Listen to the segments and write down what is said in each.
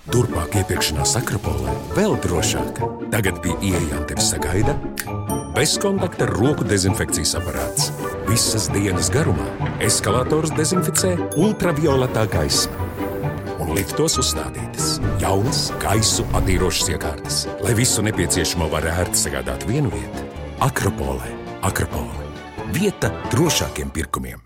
Turpmāk iepirkšanās Akropolē vēl drošāk. Tagad pie ieejām tevi sagaida bezkontakta roku dezinfekcijas aparāts. Visas dienas garumā eskalators dezinficē ultravioletā gaisma. Un liftos uzstādītas jaunas gaisu attīrošas iekārtas, lai visu nepieciešamo var ērti sagādāt vienu vietu. Akropolē. Akropole. Vieta drošākiem pirkumiem.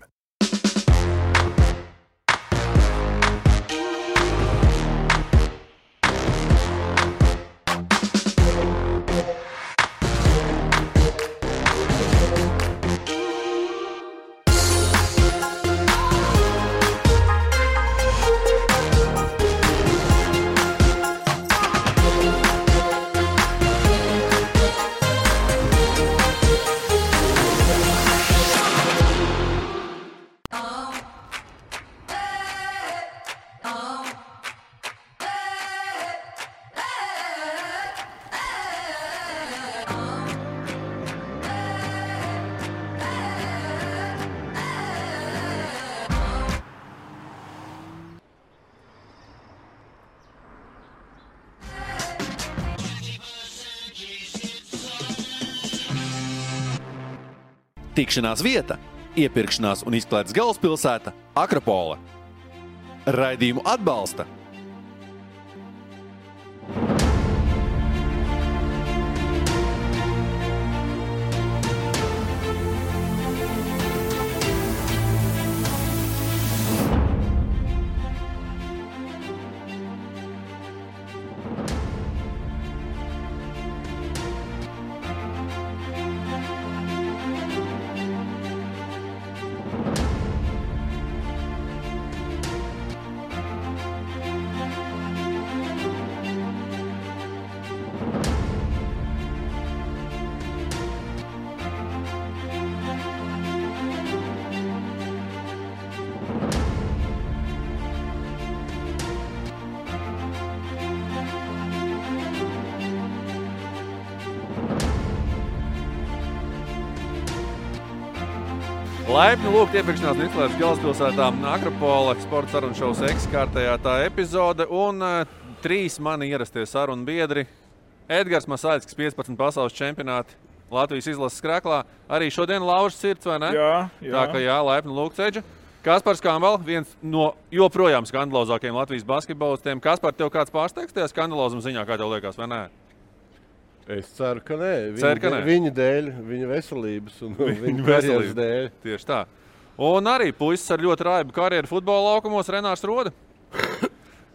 Tikšanās vieta, iepirkšanās un izklaides galvaspilsēta Akropole. Raidījumu atbalsta Laipni lūgt iepirkšanās un izklaides galvaspilsētā Akropole, sporta sarunu šovs kārtējā tā epizode un 3 mani ierastie sarunu biedri. Edgars Masaļskis, 15 pasaules čempionāti Latvijas izlases skreklā. Arī šodien laužas sirds, vai ne? Jā. Tā ka jā, laipni lūgt, Edža. Kaspars Kambal, viens no joprojām skandalozākajiem Latvijas basketbolistiem. Kaspar, tev kāds pārsteigs tajā skandalozuma ziņā, kā tev liekas, vai nē? Es ceru, ka nē. Viņa dēļ, viņa veselības un viņa karjeras dēļ. Tieši tā. Un arī puisis ar ļoti raibu karjeru futbola laukumos Renārs Roda.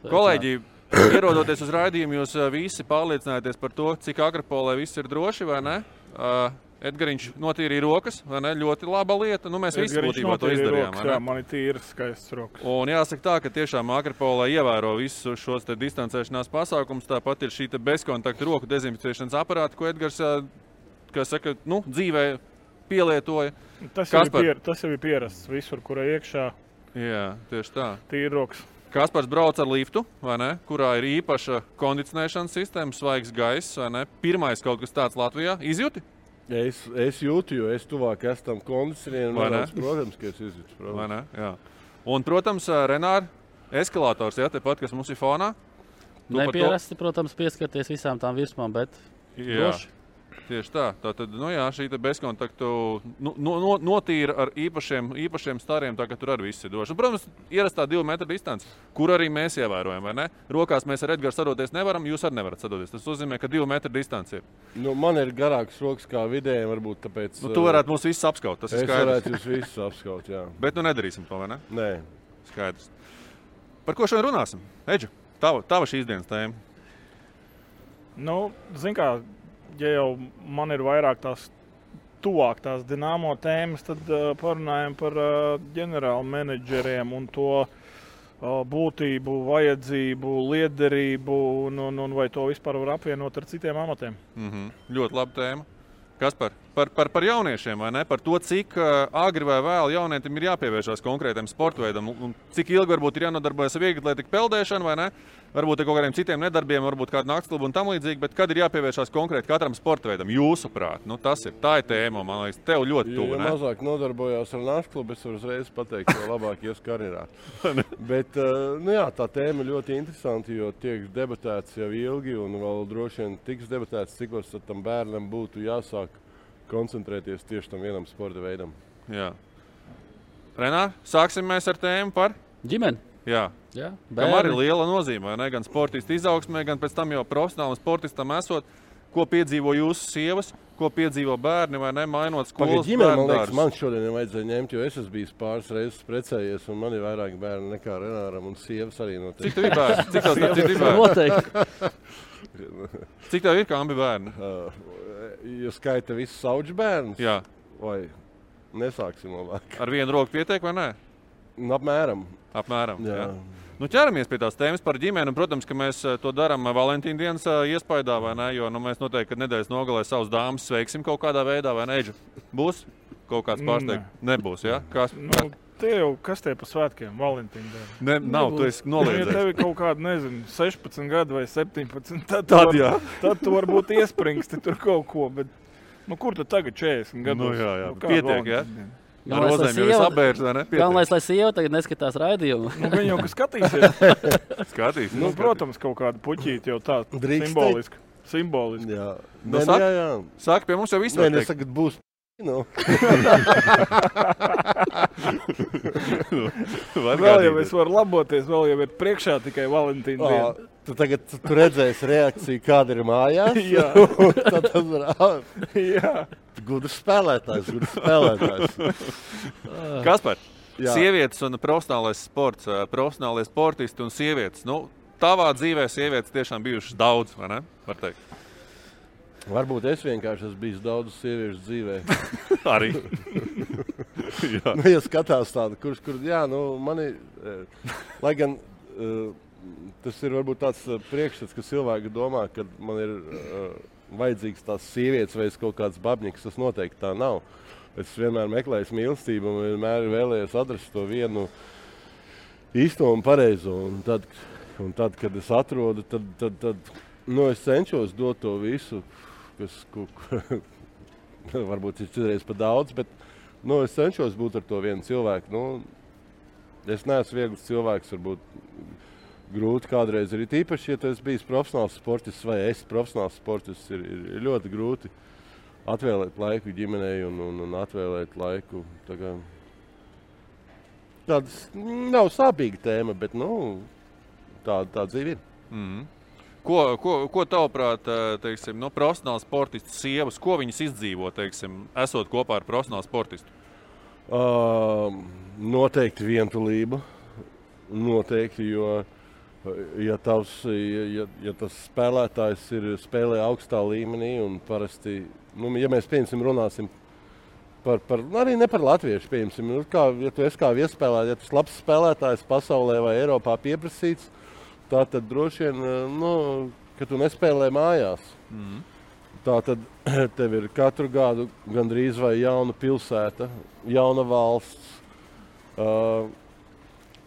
Kolēģi, ierodoties uz raidījumu, jūs visi pārliecinājāties par to, cik Akropolē viss ir droši, vai ne? Edgariņš notīrīja rokas, vai ne? Ļoti laba lieta. Nu, mēs visi būtībā to izdarījām. Rokas, jā, man ir tīras, skaistas rokas. Un jāsaka tā, ka tiešām Akropolē ievēro visus šos te distancēšanās pasākumus. Tāpat ir šī te bezkontakta roku dezinficēšanas aparāta, ko Edgars, kā saka, dzīvē pielietoja. Tas jau ir pierasts visur, kur iekšā. Jā, tieši tā. Tīri rokas. Kaspars brauc ar liftu, vai ne? Kurā ir īpaša kondicionēšanas sistēma, svaigs gaiss, vai ne? Pirmais kaut kas tāds Latvijā. Izjūti? Es jūtu, jo es tuvāk esmu tam kondicionierim. Protams, ka es izjūtu. Vai ne? Jā. Un, protams, Renār, eskalators, ja, tepat, kas mums ir fonā. Nepierasti, protams, pieskarties visām tām virsmām, bet droši. Tieši tā. Tātad, šī bezkontaktu notīra ar īpašiem stariem, tā ka tur arī viss ir droši. Un, protams, ierastā 2 metru distance, kur arī mēs ievērojam, vai ne? Rokās mēs ar Edgaru sadoties nevaram, jūs arī nevarat sadoties. Tas nozīmē, ka 2 metru distance ir. Man ir garāks rokas kā vidējiem, varbūt tāpēc. Tu varētu mūs visus apskaut, tas ir skaidrs. Es varētu jūs visus apskaut, jā. Bet nedarīsim to, vai ne? Nē. Skaidrs. Par ko šodien runāsim? Edžu, tava šīs dienas tēma. Zin kā, ja jau man ir vairāk tuvāk tās Dinamo tēmas, tad parunājam par ģenerālu menedžeriem un to būtību, vajadzību, liederību un vai to vispār var apvienot ar citiem amatiem. Ļoti laba tēma. Kaspar, par jauniešiem, vai ne? Par to, cik agri vai vēl jaunietim ir jāpievēršās konkrētam sporta veidam un cik ilgi varbūt ir jānodarbojas ar vieglatlētiku peldēšanu, vai ne? Varbūt ar kaut kādiem citiem nedarbiem, varbūt kādu naktsklubu un tam līdzīgi, bet kad ir jāpievēršās konkrēti katram sporta veidam, jūsuprāt? Nu, tā ir tēma, man liekas, tev ļoti tuvu, ne? Ja mazāk nodarbojās ar naktsklubu, es varu uzreiz pateikt, jo labāk ies karjerā. Bet, tā tēma ir ļoti interesanti, jo tiek debatēts jau ilgi un vēl droši vien tiks debatēts, cik var tam bērnam būtu jāsāk koncentrēties tieši tam vienam sporta veidam. Jā. Renār, sāksim mēs ar tēmu par ģimeni. Jā. Kam arī liela nozīme, vai ne? Gan sportistu izaugsmē, gan pēc tam jau profesionālam sportistam esot. Ko piedzīvo jūsu sievas, ko piedzīvo bērni, vai ne? Mainot skolas bērnu dārzus. Man šodien nevajadzēja ņemt, jo es esmu bijis pāris reizes precējies, un man ir vairāk bērni nekā Renāram, un sievas arī noteikti. Cik tev ir bērni? Cik tev ir bērni? Noteikti. Cik tev ir, kā abi bērni? Ja skaita visus sauģu bērnus? Jā. Vai nesāksim labāk? Ar vienu roku pietiek, vai ne? Apmēram. Jā. Nu, ķeramies pie tās tēmas par ģimeni. Protams, ka mēs to darām Valentīna dienas iespaidā, vai ne? Jo mēs noteikti, kad nedēļas nogalē savus dāmas sveiksim kaut kādā veidā, vai ne? Būs kaut kāds pārsteigums? Nebūs, jā? Kas tie pa svētkiem? Valentīna diena? Nav, tu esi noliedzējis. Ja tev ir kaut kāda, 16 gadu vai 17, tad tu varbūt iespringsti tur kaut ko, bet kur tu tagad 40 gados? Jā. Pietiek, jā? Ar rozēm jau apbērs, vai ne? Galvenais, lai sieva tagad neskatās raidījumu. Viņa jau, ka skatīsies. Skatīs. Protams, kaut kāda puķīte jau tā simboliski. Jā. Jā. Saka, pie mums jau viss var teikt. Tagad būs. Vēl jau es varu laboties, vēl jau ir priekšā tikai Valentīna diena. Tu tagad redzēsi reakciju, kāda ir mājās. Jā. Tad tas var. Jā. Gudrs spēlētājs. Kaspar, sievietes un profesionālais sports, profesionālie sportisti un sievietes. Tavā dzīvē sievietes tiešām bijušas daudz, vai ne? Var teikt. Varbūt es vienkārši esmu bijis daudz sieviešu dzīvē. Arī. Ja skatās tādu, mani, lai gan tas ir varbūt tāds priekšstats, ka cilvēki domā, ka man ir vajadzīgs tās sievietes vai kaut kāds babņiks, tas noteikti tā nav. Es vienmēr meklēju mīlestību un vienmēr vēlējos atrast to vienu īsto un pareizo. Un tad, kad es atrodu, tad es cenšos dot to visu, kas varbūt ir citreiz pa daudz, bet es cenšos būt ar to vienu cilvēku. Es neesmu viegls cilvēks, varbūt grūti kādreiz ir īpaši, ja tu esi bijis profesionāls sportists vai esi profesionāls sportists, ir ļoti grūti atvēlēt laiku ģimenei un atvēlēt laiku. Tāds nav sāpīga tēma, bet tā dzīve ir. Mm-hmm. Ko tavuprāt, teiksim, profesionāls sportists sievas, ko viņas izdzīvo, teiksim, esot kopā ar profesionālu sportistu? Noteikti vientulība. Noteikti, jo ja tas spēlētājs spēlē augstā līmenī un parasti, ja mēs runāsim arī ne par latviešu, ja tu esi kā viesspēlētājs, ja tu esi labs spēlētājs pasaulē vai Eiropā pieprasīts, tad droši vien, ka tu nespēlē mājās. Mm. Tātad tev ir katru gadu gandrīz vai jauna pilsēta, jauna valsts,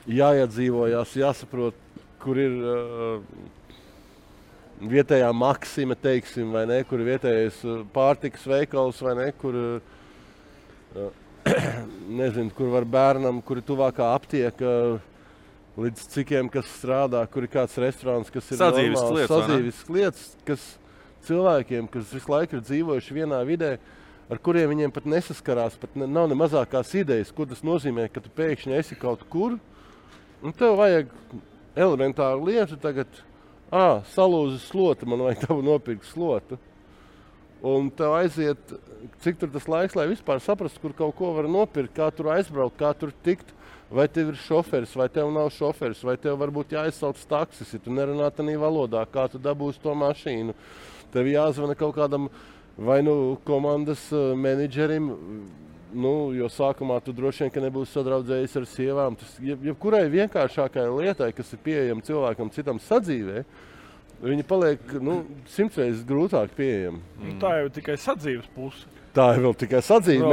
jāiedzīvojās, jāsaprot, kur ir vietējā Maksima, teiksim, vai ne, kur ir vietējais pārtikas veikals, vai ne, kur, nezinu, kur var bērnam, kur ir tuvākā aptieka, līdz cikiem, kas strādā, kur ir kāds restorāns, kas ir sadzīves lietas, kas cilvēkiem, kas visu laiku ir dzīvojuši vienā vidē, ar kuriem viņiem pat nesaskarās, pat nav ne mazākās idejas, ko tas nozīmē, ka tu pēkšņi esi kaut kur, un tev vajag elementāru lietu tagad, salūzi slota, man vajag tavu nopirkt slotu. Un tev aiziet, cik tur tas laiks, lai vispār saprastu, kur kaut ko var nopirkt, kā tur aizbraukt, kā tur tikt, vai tev ir šoferis, vai tev nav šoferis, vai tev varbūt jāizsauc taksis, ja tu nerunā tādā valodā, kā tu dabūsi to mašīnu. Tev jāzvana kaut kādam vai komandas menedžerim, jo sākumā tu droši vien, ka nebūsi sadraudzējis ar sievām. Jebkurai vienkāršākai lietai, kas ir pieejama cilvēkam citam sadzīvē, Viņi paliek 100 reizes grūtāk pieejami. Tā jau ir tikai sadzīves puse. Tā ir vēl tikai sadzīve.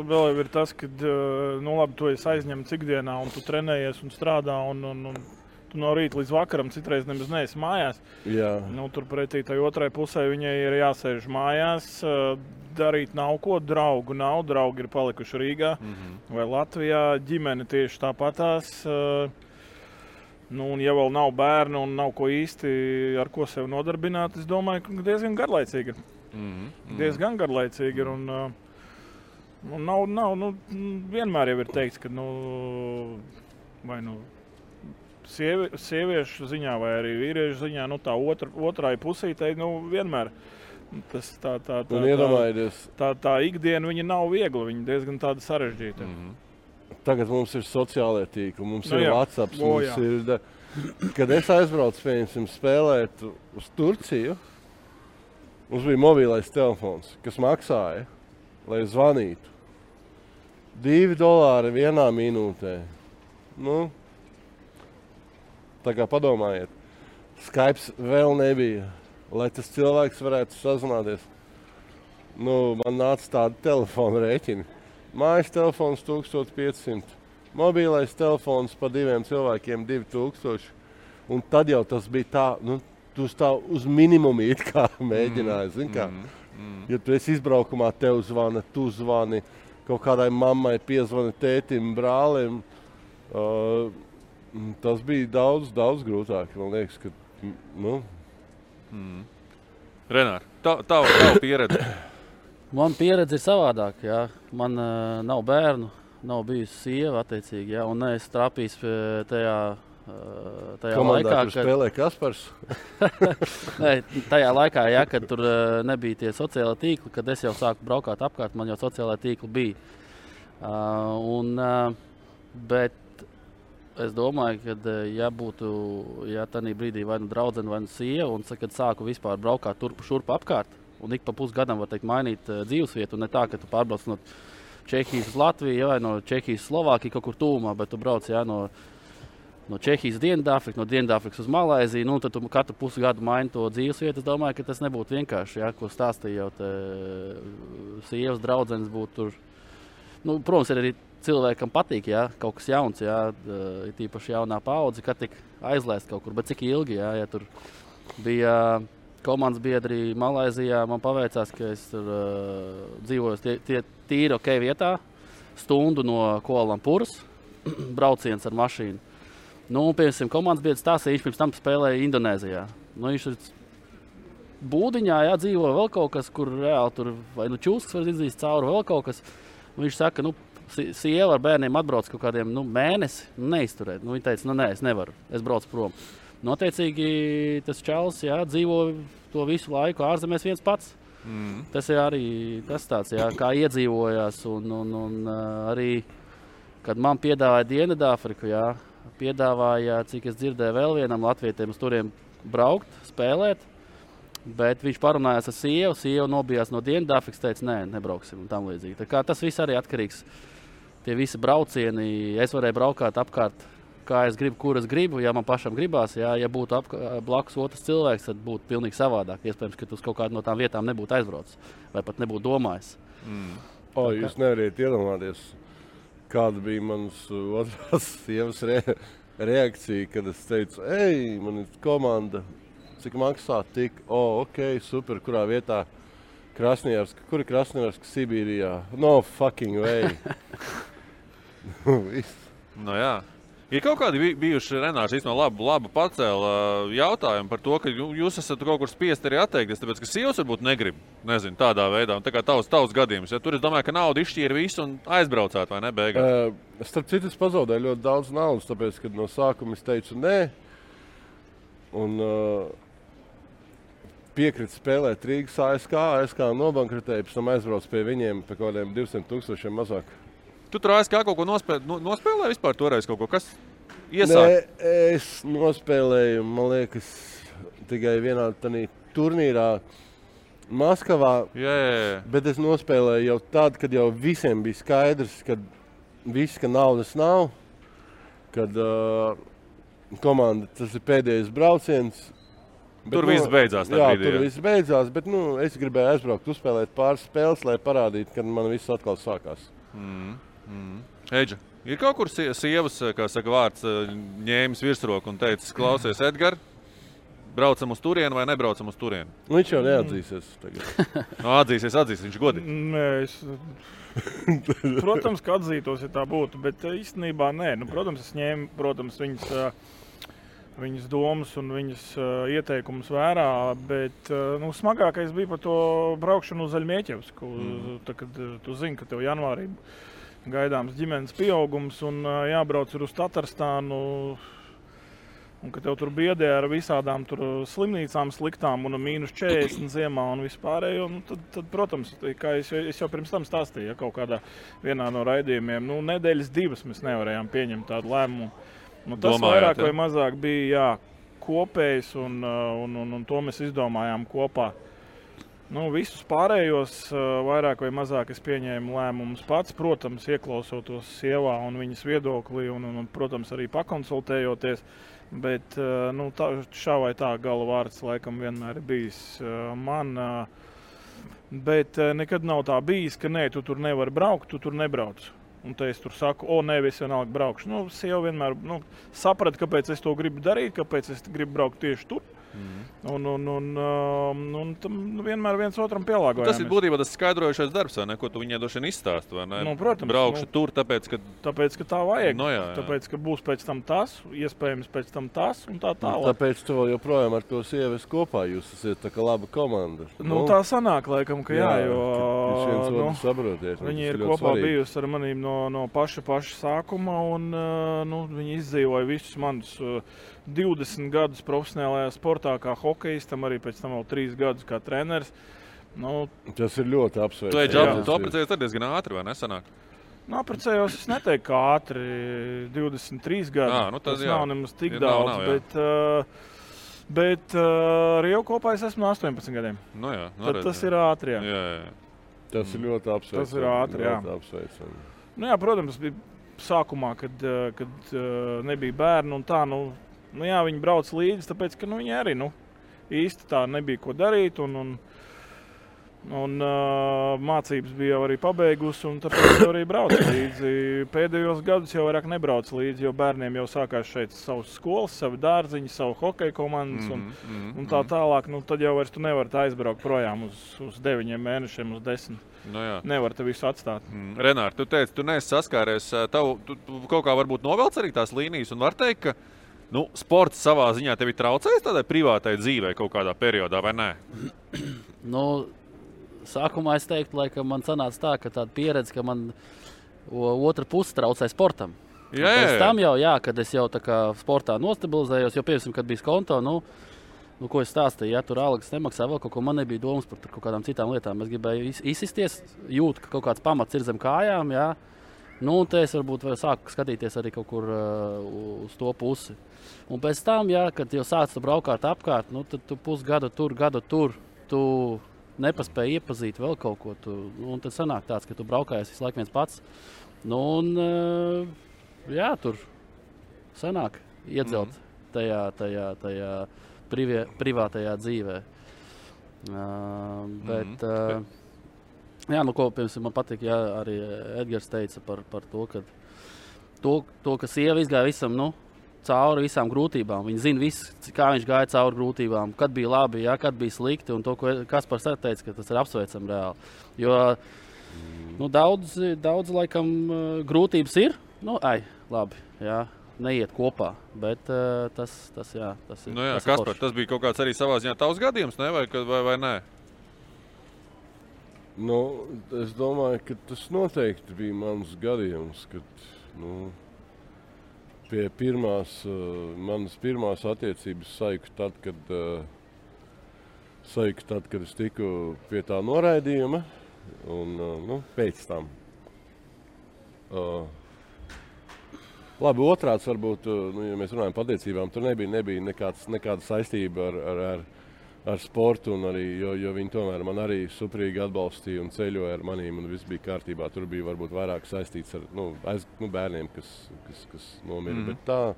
Vēl ir tas, ka labi, tu esi aizņemts ikdienā un tu trenējies un strādā un tu no rīta līdz vakaram citreiz nemaz neesi mājās. Jā. Turpretī tai otrai pusē viņai ir jāsēž mājās, darīt nav ko, draugu nav, draugi ir palikuši Rīgā vai Latvijā, ģimene tieši tāpatās. Un ja vēl nav bērnu un nav ko īsti ar ko sev nodarbināt, es domāju, ka diezgan garlaicīgi ir. Diezgan garlaicīgi ir un nav, vienmēr jau ir teikts, ka sieviešu ziņā vai arī vīriešu ziņā, tā otrai pusītei, vienmēr tā ikdiena viņa nav viegla, viņa diezgan tāda sarežģīta. Tagad mums ir sociālie tīkli, mums ir WhatsApp, kad es aizbraucu, pieņemsim, spēlēt uz Turciju, mums bija mobilais telefons, kas maksāja, lai zvanītu. $2 vienā minūtē. Tā kā padomājiet, Skype vēl nebija, lai tas cilvēks varētu sazināties. Man nāca tādi telefona rēķini. Mājas telefons 1500, mobilais telefons pa 2 cilvēkiem 2000. Un tad jau tas bija tā, tu uz minimumu it kā mēģināji, zini kā. Ja tu esi izbraukumā, tev zvana, tu zvani, kaut kādai mammai piezvani, tētim, brālim. Tas bija daudz grūtāk, man liekas, ka, Renār, tava pieredze? Man pieredze ir savādāk, jā. Man nav bērnu, nav bijusi sieva, attiecīgi, jā. Un es trāpījis tajā komandā, laikā, kur spēlē Kaspars? Tajā laikā, jā, kad tur nebija tie sociālai tīkli, kad es jau sāku braukāt apkārt, man jau sociālai tīkli bija. Bet es domāju, ka ja tādā brīdī vai draudzene, vai sieva, un kad sāku vispār braukāt turpu šurpu apkārt, un ik pa pusgadam, var teikt, mainīt dzīvesvietu, un ne tā, ka tu pārbrauc no Čehijas uz Latviju, vai no Čehijas uz Slovākiju kaut kur tūmā, bet tu brauc no Čehijas uz Dienvidāfriku, no Dienvidāfrikas uz Malaiziju, tad tu katru pusgadu maini to dzīvesvietu. Es domāju, ka tas nebūtu vienkārši, ko stāstīja jau sievas draudzenes būtu tur. Protams, ir arī cilvēkam patīk, kaut kas jauns, ir tīpaši jaunā paudze, kad tik aizlaist kaut kur, bet cik ilgi, ja tur bija komandas biedri Malaizijā, man paveicās, ka es tur dzīvoju tīri ok vietā, stundu no Kuala-Lumpūras, brauciens ar mašīnu. Piemēram, komandas biedrs stāstīja, viņš pirms tam spēlēja Indonēzijā. Viņš ir būdiņā, dzīvo vēl kaut kas, kur reāli tur vai čūskas var izdzīt cauri, vēl kaut kas. Viņš saka, sieva ar bērniem atbrauc kaut kādiem mēnesi, neizturēt. Viņa teica, nē, es nevaru, es braucu prom. Noteicīgi tas čalis, dzīvo to visu laiku ārzemēs viens pats. Tas ir arī tas tāds, kā iedzīvojās. Un arī, kad man piedāvāja Dienvidāfriku, piedāvāja, cik es dzirdēju, vēl vienam latvietiem uz turiem braukt, spēlēt. Bet viņš parunājās ar sievu, sieva nobijās no Dienvidāfrikas, teica, nē, nebrauksim un tam līdzīgi. Tā kā tas viss arī atkarīgs, tie visi braucieni, es varēju braukāt apkārt, kā es gribu, kur es gribu, ja man pašam gribās, ja būtu blakus otrs cilvēks, tad būtu pilnīgi savādāk. Iespējams, ka tu uz kaut kādu no tām vietām nebūtu aizbraucis vai pat nebūtu domājis. Jūs nevariet iedomāties, kāda bija manas otrās sievas reakcija, kad es teicu, man ir komanda, cik maksā tik, ok, super, kurā vietā Krasnojarska, kur ir Krasnojarska Sibīrijā? No fucking way. Jā. Ir kaut kādi bijuši, Renārs, īstenībā labu pacēla jautājumu par to, ka jūs esat kaut kur spiest arī atteikties, tāpēc, ka sievas varbūt negrib, nezinu, tādā veidā, un tā kā tavs gadījums. Tur es domāju, ka nauda izšķīra visu un aizbraucāt, vai ne, beigās? Starp citu, es pazaudēju ļoti daudz naudas, tāpēc, kad no sākuma es teicu nē, un piekrita spēlēt Rīgas ASK nobankrotēja, pēc tam aizbrauc pie viņiem pie kaut kādiem 200,000 mazāk. Tu tur ASK kaut ko nospēlēji vispār toreiz kaut ko? Kas iesāk? Nē, es nospēlēju, man liekas, tikai vienā turnīrā Maskavā. Jā. Bet es nospēlēju jau tad, kad jau visiem bija skaidrs, ka naudas nav, kad komanda, tas ir pēdējais brauciens, Tur viss beidzās. Tur viss beidzās, bet es gribēju aizbraukt, uzspēlēt pāris spēles, lai parādītu, kad man viss atkal sākās. Eģa, ir kaut kur sievas, kā saka vārds, ņēmis virsroku un teicis, klausies, Edgar, braucam uz turienu vai nebraucam uz turienu? Viņš jau neatzīsies tagad. Atzīsies, viņš godīgi. Protams, ka atzītos, ja tā būtu, bet īstenībā nē. Protams, es ņēmu, viņas domas un viņas ieteikumus vērā, bet smagākais bija par to braukšanu uz Zaļmieķevsku. Kad tu zini, ka tev janvārī gaidāms ģimenes pieaugums un jābrauc uz Tatarstānu, un ka tev tur biedē ar visādām tur slimnīcām sliktām un -40 ziemā un vispārējo, tad, protams, kā es jau pirms tam stāstīju, kaut kādā vienā no raidījumiem, nedēļas 2 mēs nevarējām pieņemt tādu lēmumu. Tas vairāk vai mazāk bija kopējs, un to mēs izdomājām kopā. Visus pārējos vairāk vai mazāk es pieņēmu lēmumus pats, protams, ieklausoties sievā un viņas viedoklī, un protams, arī pakonsultējoties. Bet šā vai tā gala vārds laikam vienmēr ir bijis man. Bet nekad nav tā bijis, ka nē, tu tur nevari braukt, tu tur nebrauc. Un te es tur saku, nē, es vienalga braukšu. Sieva vienmēr saprata, kāpēc es to gribu darīt, kāpēc es gribu braukt tieši tur. Un tam vienmēr viens otram pielāgojāmies. Tas ir būtībā tas skaidrojošais darbs, vai ne? Ko tu viņai došana izstāst, vai ne? Protams. Braukšu tur, tāpēc, ka tā vajag. Jā. Tāpēc, ka būs pēc tam tas, iespējams pēc tam tas un tā tālāk. Tāpēc tu vēl joprojām ar to sievu kopā, jūs esat tā kā laba komanda. Tā sanāk laikam, ka jā, jo jūs viens otru saprotiet. Viņi ir kopā bijusi ar manīm no paša sākuma, un viņi izdzīvoja visus manus 20 gadus profesionālajā sportā kā hokejistam, arī pēc tam vēl 3 gadus kā treneris. Tas ir ļoti apsveicami. Tu apprecējies tad diezgan ātri, vai nesanāk? Apprecējos, es neteiktu, kā ātri, 23 gadi. Tas nav nemaz tik daudz, bet ar jau kopā es esmu 18 gadiem. Tad tas ir ātri, jā. Tas ir ļoti apsveicami. Tas ir ātri, jā. Protams, bija sākumā, kad nebija bērni un tā, viņi brauc līdzi, tāpēc, ka viņi arī īsti tā nebija ko darīt, un mācības bija jau arī pabeigusi, un tāpēc arī brauc līdzi. Pēdējos gadus jau vairāk nebrauc līdzi, jo bērniem jau sākās šeit savas skolas, savi dārziņi, savu hokeja komandas un tā tālāk. Tad jau vairs tu nevari aizbraukt projām uz 9 mēnešiem, uz 10. Nevar te visu atstāt. Renār, tu teici, tu neesi saskāries, tu kaut kā varbūt novelc arī tās līnijas, un var teikt, ka sports savā ziņā tevi traucēs tādai privātai dzīvei kaut kādā periodā, vai nē? Sākumā es teiktu, ka man sanāca tā, ka tāda pieredze, ka man otra puse traucē sportam. Pēc tam jau, kad es jau tā kā sportā nostabilizējos, jo piemēram, kad bija konto, ko es stāstīju, tur algas nemaksā vēl kaut ko, man nebija domas par kaut kādām citām lietām. Es gribēju izsisties, jūtu, ka kaut kāds pamats ir zem kājām, un te es varbūt sāku skatīties arī kaut kur uz to pusi. Un pēc tam, kad jau sāc tu braukāt apkārt, tad tu pusgadu tur, gadu tur, tu nepaspēji iepazīt vēl kaut ko. Un tad sanāk tāds, ka tu braukājies visu laiku viens pats. Tur sanāk iedzelt tajā privātajā dzīvē. Ko piemēram man patīk, arī Edgars teica par to, ka sieva izgāja visam, cauri visām grūtībām. Viņa zina visu, kā viņš gāja cauri grūtībām, kad bija labi, kad bija slikti, un to, ko Kaspars teica, ka tas ir apsveicami reāli. Jo daudz laikam grūtības ir, labi, neiet kopā, bet tas ir. Kaspar, tas bija kaut kāds arī savā ziņā tavs gadījums, ne? Vai nē? Es domāju, ka tas noteikti bija mans gadījums, kad, pie manas pirmās attiecības saiku tad, kad es tiku pie tā noraidījuma, un pēc tam. Labi, otrāds varbūt, ja mēs runājam par attiecībām, tur nebija nekāda saistība ar sportu, un arī, jo viņi tomēr man arī suprīgi atbalstīja un ceļoja ar manīm, un viss bija kārtībā. Tur bija varbūt vairāk saistīts ar bērniem, kas nomira. Bet tā,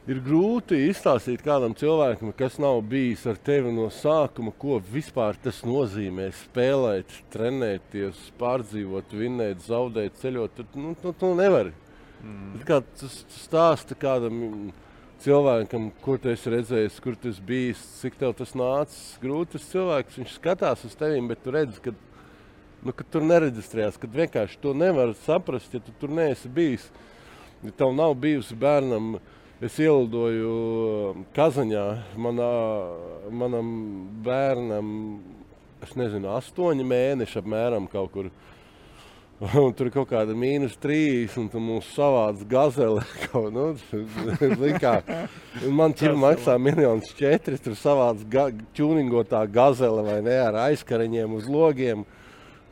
Ir grūti izstāstīt kādam cilvēkam, kas nav bijis ar tevi no sākuma, ko vispār tas nozīmē spēlēt, trenēties, pārdzīvot, vinnēt, zaudēt, ceļot. Tu nevari. Kā tas stāsta kādam cilvēkam, kur tu esi redzējis, kur tu esi bijis, cik tev tas nācis. Grūti tas cilvēks, viņš skatās uz tevim, bet tu redzi, ka tur nereģistrējās, kad vienkārši to nevar saprast, ja tu tur neesi bijis. Ja tev nav bijusi bērnam. Es ielidoju Kazaņā, manam bērnam, es nezinu, 8 mēneši apmēram kaut kur. Un tur ir kaut kāda -3, un tur mums savāds gazele. Man ķipa maksā 1,4 miljonu, tur savāds čūningotā gazele vai ne, ar aizkariņiem uz logiem.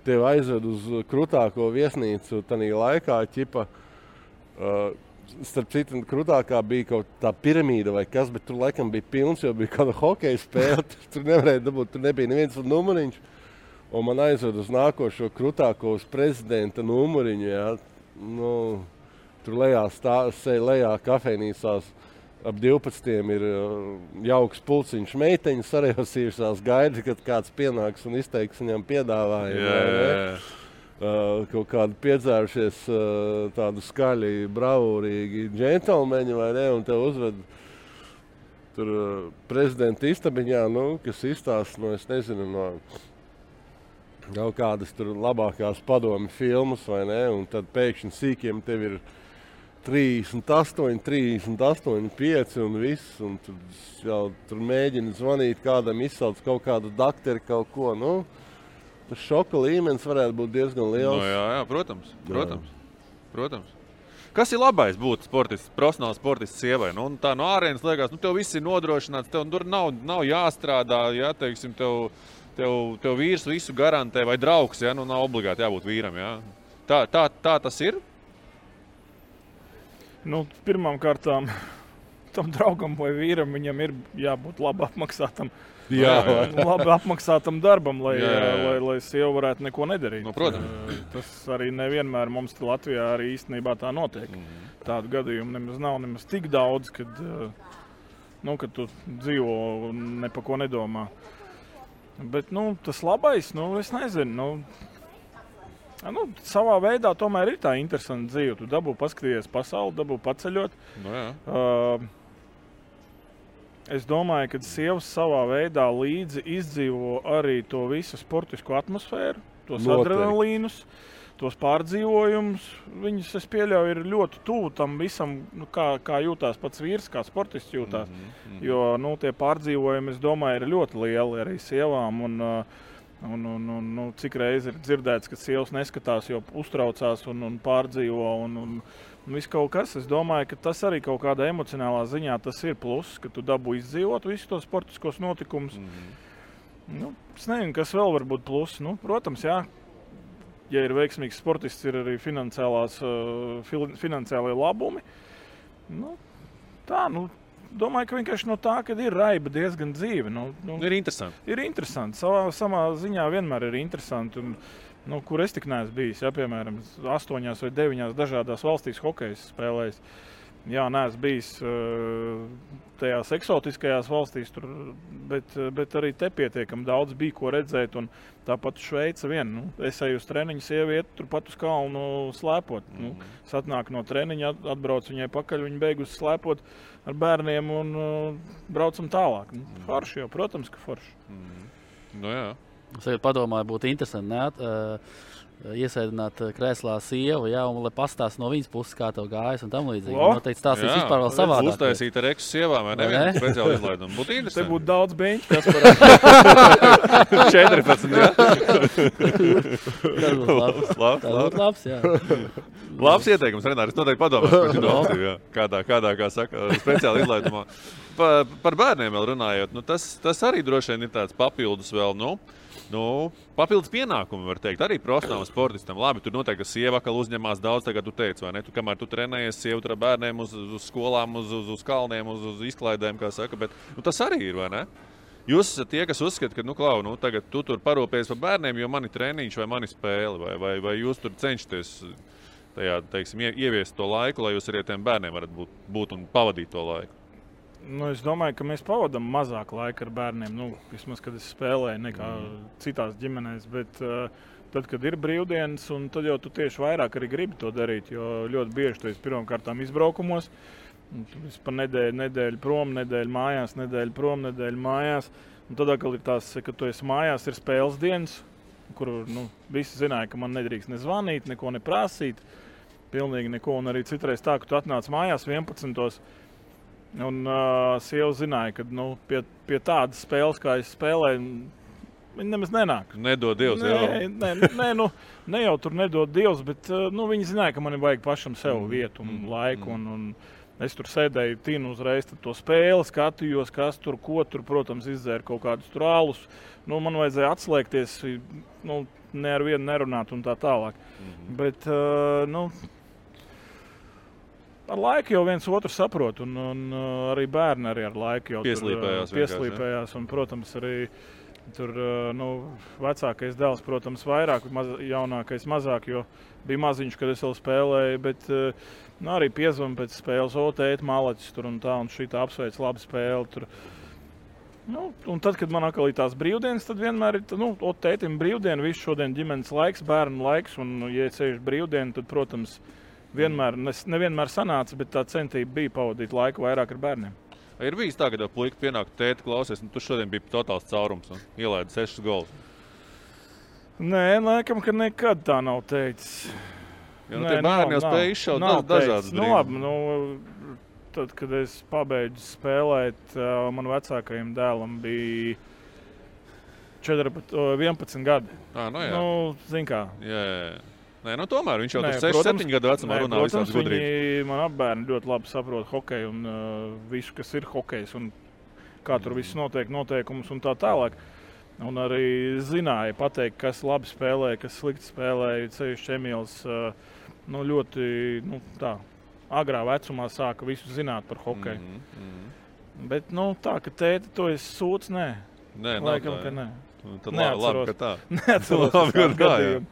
Tev aizved uz krutāko viesnīcu tanī laikā ķipa. Starp citu, krutākā bija kaut tā piramīda vai kas, bet tur laikam bija pilns, jo bija kāda hokeja spēle. Tur nevarēja dabūt, tur nebija neviens numuriņš. Un man aizved uz nākošo krutāko uz prezidenta numuriņu. Jā. Tur lejā kafejnīcās ap 12 ir jauks pulciņš meiteņas sarejosījušās gaida, kad kāds pienāks un izteiks viņam piedāvājumu. Kaut kādi piedzērušies tādu skaļi, bravūrīgi džentelmeņi, vai ne, un tev uzved tur prezidenta istabiņā, kas izstāsta, es nezinu, no kaut kādas tur labākās padomi filmas, vai ne, un tad pēkšņi sīkiem tev ir 38, 5 un viss, un tur mēģina zvanīt kādam, izsauc kaut kādu dakteri, kaut ko, Tas šoka līmenis varētu būt diezgan liels. Jā, protams. Kas ir labais būt profesionāls sportists sievai? Tā no ārienes liekas, tev viss ir nodrošināts, tev tur nav jāstrādā, ja, teiksim, tev vīrs visu garantē vai draugs, ja, nav obligāti jābūt vīram. Ja. Tā tas ir? Pirmām kārtām tam draugam vai vīram viņam ir jābūt labi apmaksātam. Labi apmaksātam darbam, lai sieva varētu neko nedarīt. Protams. Tas arī nevienmēr mums Latvijā arī īstenībā tā notiek. Tādu gadījumu nav nemaz tik daudz, kad tu dzīvo un ne pa ko nedomā. Bet tas labais, es nezinu. Savā veidā tomēr ir tā interesanta dzīve. Tu dabū paskatīties pasauli, dabū paceļot. Es domāju, ka sievas savā veidā līdzi izdzīvo arī to visu sportisko atmosfēru, tos adrenalīnus, tos pārdzīvojumus. Viņas, es pieļauju, ir ļoti tuvu tam visam, kā jūtās pats vīrs, kā sportists jūtās. Jo tie pārdzīvojumi, es domāju, ir ļoti lieli arī sievām. Un cik reizi ir dzirdēts, ka sievas neskatās, jo uztraucās un pārdzīvo un viss kaut kas. Es domāju, ka tas arī kaut kādā emocionālā ziņā tas ir pluss, ka tu dabū izdzīvot visus tos sportiskos notikumus. Es nezinu, kas vēl var būt pluss. Protams, jā, ja ir veiksmīgs sportists, ir arī finansiālie labumi. Domāju, ka vienkārši no tā, kad ir raiba diezgan dzīve. Ir interesanti. Ir interesanti. Samā ziņā vienmēr ir interesanti. Kur es tik neesmu bijis, piemēram, 8 vai 9 dažādās valstīs hokejs spēlējis. Jā, neesmu bijis tajās eksotiskajās valstīs, bet arī te pietiekami daudz bija, ko redzēt. Un tāpat Šveica vien. Es eju uz treniņu, sieva iet turpat uz kalnu slēpot. Satnāk no treniņa, atbrauc viņai pakaļ, viņa beigus slēpot ar bērniem un braucam tālāk. Forši jau, protams, ka forši. Jā. Es padomāju, būtu interesanti iesēdināt krēslā sievu, un lai pastāst no viņas puses, kā tev gājas un tam līdzīgi. Noteikti stāstīs vispār vēl savādāk. Uztaisīt ar eksu sievām, vai nevienu speciāli izlaidumu. Būtu interesanti. Te būtu daudz beņķi, kas parāda. 14, jā? Tas būtu labs, jā. Labs ieteikums, Renāri, es noteikti padomāšu, kādā, kā saka, speciāli izlaidumā. Par bērniem vēl runājot, tas arī droši vien ir tāds papildus vēl, papildus pienākumi, var teikt, arī profesionālam sportistam. Labi, tur noteikti, ka sieva atkal uzņemās daudz, tagad tu teici, vai ne? Kamēr tu trenējies, sieva tur ar bērniem uz skolām, uz kalniem, uz izklaidēm, kā saka, bet tas arī ir, vai ne? Jūs esat tie, kas uzskata, ka, tagad tu tur parūpējies par bērniem, jo mani treniņš vai mani spēle, vai jūs tur cenšaties tajā, teiksim, ieviest to laiku, lai jūs arī tiem bērniem varat būt un pavadīt to laiku? Es domāju, ka mēs pavadām mazāk laika ar bērniem. Vismaz, kad es spēlēju, nekā citās ģimenēs. Bet tad, kad ir brīvdienas, tad jau tu tieši vairāk arī gribi to darīt. Jo ļoti bieži tu esi pirmkārtām izbraukumos. Tu esi pa nedēļu prom, nedēļu mājās, nedēļu prom, nedēļu mājās. Un tad atkal ir tās, kad tu esi mājās, ir spēles dienas, kur visi zināja, ka man nedrīkst nezvanīt, neko neprasīt. Pilnīgi neko. Un arī citreiz tā, ka tu atnāc mājās 11. Un sieva zināja, ka pie tādas spēles, kā es spēlēju, viņi nemaz nenāk. Nedod Dievs, ne jau tur nedod Dievs, bet viņi zināja, ka man ir vajag pašam sev vietu un laiku. Un es tur sēdēju, tinu uzreiz to spēli, skatījos, kas tur, ko tur, protams, izdzēra kaut kādus tur ālus. Man vajadzēja atslēgties, ne ar vienu nerunāt un tā tālāk. Bet, ar laiku jau viens otru saprot, un arī bērni arī ar laiku jau pieslīpējās. Un, protams, arī tur vecākais dēls, protams, vairāk, jaunākais mazāk, jo bija maziņš, kad es vēl spēlēju, bet arī piezvanu pēc spēles, tēt, malaķis tur un tā, un šī tā apsveic labu spēli tur. Un tad, kad man atkal ir tās brīvdienas, tad vienmēr ir, tētim brīvdiena, visu šodien ģimenes laiks, bērnu laiks, un, ja ceļš brīvdiena, tad, protams, nevienmēr sanāca, bet tā centība bija pavadīt laiku vairāk ar bērniem. Ir bijis tā, ka puika pienāk tēti klausies, tu šodien bija totāls caurums un ielaidi 6 golus? Nē, laikam, ka nekad tā nav teicis. Jo tie bērni jau spēja izšaut dažādas brīvības. Labi, tad, kad es pabeidzu spēlēt, man vecākajam dēlam bija 11 gadi. Zin kā. Jā. Nē, tomēr viņš jau tur 6-7 gadu vecumā runā visādas gudrības. Man apbērni ļoti labi saprot hokeju un visu, kas ir hokejs un kā tur viss notiek, noteikumus un tā tālāk. Un arī zināja pateikt, kas labi spēlē, kas slikti spēlē. Ceļš Emīls ļoti tā agrā vecumā sāka visu zināt par hokeju. Bet tā, ka tēti to es sūdz, nē. Laikam, ka nē. Tad labi, ka tā. Neatceros uz kādu gadījumu.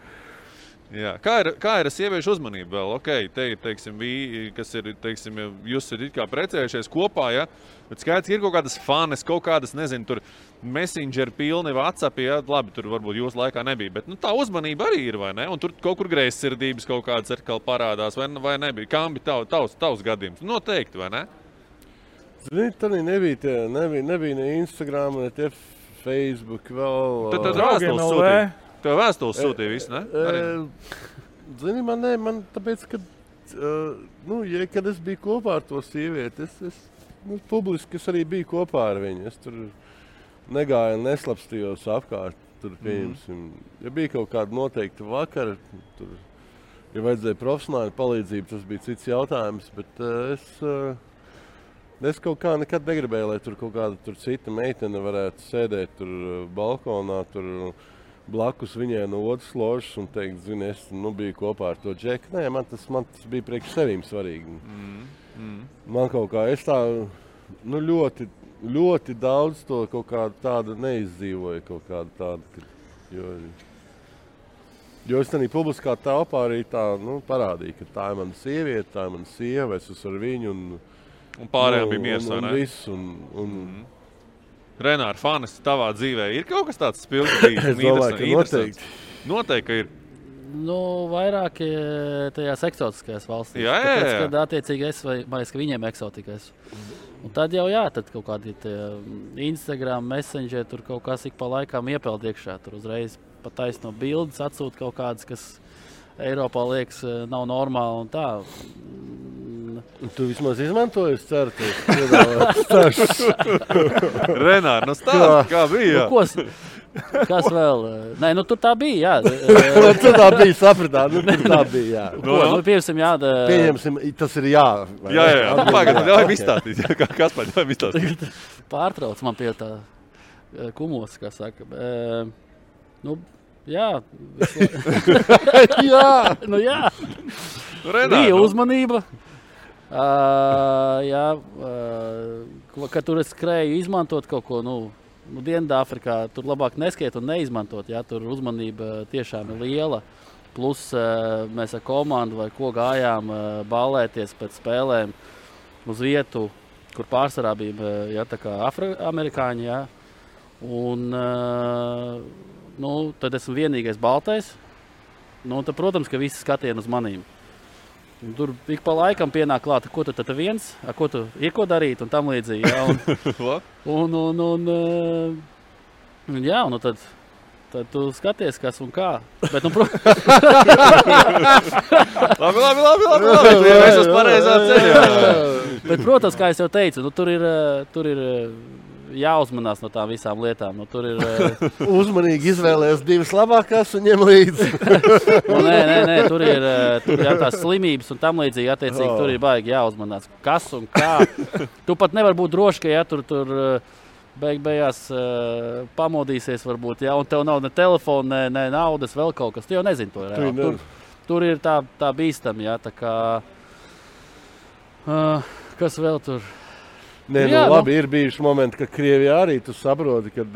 Jā. Kā ir ar sieviešu uzmanību vēl? Te ir, kas ir, jūs ir it kā precējušies kopā, ja? Bet skaidrs, ir kaut kādas fanes, kaut kādas, nezinu, tur Messenger pilni, WhatsApp, ja? Labi, tur varbūt jūsu laikā nebija, bet tā uzmanība arī ir, vai ne? Un tur kaut kur greizsirdības kaut kādas atkal parādās, vai nebija? Kā bija tavs gadījums? Noteikti, vai ne? Zini, tad nebija ne Instagram, ne tie Facebook vēl. Tad vēstules sūtīja. Tev vēstules sūtīja visu, ne? Zini, man tāpēc, kad es biju kopā ar to sievieti, es publiski arī biju kopā ar viņu. Es tur negāju un neslapstījos apkārt. Tur, ja bija kaut kāda noteikta vakara, tur, ja vajadzēja profesionāli palīdzību, tas bija cits jautājums, bet es kaut kā nekad negribēju, lai tur kaut kāda cita meitene varētu sēdēt tur balkonā, tur blakus viņai no otras ložas un teikt, zini, es biju kopā ar to džeku. Nē, man tas bija priekš sevīm svarīgi. Man kaut kā, es tā ļoti, ļoti daudz to kaut kādu tādu neizdzīvoju, kaut kādu tādu, jo es tādā publiskā telpā arī tā, parādīju, ka tā ir mana sieviete, tā ir mana sieva, es esmu ar viņu un pārējām bija miers, vai ne? Un viss, Renār, fanes tavā dzīvē ir kaut kas tāds spilgts? Es domāju, ka noteikti. Noteikti, ka ir. Vairāk tajās eksotiskajās valstīs. Jā. Tāpēc, kad attiecīgi es vai ka viņiem eksotikais. Un tad jau tad kaut kādi Instagram, Messenger, tur kaut kas ik pa laikām iepeld iekšā. Tur uzreiz pa taisno bildes atsūt kaut kādas, kas Eiropā liekas nav normāli un tā. Tu vismaz izmantoji, es ceru, Renār, stāst, kā bija? Kas vēl? Nē, tur tā bija, jā. Tur tā bija, sapratāt, tur tā bija, jā. Pieņemsim, jā. Pieņemsim, tas ir jā. Jā. Pagad, ļauj izstāstīt. Kas pēc ļauj izstāstīt? Pārtrauc man pie tā kumos, kā saka. Jā. Jā. Bija uzmanība. Kad tur es skrēju izmantot kaut ko, Dienvidāfrikā, tur labāk neskiet un neizmantot, jā, tur uzmanība tiešām ir liela. Plus mēs ar komandu vai ko gājām ballēties pēc spēlēm uz vietu kur pārsvarā bija tā kā afroamerikāņi. Jā. Un, tad esmu vienīgais baltais. Tad, protams, ka visi skatieni uz manīm. Un tur ik pa laikam pienāk klāt, ko tu tad viens, ko tu ir ko darīt un tam līdzīgi. Jā, un tad tu skaties, kas un kā. Bet, labi. Es esmu pareizā ceļā. Bet, protams, kā es jau teicu, tur ir jāuzmanās no tām visām lietām. Tur ir uzmanīgi izvēlējies divas labākās un ņem līdzi. Nē, tur ir tās slimības un tam līdzīgi. Attiecīgi, tur ir baigi jāuzmanās. Kas un kā. Tu pat nevar būt droši, ka tur beigās pamodīsies varbūt, un tev nav ne telefona, ne naudas, vēl kaut kas. Tu jau nezini to. Tur ir tā bīstami, tā kā... kas vēl tur... Nē, labi, ir bijuši momenti, ka Krievijā arī tu saproti, kad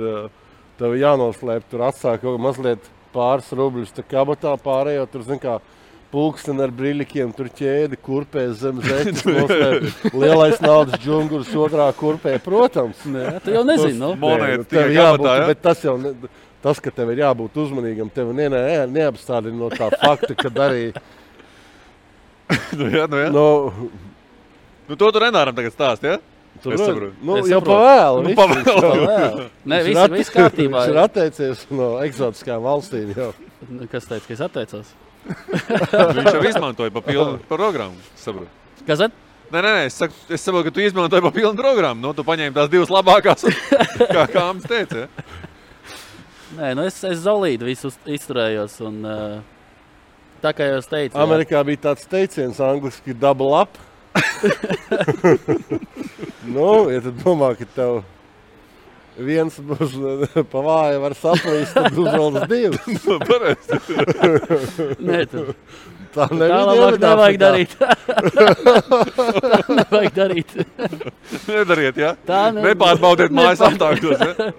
tev jānoslēp, tur atsāk kaut mazliet pāris rubļus, tā kabatā pārējo, tur, zin kā, pulksteni ar briļikiem, tur ķēdi, kurpēs zem zeķis, noslēp, lielais naudas džungurs otrā kurpē, protams. Nē, tu jau nezini, tev jābūt, bet tas, ka tev ir jābūt uzmanīgam, tev neapstādina no tā fakta, kad arī... jā. To tu Renāram tagad stāst, ja? Jau pavēlu. Nē, viss kārtībā. Viņš ir atteicies no eksotiskām valstīm jau. Kas teica, ka es atteicos? Viņš jau izmantoja pa pilnu programmu, saprotu. Kas tad? Nē, es saprotu, ka tu izmantoji pa pilnu programmu. Tu paņēmi tās divas labākās, kā mums teica, ja? Nē, es zolīdu visu izturējos un tā kā jau es teicu. Amerikā bija tāds teiciens angliski double up. Ja tu domā, ka tev viens būs pa vāju var saplīst, tad uzvaldas divas. Pareizi. Nē, tā labāk nevajag darīt. Nevajag darīt. Nedariet, ja? Nepārbaudiet mājas apstākļos, ja?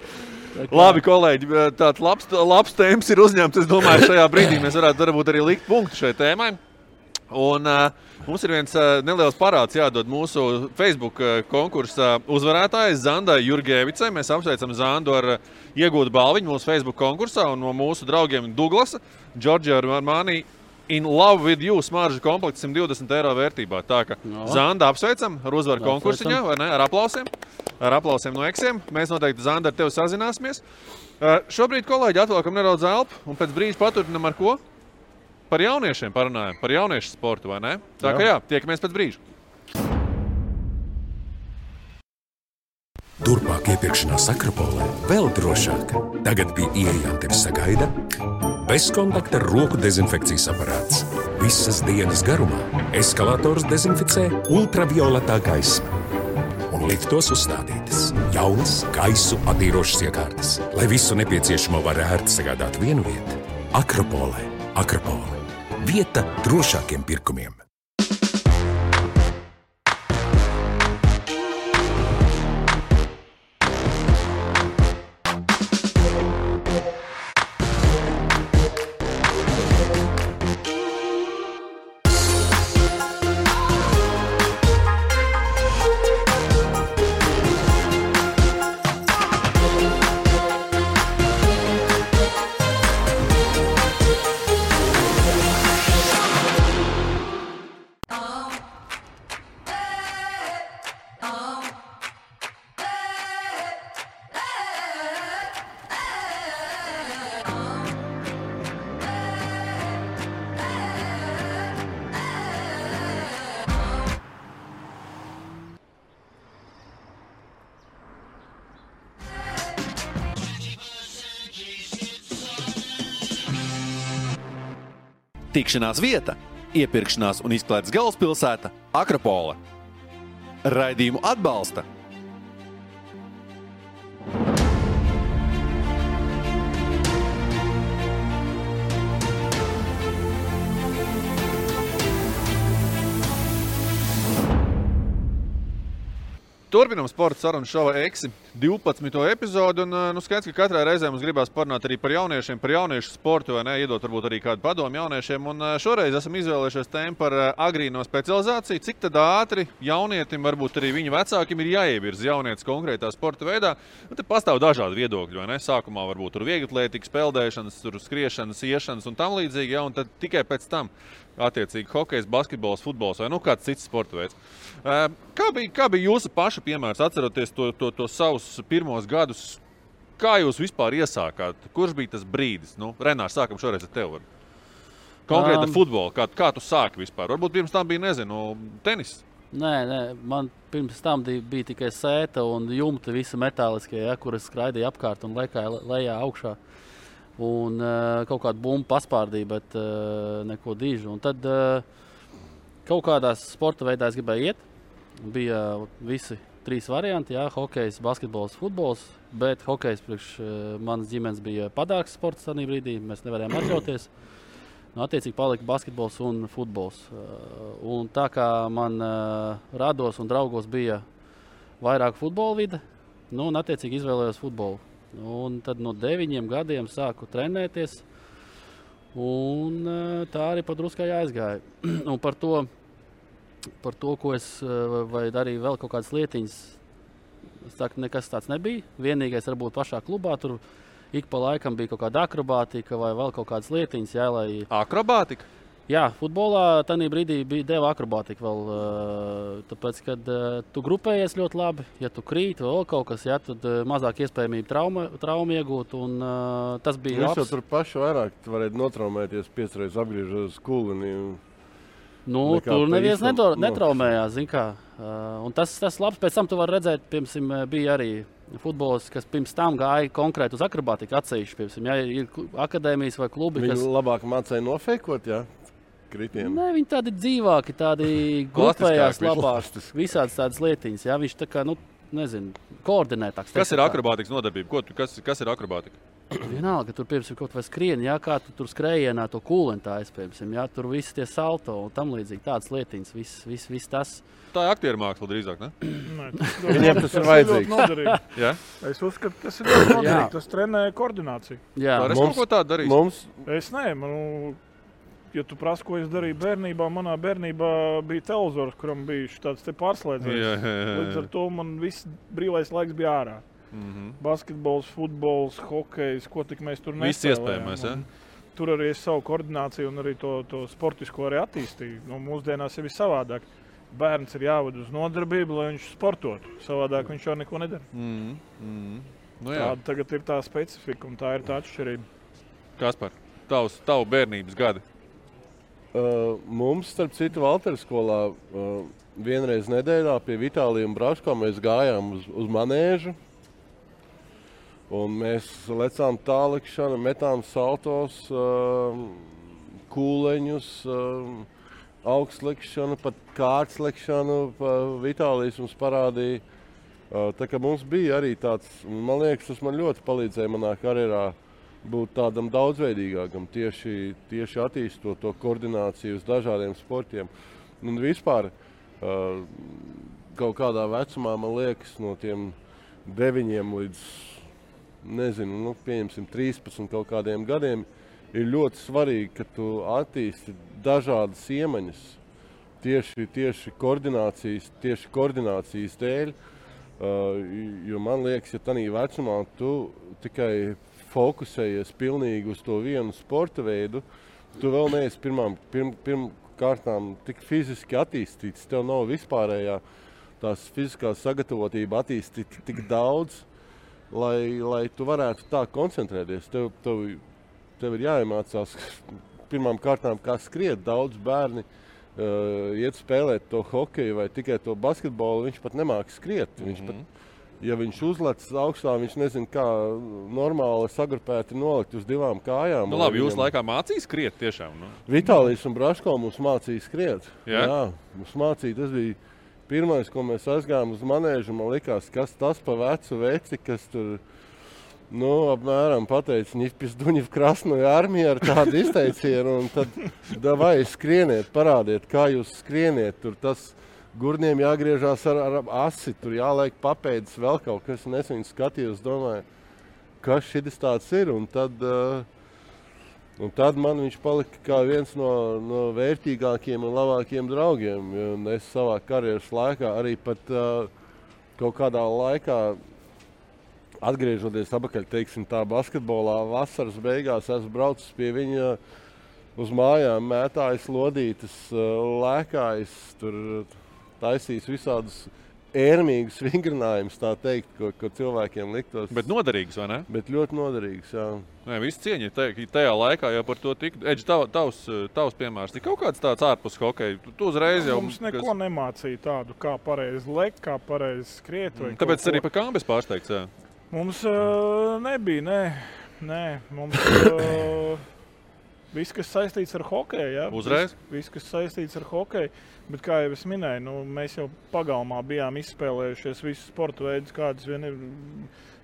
Labi, kolēģi, tāds labs tēmas ir uzņemts. Es domāju, šajā brīdī mēs varētu varbūt arī likt punktu šai tēmai. Un mums ir viens neliels parāds jādod mūsu Facebook konkursa uzvarētājai Zandai Jurgēvicai. Mēs apsveicam Zandu ar iegūtu balviņu mūsu Facebook konkursā un no mūsu draugiem Douglasa, Giorgio Armani In Love With You smaržu komplekts 120 eiro vērtībā. Tā ka Zanda apsveicam ar uzvaru konkursiņā, vai ne? Ar aplausiem. Ar aplausiem no eksiem. Mēs noteikti, Zanda, ar tevi sazināsimies. Šobrīd, kolēģi, atvēlkam nedaudz elpu un pēc brīža paturpinam ar ko? Par jauniešiem parunājam, par jauniešu sportu, vai ne? Tā kā jā, tiekamies pēc brīža. Turpmāk iepirkšanās Akropolē vēl drošāk. Tagad pie ieejām tevi sagaida bezkontakta roku dezinfekcijas aparāts. Visas dienas garumā eskalators dezinficē ultravioletā gaisma. Un liftos uzstādītas jaunas gaisu attīrošas iekārtas, lai visu nepieciešamo var ērti sagādāt vienu vietu. Akropolē. Akropole. Vieta drošākiem pirkumiem. Tikšanās vieta, iepirkšanās un izklaides galvaspilsēta Akropole. Raidījumu atbalsta Turpinam sporta sarunu šova Eksi. 12. epizodi, un skaidrs, ka katrā reizē mums gribās parunāt arī par jauniešiem, par jauniešu sportu, vai ne, iedot varbūt arī kādu padomu jauniešiem, un šoreiz esam izvēlējušies tēmu par agrīno specializāciju, cik tad ātri jaunietim, varbūt arī viņu vecākiem ir jāievirza jaunietis konkrētā sporta veidā, un te pastāv dažādi viedokļi, vai ne, sākumā varbūt tur vieglatlētikas, peldēšanas, tur skriešanas, iešanas un tam līdzīgi, ja, un tad tikai pēc tam attiecīgi hokejs, basketbols, futbols vai kāds cits sporta veids. Kā bija jūsu paša piemērs, atceroties to savus pirmos gadus? Kā jūs vispār iesākāt? Kurš bija tas brīdis? Renārs, sākam šoreiz ar tevi. Konkrēti futbolu. Kā tu sāki vispār? Varbūt pirms tam bija, tenis? Nē, man pirms tam bija tikai sēta un jumti visi metāliskie, kuras skraidīja apkārt un lejā augšā. Un kaut kādu bumbu paspārdīja, bet neko dižu. Un tad kaut kādās sporta veidā es gribēju iet. Bija visi 3 varianti, hokejs, basketbols, futbols, bet hokejs priekš manas ģimenes bija padārgs sports tādā brīdī, mēs nevarējām atļauties. Attiecīgi palika basketbols un futbols. Un tā kā man rados un draugos bija vairāk futbola vide, un attiecīgi izvēlējos futbolu. Un tad no 9 gadiem sāku trenēties, un tā arī padruskai aizgāja. Un par to, ko es darīju vēl kaut kādas lietiņas, es saku, nekas tāds nebija. Vienīgais varbūt pašā klubā, tur ik pa laikam bija kaut kāda akrobātika vai vēl kaut kādas lietiņas. Akrobātika? Jā, futbolā tajā brīdī deva akrobātika vēl, tāpēc, kad tu grupējies ļoti labi, ja tu krīti vēl kaut kas, tad mazāk iespējamība traumu iegūt, un tas bija labs. Jūs jau tur paši vairāk varētu notraumēties 5 reizes apgriežot skulini. Tur neviens netraumējās, zin kā. Un tas labs, pēc tam tu vari redzēt, piemēram, bija arī futbols, kas pirms tam gāja konkrēti uz akrobātiku atsevišķi, piemēram, ja ir akadēmijas vai klubi, kas... Viņi labāk mācēja nofeikot, jā? Kritienu. Nē, viņi tādi dzīvāki, tādi grupējās labāk, visādas tādas lietiņas, jā, viņš tā kā, koordinētāks. Kas ir akrobātikas nodarbība? Kas ir akrobātika? Vienalga, tur, piemēram, kaut vai skrieni, kā tu tur skrējienā to kūlentājas, piemēram, tur visi tie salto un tam līdzīgi tādas lietiņas, viss tas. Tā ir aktieru māksla drīzāk, ne? Viņiem tas ir vajadzīgs. Ja? Es uzskatu, tas ir ļoti noderīgi, tas trenē koordināciju. Jā, es kaut ko tādu darīšu. Es ja tu prasi, ko es darīju bērnībā, manā bērnībā bija televizors, kuram bija tāds pārslēdziens. Līdz ar to man viss brīvais laiks bija ārā. Basketbols, futbols, hokejs, ko tik mēs tur nespēlējām. Viss iespējamais, ja? Tur arī es savu koordināciju un arī to sportisko arī attīstīju. Mūsdienās ir savādāk. Bērns ir jāved uz nodarbību, lai viņš sportotu. Savādāk viņš jau neko nedara. Tāda tagad ir tā specifika un tā ir tā atšķirība. Kaspar, tavu bērnības gadi? Mums, starp citu, Valteres skolā vienreiz nedēļā pie Vitālija un Braško mēs gājām uz manēžu. Un mēs lecām tālikšanu, metām saltos, kūleņus, augstlikšanu, pat kārtslekšanu. Vitālijs mums parādīja. Tā kā mums bija arī tāds, man liekas, tas man ļoti palīdzēja manā karjerā būt tādam daudzveidīgākam, tieši attīstot to koordināciju uz dažādiem sportiem. Un vispār kaut kādā vecumā, man liekas, no tiem 9 līdz, pieņemsim 13 kaut kādiem gadiem, ir ļoti svarīgi, ka tu attīsti dažādas iemaņas tieši koordinācijas dēļ, jo man liekas, ja tanī vecumā tu tikai fokusējies pilnīgi uz to vienu sporta veidu, tu vēl neesi pirmkārtām tik fiziski attīstīts, tev nav vispārējā tās fiziskās sagatavotība attīstīt tik daudz, lai tu varētu tā koncentrēties. Tev ir jāiemācās pirmām kārtām, kā skriet. Daudz bērni iet spēlēt to hokeju vai tikai to basketbolu, viņš pat nemāk skriet. Ja viņš uzlec augstā, viņš nezina, kā normāli sagrupēti nolikt uz 2 kājām. Labi, jūs laikā mācīja skriet tiešām? Vitālijs un Braško mums mācīja skriet. Jā, mums mācīja. Tas bija pirmais, ko mēs aizgājām uz manēžu. Man likās, kas tas pa vecu veci, kas tur, apmēram pateica, ņipis duņi v krasnoju armiju ar tādu izteicienu. Un tad, davai, skrieniet, parādiet, kā jūs skrieniet. Tur tas Gurniem jāgriežās ar asi, tur jāliek papēdis vēl kaut kas. Es viņu skatījos, domāju, kas šis tāds ir. Un tad man viņš palika kā viens no vērtīgākiem un labākiem draugiem. Un es savā karjeras laikā arī pat kaut kādā laikā, atgriežoties atpakaļ, teiksim, tā basketbolā vasaras beigās, esmu braucis pie viņa uz mājām, mētājis lodītes, lēkājis, tur taisījis visādus ērmīgus vingrinājumus, tā teikt, ko cilvēkiem liktos. Bet noderīgs, vai ne? Bet ļoti noderīgs, jā. Nē, visi cieņi tajā laikā jau par to tika. Edži, tavs piemērs, ir kaut kāds tāds ārpus hokeja? Tu uzreiz jau... Mums neko nemācīja tādu, kā pareizi lekt, kā pareizi skriet. Tāpēc arī par kāmbes pārsteigts, jā? Mums nebija, nē. Mums... Viss, kas saistīts ar hokeju, jā. Uzreiz? Viss, kas saistīts ar hokeju. Bet, kā jau es minēju, mēs jau pagalmā bijām izspēlējušies visus sporta veidus, kādas vien ir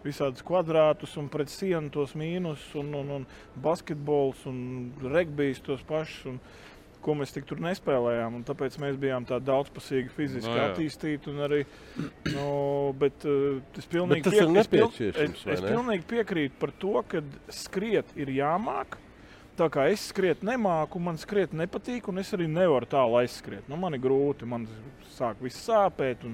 visādus kvadrātus un pret sienu tos mīnus un basketbols un regbijs tos pašus, un ko mēs tik tur nespēlējām. Un tāpēc mēs bijām tā daudzpusīgi fiziski attīstīti un arī, bet es pilnīgi piekrītu par to, ka skriet ir jāmāk. Tā kā es skriet nemāku, man skriet nepatīk, un es arī nevaru tālu aizskriet. Man ir grūti, man sāk viss sāpēt, un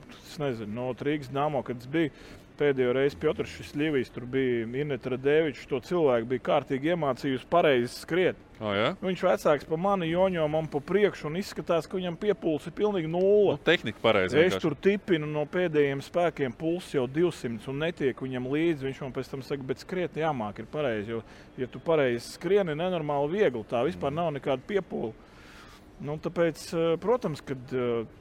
es nezinu, no Rīgas Dāmo, kad es biju pēdējo reizi Piotrs Šļivijs, tur bija Ineta Radevičs, to cilvēku bija kārtīgi iemācījusi pareizi skriet. Jā? Viņš vecāks pa mani joņo man pa priekšu un izskatās, ka viņam piepulss ir pilnīgi nulle. Tehnika pareizi. Es tur tipinu no pēdējiem spēkiem, pulss jau 200 un netiek viņam līdzi. Viņš man pēc tam saka, bet skriet jāmāk ir pareizi, jo, ja tu pareizi skrieni, nenormāli viegli, tā vispār nav nekāda piepūle. Tāpēc, protams, kad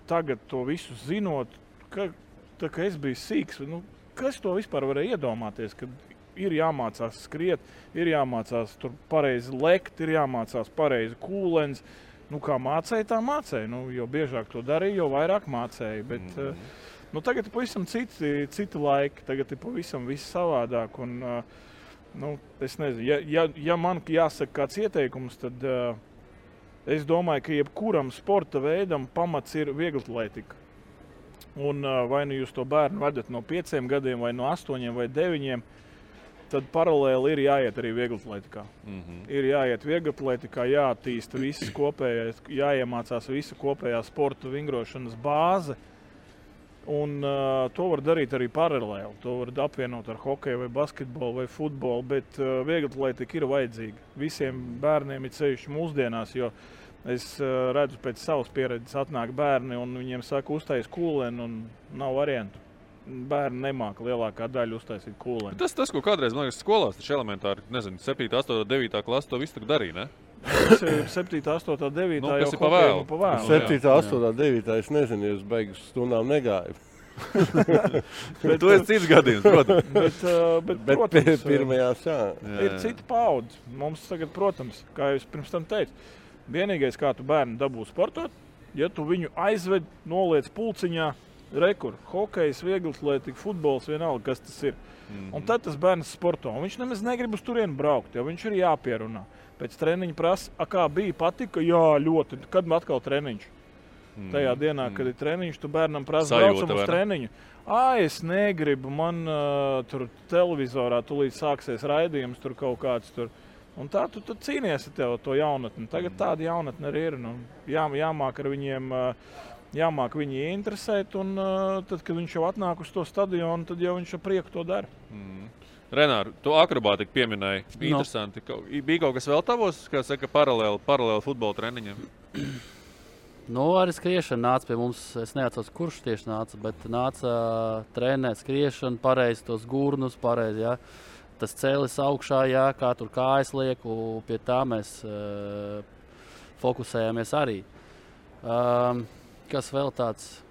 tagad to visu zinot, ka es biju sīks, kas to vispār varēja iedomāties, kad ir jāmācās skriet, ir jāmācās tur pareizi lekt, ir jāmācās pareizi kūlens. Kā mācēja, tā mācēja. Jo biežāk to darīja, jo vairāk mācēja. Bet tagad ir pavisam citi laiki, tagad ir pavisam viss savādāk. Un, es nezinu, ja man jāsaka kāds ieteikums, tad es domāju, ka jebkuram sporta veidam pamats ir vieglatlētika. Un vai nu jūs to bērnu vedat no 5 gadiem, vai no 8 vai 9, tad paralēli ir jāiet arī vieglatlētikā. Ir jāiet vieglatlētikā, jāattīsta visas kopējais, jāiemācās visa kopējā sporta vingrošanas bāze. Un to var darīt arī paralēli. To var apvienot ar hokeju vai basketbolu vai futbolu, bet vieglatlētika ir vajadzīga. Visiem bērniem ir ceļš mūsdienās, jo es redzu pēc savas pieredzes atnāk bērni un viņiem saka uztais kūleni un nav variantu. Bērni nemāka lielākā daļa uztaisīt kūleni. Tas, ko kādreiz, man liekas, skolās, taču elementāri, 7, 8, 9 klasa to visu tak darīja, ne? 7, 8, 9 jau pa vēlu. 7, 8, 9 es nezinu, jūs beigas stundām negāju. Bet tu esi cits gadījums, protams. Bet protams, pirmajās, ir cita paudze. Mums tagad, protams, kā jūs pirms tam teicu, vienīgais, kā tu bērnu dabū sportot, ja tu viņu aizved, noliec pulciņā, rekur, hokejs, vieglatlētika, futbols, vienalga, kas tas ir. Un tad tas bērns sporto. Un viņš nemaz negrib uz turienu braukt, jo viņš ir jāpierunā. Pēc treniņa prasa, kā bija, patika? Jā, ļoti. Kad man atkal treniņš? Tajā dienā, kad ir treniņš, tu bērnam prasa, braucam uz treniņu. Es negribu, man tur televizorā tulīt sāksies raidījums, tur kaut kāds tur. Un tā tu cīnies ar tev to jaunatni. Tagad tāda jaunatne arī ir. Jāmāk ar viņiem, jāmāk viņi interesēt, un tad, kad viņš jau atnāk uz to stadionu, tad jau viņš ar prieku to dara. Renār, tu akrobātiku pieminēji. Interesanti. Bija kaut kas vēl tavos, kā saka, paralēli futbola treniņiem? Arī skriešana nāca pie mums. Es neatceros, kurš tieši nāca, bet nāca trenēt skriešanu, pareizi tos gurnus, pareizi, jā. Tas cēlis augšā, jā, kā tur kājas liek, un pie tā mēs fokusējāmies arī. Kas vēl tāds?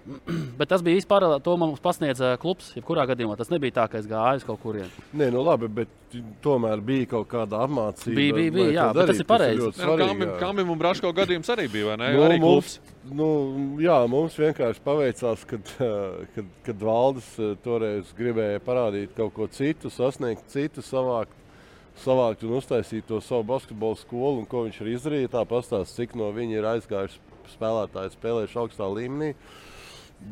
Bet tas bija vispār, to mums pasniedza klubs, jebkurā gadījumā. Tas nebija tā, ka es gāju uz kaut kurien. Nē, labi, bet tomēr bija kaut kāda apmācība. Bija, jā, bet tas ir pareizi. Kambim un Braško gadījums arī bija, vai ne? Arī klubs. Mums vienkārši paveicās, kad Valdis toreiz gribēja parādīt kaut ko citu, sasniegt citu, savākt un uztaisīt to savu basketbolu skolu, un ko viņš ir izdarījis. Tā pastāst, cik no viņa ir aizgājuši spēlētāji spēlējuši augstā līmenī.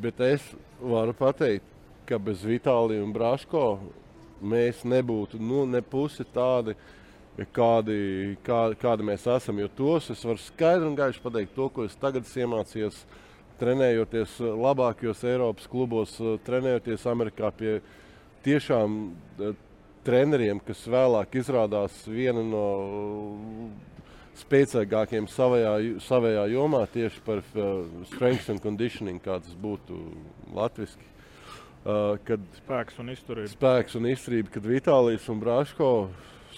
Bet es varu pateikt, ka bez Vitālija un Braško mēs nebūtu ne pusi tādi, kādi mēs esam. Jo tos es varu skaidri un gaiši pateikt to, ko es tagad iemācījos, trenējoties labākajos Eiropas klubos, trenējoties Amerikā pie tiešām treneriem, kas vēlāk izrādās viena no spēcīgākiem savējā jomā tieši par strength and conditioning, kā tas būtu latviski. Kad spēks un izturība. Spēks un izturība, kad Vitālijs un Braško,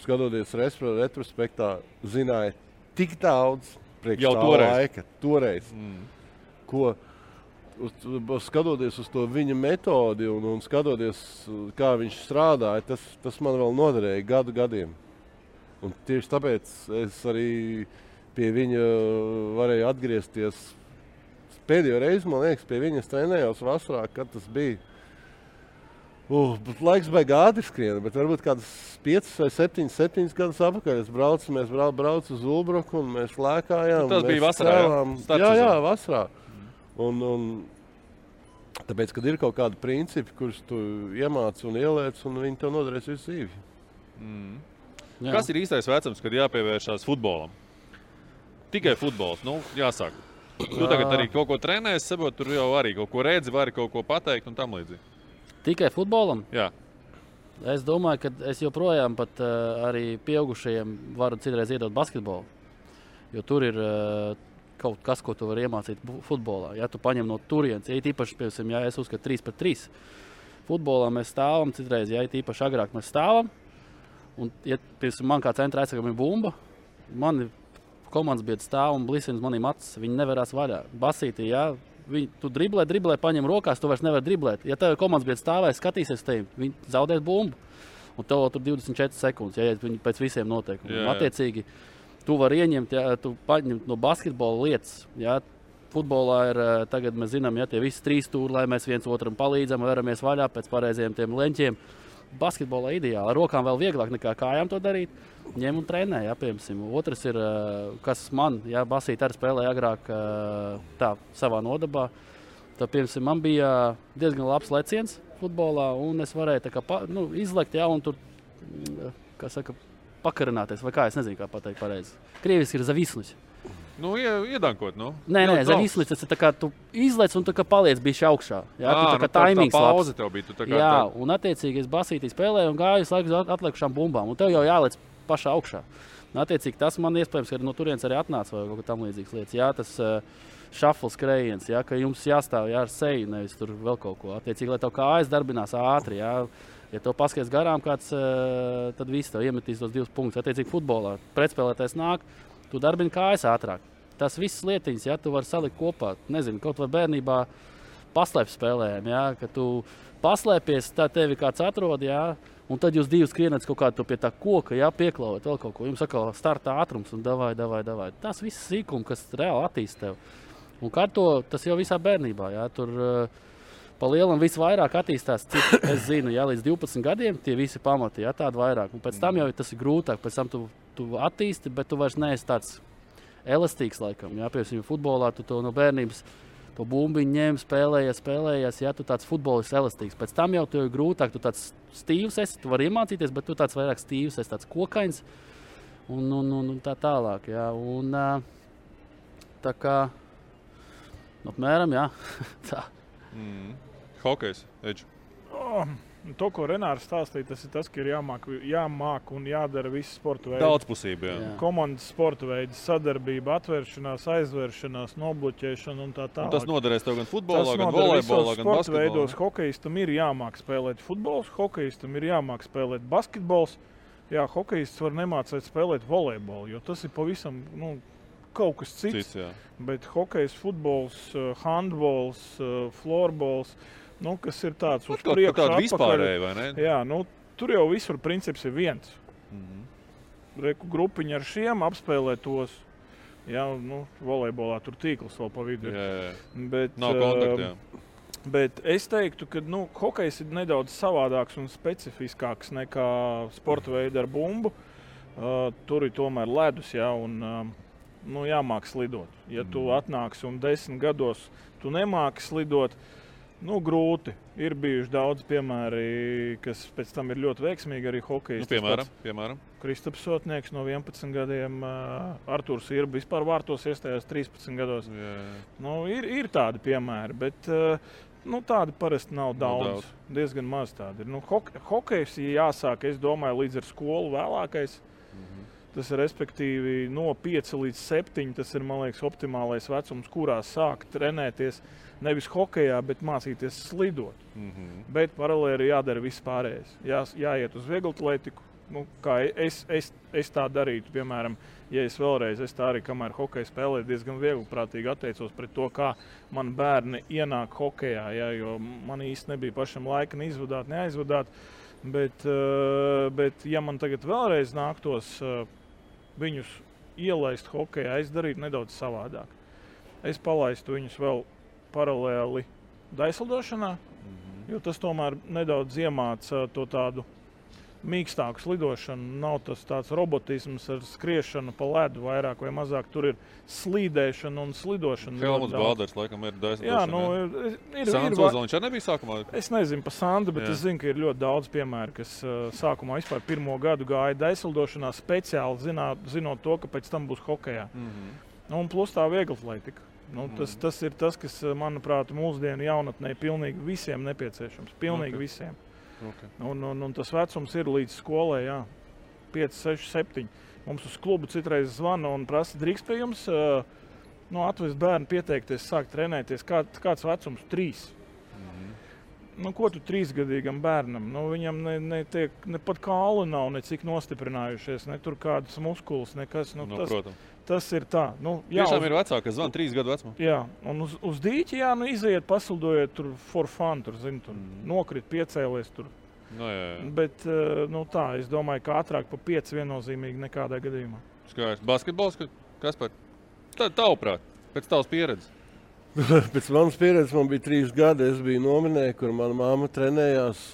skatoties retrospektā, zināja tik daudz priekš jau tā laika. Toreiz. Ko, skatoties uz to viņa metodi un skatoties, kā viņš strādāja, tas man vēl noderēja gadiem. Un tieši tāpēc es arī pie viņa varēju atgriezties. Pēdējo reizi, man liekas, pie viņas trenējos vasarā, kad tas bija. Laiks baigi ātri skrien, bet varbūt kādas 5 vai 7 gadus apakaļ. Mēs braucu uz Ulbruku un mēs lēkājām. Tas bija vasarā, jā, vasarā. Un tāpēc, kad ir kaut kādi principi, kurus tu iemāci un ieliec, un viņi tev noderēs visu dzīvi. Jā. Kas ir īstais vecums, kad jāpievēršās futbolam? Tikai futbols, jāsāk. Tu tagad arī kaut ko trenēsi, sabot, tur jau arī kaut ko redzi, vari kaut ko pateikt un tam līdzīgi. Tikai futbolam? Jā. Es domāju, ka es joprojām pat arī pieaugušajiem varu citreiz iedot basketbolu. Jo tur ir kaut kas, ko tu vari iemācīt futbolā. Ja tu paņem no turienes, ja īpaši, piemēram, ja es uzskatu 3-3. Futbolā mēs stāvam citreiz, ja īpaši agrāk mēs stāvam. Un, ja man kā centra aizsargam ir bumba, mani komandas biedri stāv un blisina manīm acis. Viņi nevarās vaļā. Basītī, jā, tu driblē, paņem rokās, tu vairs nevar driblēt. Ja tev komandas biedri stāvēs, skatīsies tevi, viņi zaudēs bumbu. Un tev tur 24 sekundes, ja viņi pēc visiem noteikumiem. Attiecīgi, tu vari ieņemt, ja tu paņem no basketbola lietas. Ja, futbolā ir, tagad mēs zinām, ja tie visi 3 stūri, lai mēs viens otram palīdzam, veramies vaļā pēc pareizajiem tiem leņķiem. Basketbolā ideāli. Ar rokām vēl vieglāk nekā kājām to darīt. Ņem un trenē, jā, piemēram. Otrs ir, kas man, jā, basīt arī spēlēja agrāk tā savā nodabā. Tad, piemēram, man bija diezgan labs leciens futbolā, un es varēju tā kā izlekt, jā, un tur, kā saka, pakarināties, vai kā, es nezinu, kā pateikt pareizi. Krieviski ir zavisnuś. Iedankot, Nē, zavisnuś, tas ir tā kā tu izlec un tā kā paliec bišķi augšā. Jā, tu tā kā taimings labs. Tā pauze tev bija, tu tā kā... Jā, un attiecīgi es basītī spēlēju un gāju laikus atliekušām bumbām, un tev jau jālec pašā augšā. Un attiecīgi tas man iespējams, ka no turienes arī atnāca vai kaut kā tam līdzīgas lietas. Jā, tas šafls skrējiens, jā, ka jums jāstāv ar seju, nevis tur vēl kaut ko. Attiecīgi, lai tev kājas darbinās ātri, jā. Ja tev paskaties garām kāds, tad viss tev iemetīs tos 2 punktus. Attiecīgi futbolā pretspēlētājs nāk, tu darbini kājas ātrāk. Tas viss lietiņas, ja tu vari salikt kopā, nezinu, kaut vai bērnībā paslēpes spēlējām, jā, ka tu paslēpies, tā tevi kāds atrod, jā, un tad jūs 2 skrienat kaut kādu pie tā koka, jā, pieklaujat vēl kaut ko. Jums atkal startā ātrums un davai. Tas viss sīkumi, kas reāli attīst tev. Un kā tas jau visā bērnībā, jā, tur pa lielam visvairāk attīstās, cik es zinu, jā, līdz 12 gadiem tie visi pamati, jā, tādi vairāk. Un pēc tam jau tas ir grūtāk, pēc tam tu attīsti, bet tu vairs neesi tāds elastīgs laikam, jā, piemēram, futbolā tu to no bērnības to bumbiņu ņem, spēlējies, jā, tu tāds futbolists elastīgs. Pēc tam jau tu ir grūtāk, tu tāds stīvs esi, tu vari iemācīties, bet tu tāds vairāk stīvs esi, tāds kokains un tā tālāk, jā. Un tā kā, apmēram, jā, tā. Hokejs, Edž. To, ko Renārs stāstīja, tas ir tas, ka ir jāmāk un jādara visi sporta veidi. Daudzpusība, jā. Komandas sporta veidi, sadarbība, atvēršanās, aizvēršanās, nobloķēšana un tā tālāk. Un tas noderēs tev gan futbolā, gan volejbolā, gan basketbolā. Veidos hokejistam ir jāmāk spēlēt futbols, hokejistam ir jāmāk spēlēt basketbols. Jā, hokejists var nemācēt spēlēt volejbolu, jo tas ir pavisam, kaut kas cits. Bet hokejs, futbols, handbols, florbols, kas ir tāds uz priekšu atpakaļ. Vispārēji, vai ne? Jā, tur jau visur princips ir viens. Grupiņa ar šiem apspēlē tos. Jā, volejbolā tur tīkls vēl pa vidu. Jā. Bet, nav kontakta, jā. Bet es teiktu, ka hokejs ir nedaudz savādāks un specifiskāks nekā sporta veidi ar bumbu. Tur ir tomēr ledus, jā, un jāmāk slidot. Ja tu atnāksi un 10 gados tu nemāki slidot, grūti. Ir bijuši daudz piemēri, kas pēc tam ir ļoti veiksmīgi arī hokejisti. Piemēram. Kristaps Sotnieks no 11 gadiem, Artūrs Irba vispār vārtos iestājās 13 gados. Ir tādi piemēri, bet tādi parasti nav daudz. Diezgan maz tādi ir. Hokejs jāsāk, es domāju, līdz ar skolu vēlākais. Tas ir respektīvi no 5 līdz 7. Tas ir, man liekas, optimālais vecums, kurā sākt trenēties. Nevis hokejā, bet mācīties slidot. Bet paralēli jādara viss pārējais. Jāiet uz vieglatlētiku. Kā es tā darītu, piemēram, ja es vēlreiz, es tā arī, kamēr hokeju spēlēju, diezgan viegliprātīgi atteicos pret to, kā man bērni ienāk hokejā, jo man īsti nebija pašam laika neizvadāt, neaizvadāt. Bet ja man tagad vēlreiz nāktos viņus ielaist hokejā, es darītu nedaudz savādāk. Es palaistu viņus vēl paralēli daislidošanā, jo tas tomēr nedaudz iemāca to tādu mīkstāku slidošanu. Nav tas tāds robotisms ar skriešanu pa ledu vairāk vai mazāk. Tur ir slīdēšana un slidošana. Helmuts Balders laikam ir daislidošana. Sandrs Ozoliņš arī nebija sākumā? Es nezinu pa Sandru, bet es zinu, ka ir ļoti daudz piemēru, kas sākumā vispār pirmo gadu gāja daislidošanā speciāli zinot to, ka pēc tam būs hokejā. Un plus tā vieglatlētika. Tas ir tas, kas, manuprāt, mūsdienu jaunatnē pilnīgi visiem nepieciešams. Pilnīgi visiem. Okay. Un tas vecums ir līdz skolai, 5, 6, 7. Mums uz klubu citreiz zvana un prasa, drīkst pie jums atvest bērnu pieteikties, sākt trenēties. Kāds vecums? 3. Ko tu 3-gadīgam bērnam? Viņam ne pat kāli nav, ne cik nostiprinājušies, ne tur kādas muskulas, nekas. Protams. Tas ir tā. Tiešām ir vecāki, kas zvana 3 gadu vecumā. Jā, un uz dīķi, iziet, pasildojiet tur for fun, tur nokrit, piecēlies tur. Jā. Bet, es domāju, ka ātrāk pa 5 viennozīmīgi nekādā gadījumā. Skaisti. Basketbols, Kaspar? Tavuprāt, pēc tavas pieredzes? Pēc manas pieredzes man bija 3 gadi. Es biju nominē, kur mana mamma trenējās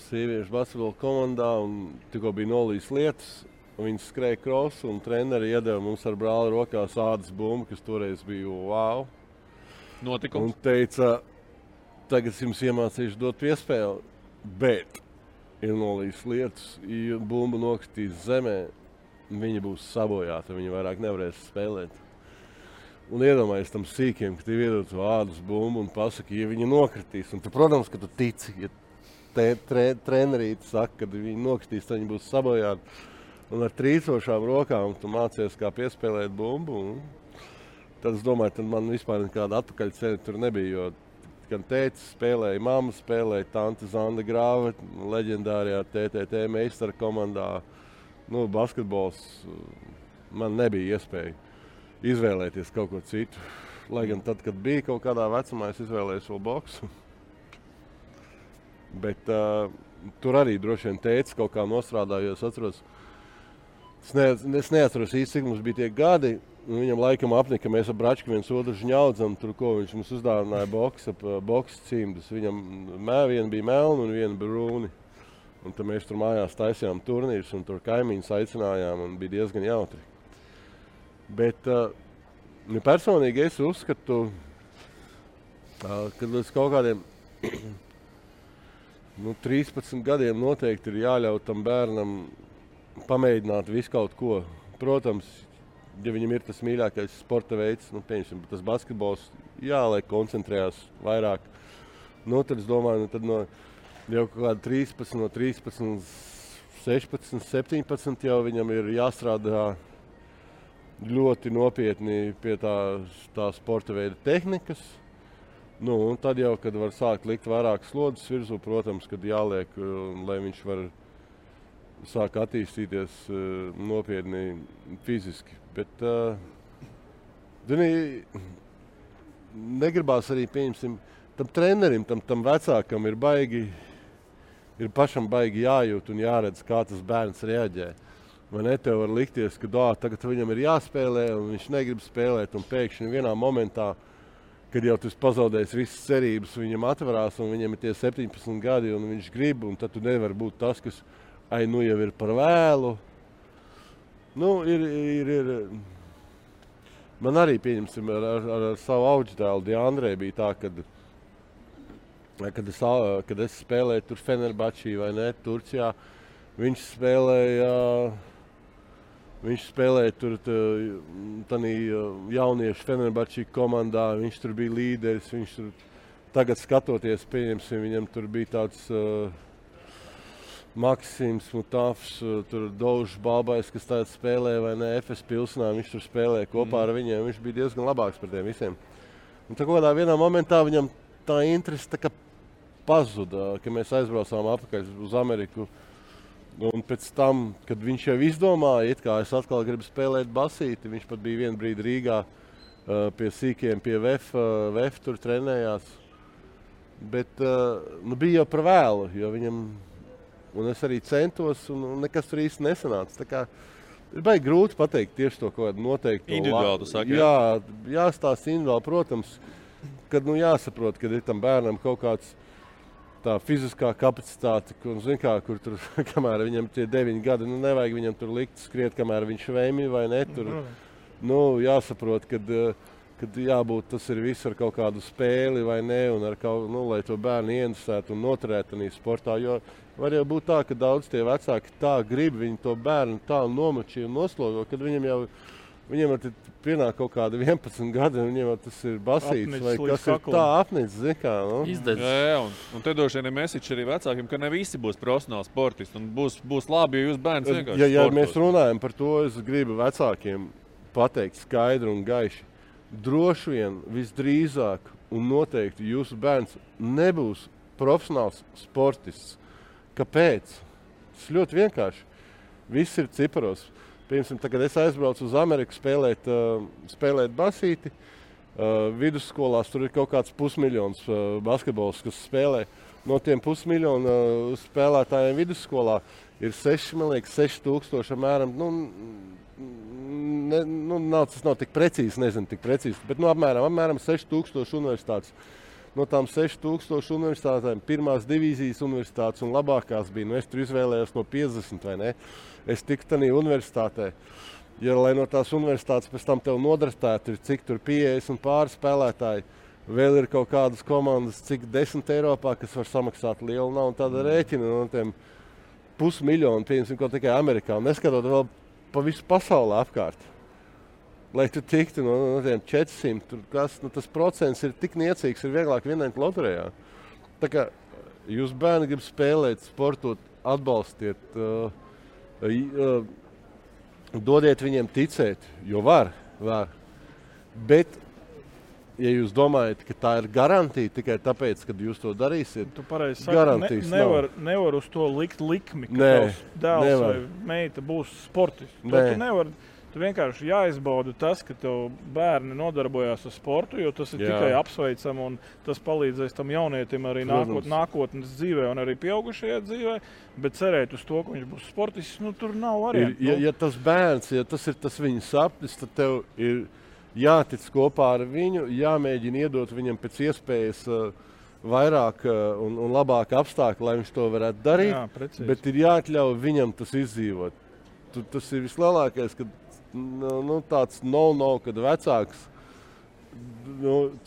sieviešu basketbola komandā un tikko bija nolīs lietas. Viņi skrēja krosu un treneri iedeva mums ar brāli rokās ādas bumbu, kas toreiz bija wow. Notikums. Un teica, tagad jums iemācīšu dot piespēli, bet ir nolīs lietas, ja bumba nokritīs zemē, viņa būs sabojāta, viņa vairāk nevarēs spēlēt. Un iedomājies tam sīkiem, ka tev iedod ādas bumbu un pasaka, ja viņa nokritīs. Un tu, protams, ka tu tici, ja trenerīte saka, kad viņa nokritīs, tad viņa būs sabojāta. Un ar trīcošām rokām tu mācies, kā piespēlēt bumbu. Tad es domāju, tad man vispār nekāda atpakaļceļa tur nebija, jo gan tētis spēlēja, mamma spēlēja, tante Zanda Grāve, leģendārajā TTT meistara komandā. Basketbols man nebija iespēja izvēlēties kaut ko citu. Lai gan tad, kad bija kaut kādā vecumā, es izvēlējos vēl boksu. Bet tur arī droši vien tētis kaut kā nostrādāja, jo es atceros, es neatceros īsti, cik mums bija tie gadi. Viņam laikam apnika, mēs ar Bračku viens otru žņaudzam, tur ko viņš mums uzdāvināja boks cimdus. Viņam viena bija melna un viena brūni. Un tad mēs tur mājās taisījām turnīrus un tur kaimiņus aicinājām un bija diezgan jautri. Bet personīgi es uzskatu, ka līdz kaut kādiem 13 gadiem noteikti ir jāļaut tam bērnam pamēģināt visu kaut ko. Protams, ja viņam ir tas mīļākais sporta veids, pieņemsim, tas basketbols, lai koncentrējās vairāk. Tad es domāju, tad jau kaut kāda 13, 16, 17 jau viņam ir jāstrādā ļoti nopietni pie tā sporta veida tehnikas. Un tad jau, kad var sākt likt vairāk slodzes virsū, protams, kad jāliek, lai viņš var sāk attīstīties nopietni fiziski. Bet negribās arī, pieņemsim, tam trenerim, tam vecākam ir pašam baigi jājūt un jāredz, kā tas bērns reaģē. Vai ne, tev var likties, ka tagad viņam ir jāspēlē un viņš negrib spēlēt un pēkšņi vienā momentā, kad jau tas pazaudēs visas cerības, viņam atverās un viņam ir tie 17 gadi un viņš grib, un tad tu nevar būt tas, kas jau ir par vēlu. Ir Man arī, pieņemsim, ar savu audždēlu Diandrē bija tā, kad es spēlēju tur Fenerbahčī vai ne, Turcijā, viņš spēlēja tur tanī jauniešu Fenerbahčī komandā, viņš tur bija līderis, viņš tur tagad skatoties, pieņemsim, viņam tur bija tāds Maksims Mutafs, tur Daužs Balbais, kas tagad spēlēja vai ne, FS Pilsnā, viņš tur spēlēja kopā ar viņiem, viņš bija diezgan labāks par tiem visiem. Un tā kādā vienā momentā viņam tā interese tā kā pazuda, ka mēs aizbraucām atpakaļ uz Ameriku. Un pēc tam, kad viņš jau izdomāja, it kā es atkal gribu spēlēt basīti, viņš pat bija vienu brīdi Rīgā pie sīkiem, pie VF tur trenējās. Bet bija jau par vēlu, jo viņam, un es arī centos, un nekas tur īsti nesanāca. Tā kā ir baigi grūti pateikt tieši to, ko noteikti. Individuāli, tu saki, jā, jāstāsta individuāli, protams, kad jāsaprot, kad ir tam bērnam kaut kāds tā fiziskā kapacitāte, kur tur, kamēr viņam tie 9 gadi, nevajag viņam tur likt skriet, kamēr viņš vēmi vai ne, tur, jāsaprot, kad jābūt, tas ir viss ar kaut kādu spēli vai ne, un ar kaut, lai to bērnu ieinteresētu un noturētu tādā sportā, jo var jau būt tā, ka daudz tie vecāki tā grib, viņi to bērnu tā nomačī un noslogo, kad viņam jau pienāk kaut kāda 11 gadi, un viņiem tas ir basīts, vai kas ir tā apnicis, zin kā, Izdedz. Jā, un te doši vien mesiķi arī vecākiem, ka ne visi būs profesionāli sportisti, un būs labi, ja jūs bērns vienkārši sportos. Ja mēs runājam par to, es gribu vecākiem pateikt skaidri un gaiši. Droši vien visdrīzāk un noteikti jūsu bērns nebūs profesionāls sportists. Kāpēc? Tas ļoti vienkārši. Viss ir ciparos. Piemēram, tagad es aizbraucu uz Ameriku spēlēt basīti. Vidusskolās tur ir kaut kāds 500,000 basketbols, kas spēlē. No tiem 500,000 spēlētājiem vidusskolā ir 6,000 apmēram. Tas nav tik precīzi, bet apmēram 6,000 universitātes. No tām 6,000 universitātēm pirmās divīzijas universitātes un labākās bija. Es tur izvēlējos no 50 vai ne. Es tiku tādā universitātē. Ja, lai no tās universitātes pēc tam tev nodraftētu, ir cik tur 50 pāri spēlētāji, vēl ir kaut kādas komandas, cik 10 Eiropā, kas var samaksāt lielu naudu, tāda rēķina no tiem 500,000, pieņemsim, kaut tikai Amerikā, un neskatot vēl pa visu pasauli apkārt. Lai tu tiktu no tiem 400, tas procents ir tik niecīgs, ir vieglāk vienēt loterijā. Tā kā jūs bērni grib spēlēt, sportot, atbalstiet, dodiet viņiem ticēt, jo var. Bet, ja jūs domājat, ka tā ir garantija tikai tāpēc, kad jūs to darīsiet, tu pareizi saki, garantijas nevar uz to likt likmi, ka tavs dēls vai meita būs sportists. Tu vienkārši jāizbauda tas, ka tev bērni nodarbojās ar sportu, jo tas ir tikai apsveicam un tas palīdzēs tam jaunietim arī nākotnes dzīvē un arī pieaugušajā dzīvē, bet cerēt uz to, ka viņš būs sportists, tur nav variantu. Ja tas bērns, ja tas ir tas viņa sapnis, tad tev ir jātic kopā ar viņu, jāmēģina iedot viņam pēc iespējas vairāk un labāk apstākļi, lai viņš to varētu darīt, bet ir jāatļauj viņam tas izdzīvot. Tas ir vislielākais, kad tāds kad vecāks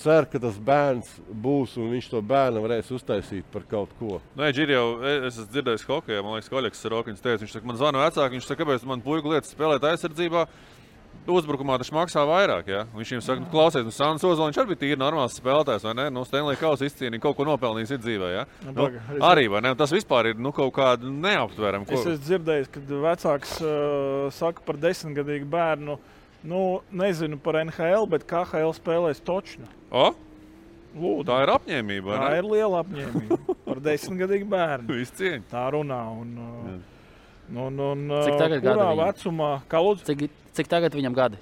cer, ka tas bērns būs un viņš to bērnu varēs uztaisīt par kaut ko. Es esmu dzirdējis hokejā, man liekas, Oļegs Sorokiņš teica, viņš saka, man zvana vecāki, viņš saka, kāpēc man puiku lietas spēlēt aizsardzībā, uzbrukumā taču maksā vairāk, ja? Viņš viņam saka, klausies, Sandis Ozoliņš arī bija tīri normāls spēlētājs, vai ne? Stanley Kausa izcīnīja, kaut ko nopelnījis dzīvē, ja? Arī, vai ne? Tas vispār ir kaut kāda neaptverama. Es esmu dzirdējis, kad vecāks saka par 10-gadīgu bērnu, nezinu par NHL, bet KHL spēlēs točnu. Lūdzu. Tā ir apņēmība, vai ne? Tā ir liela apņēmība par 10-gadīgu bērnu. Viss cieņa. Tā runā cik tagad kurā vecumā? Kā lūdzu? Cik tagad viņam gadi?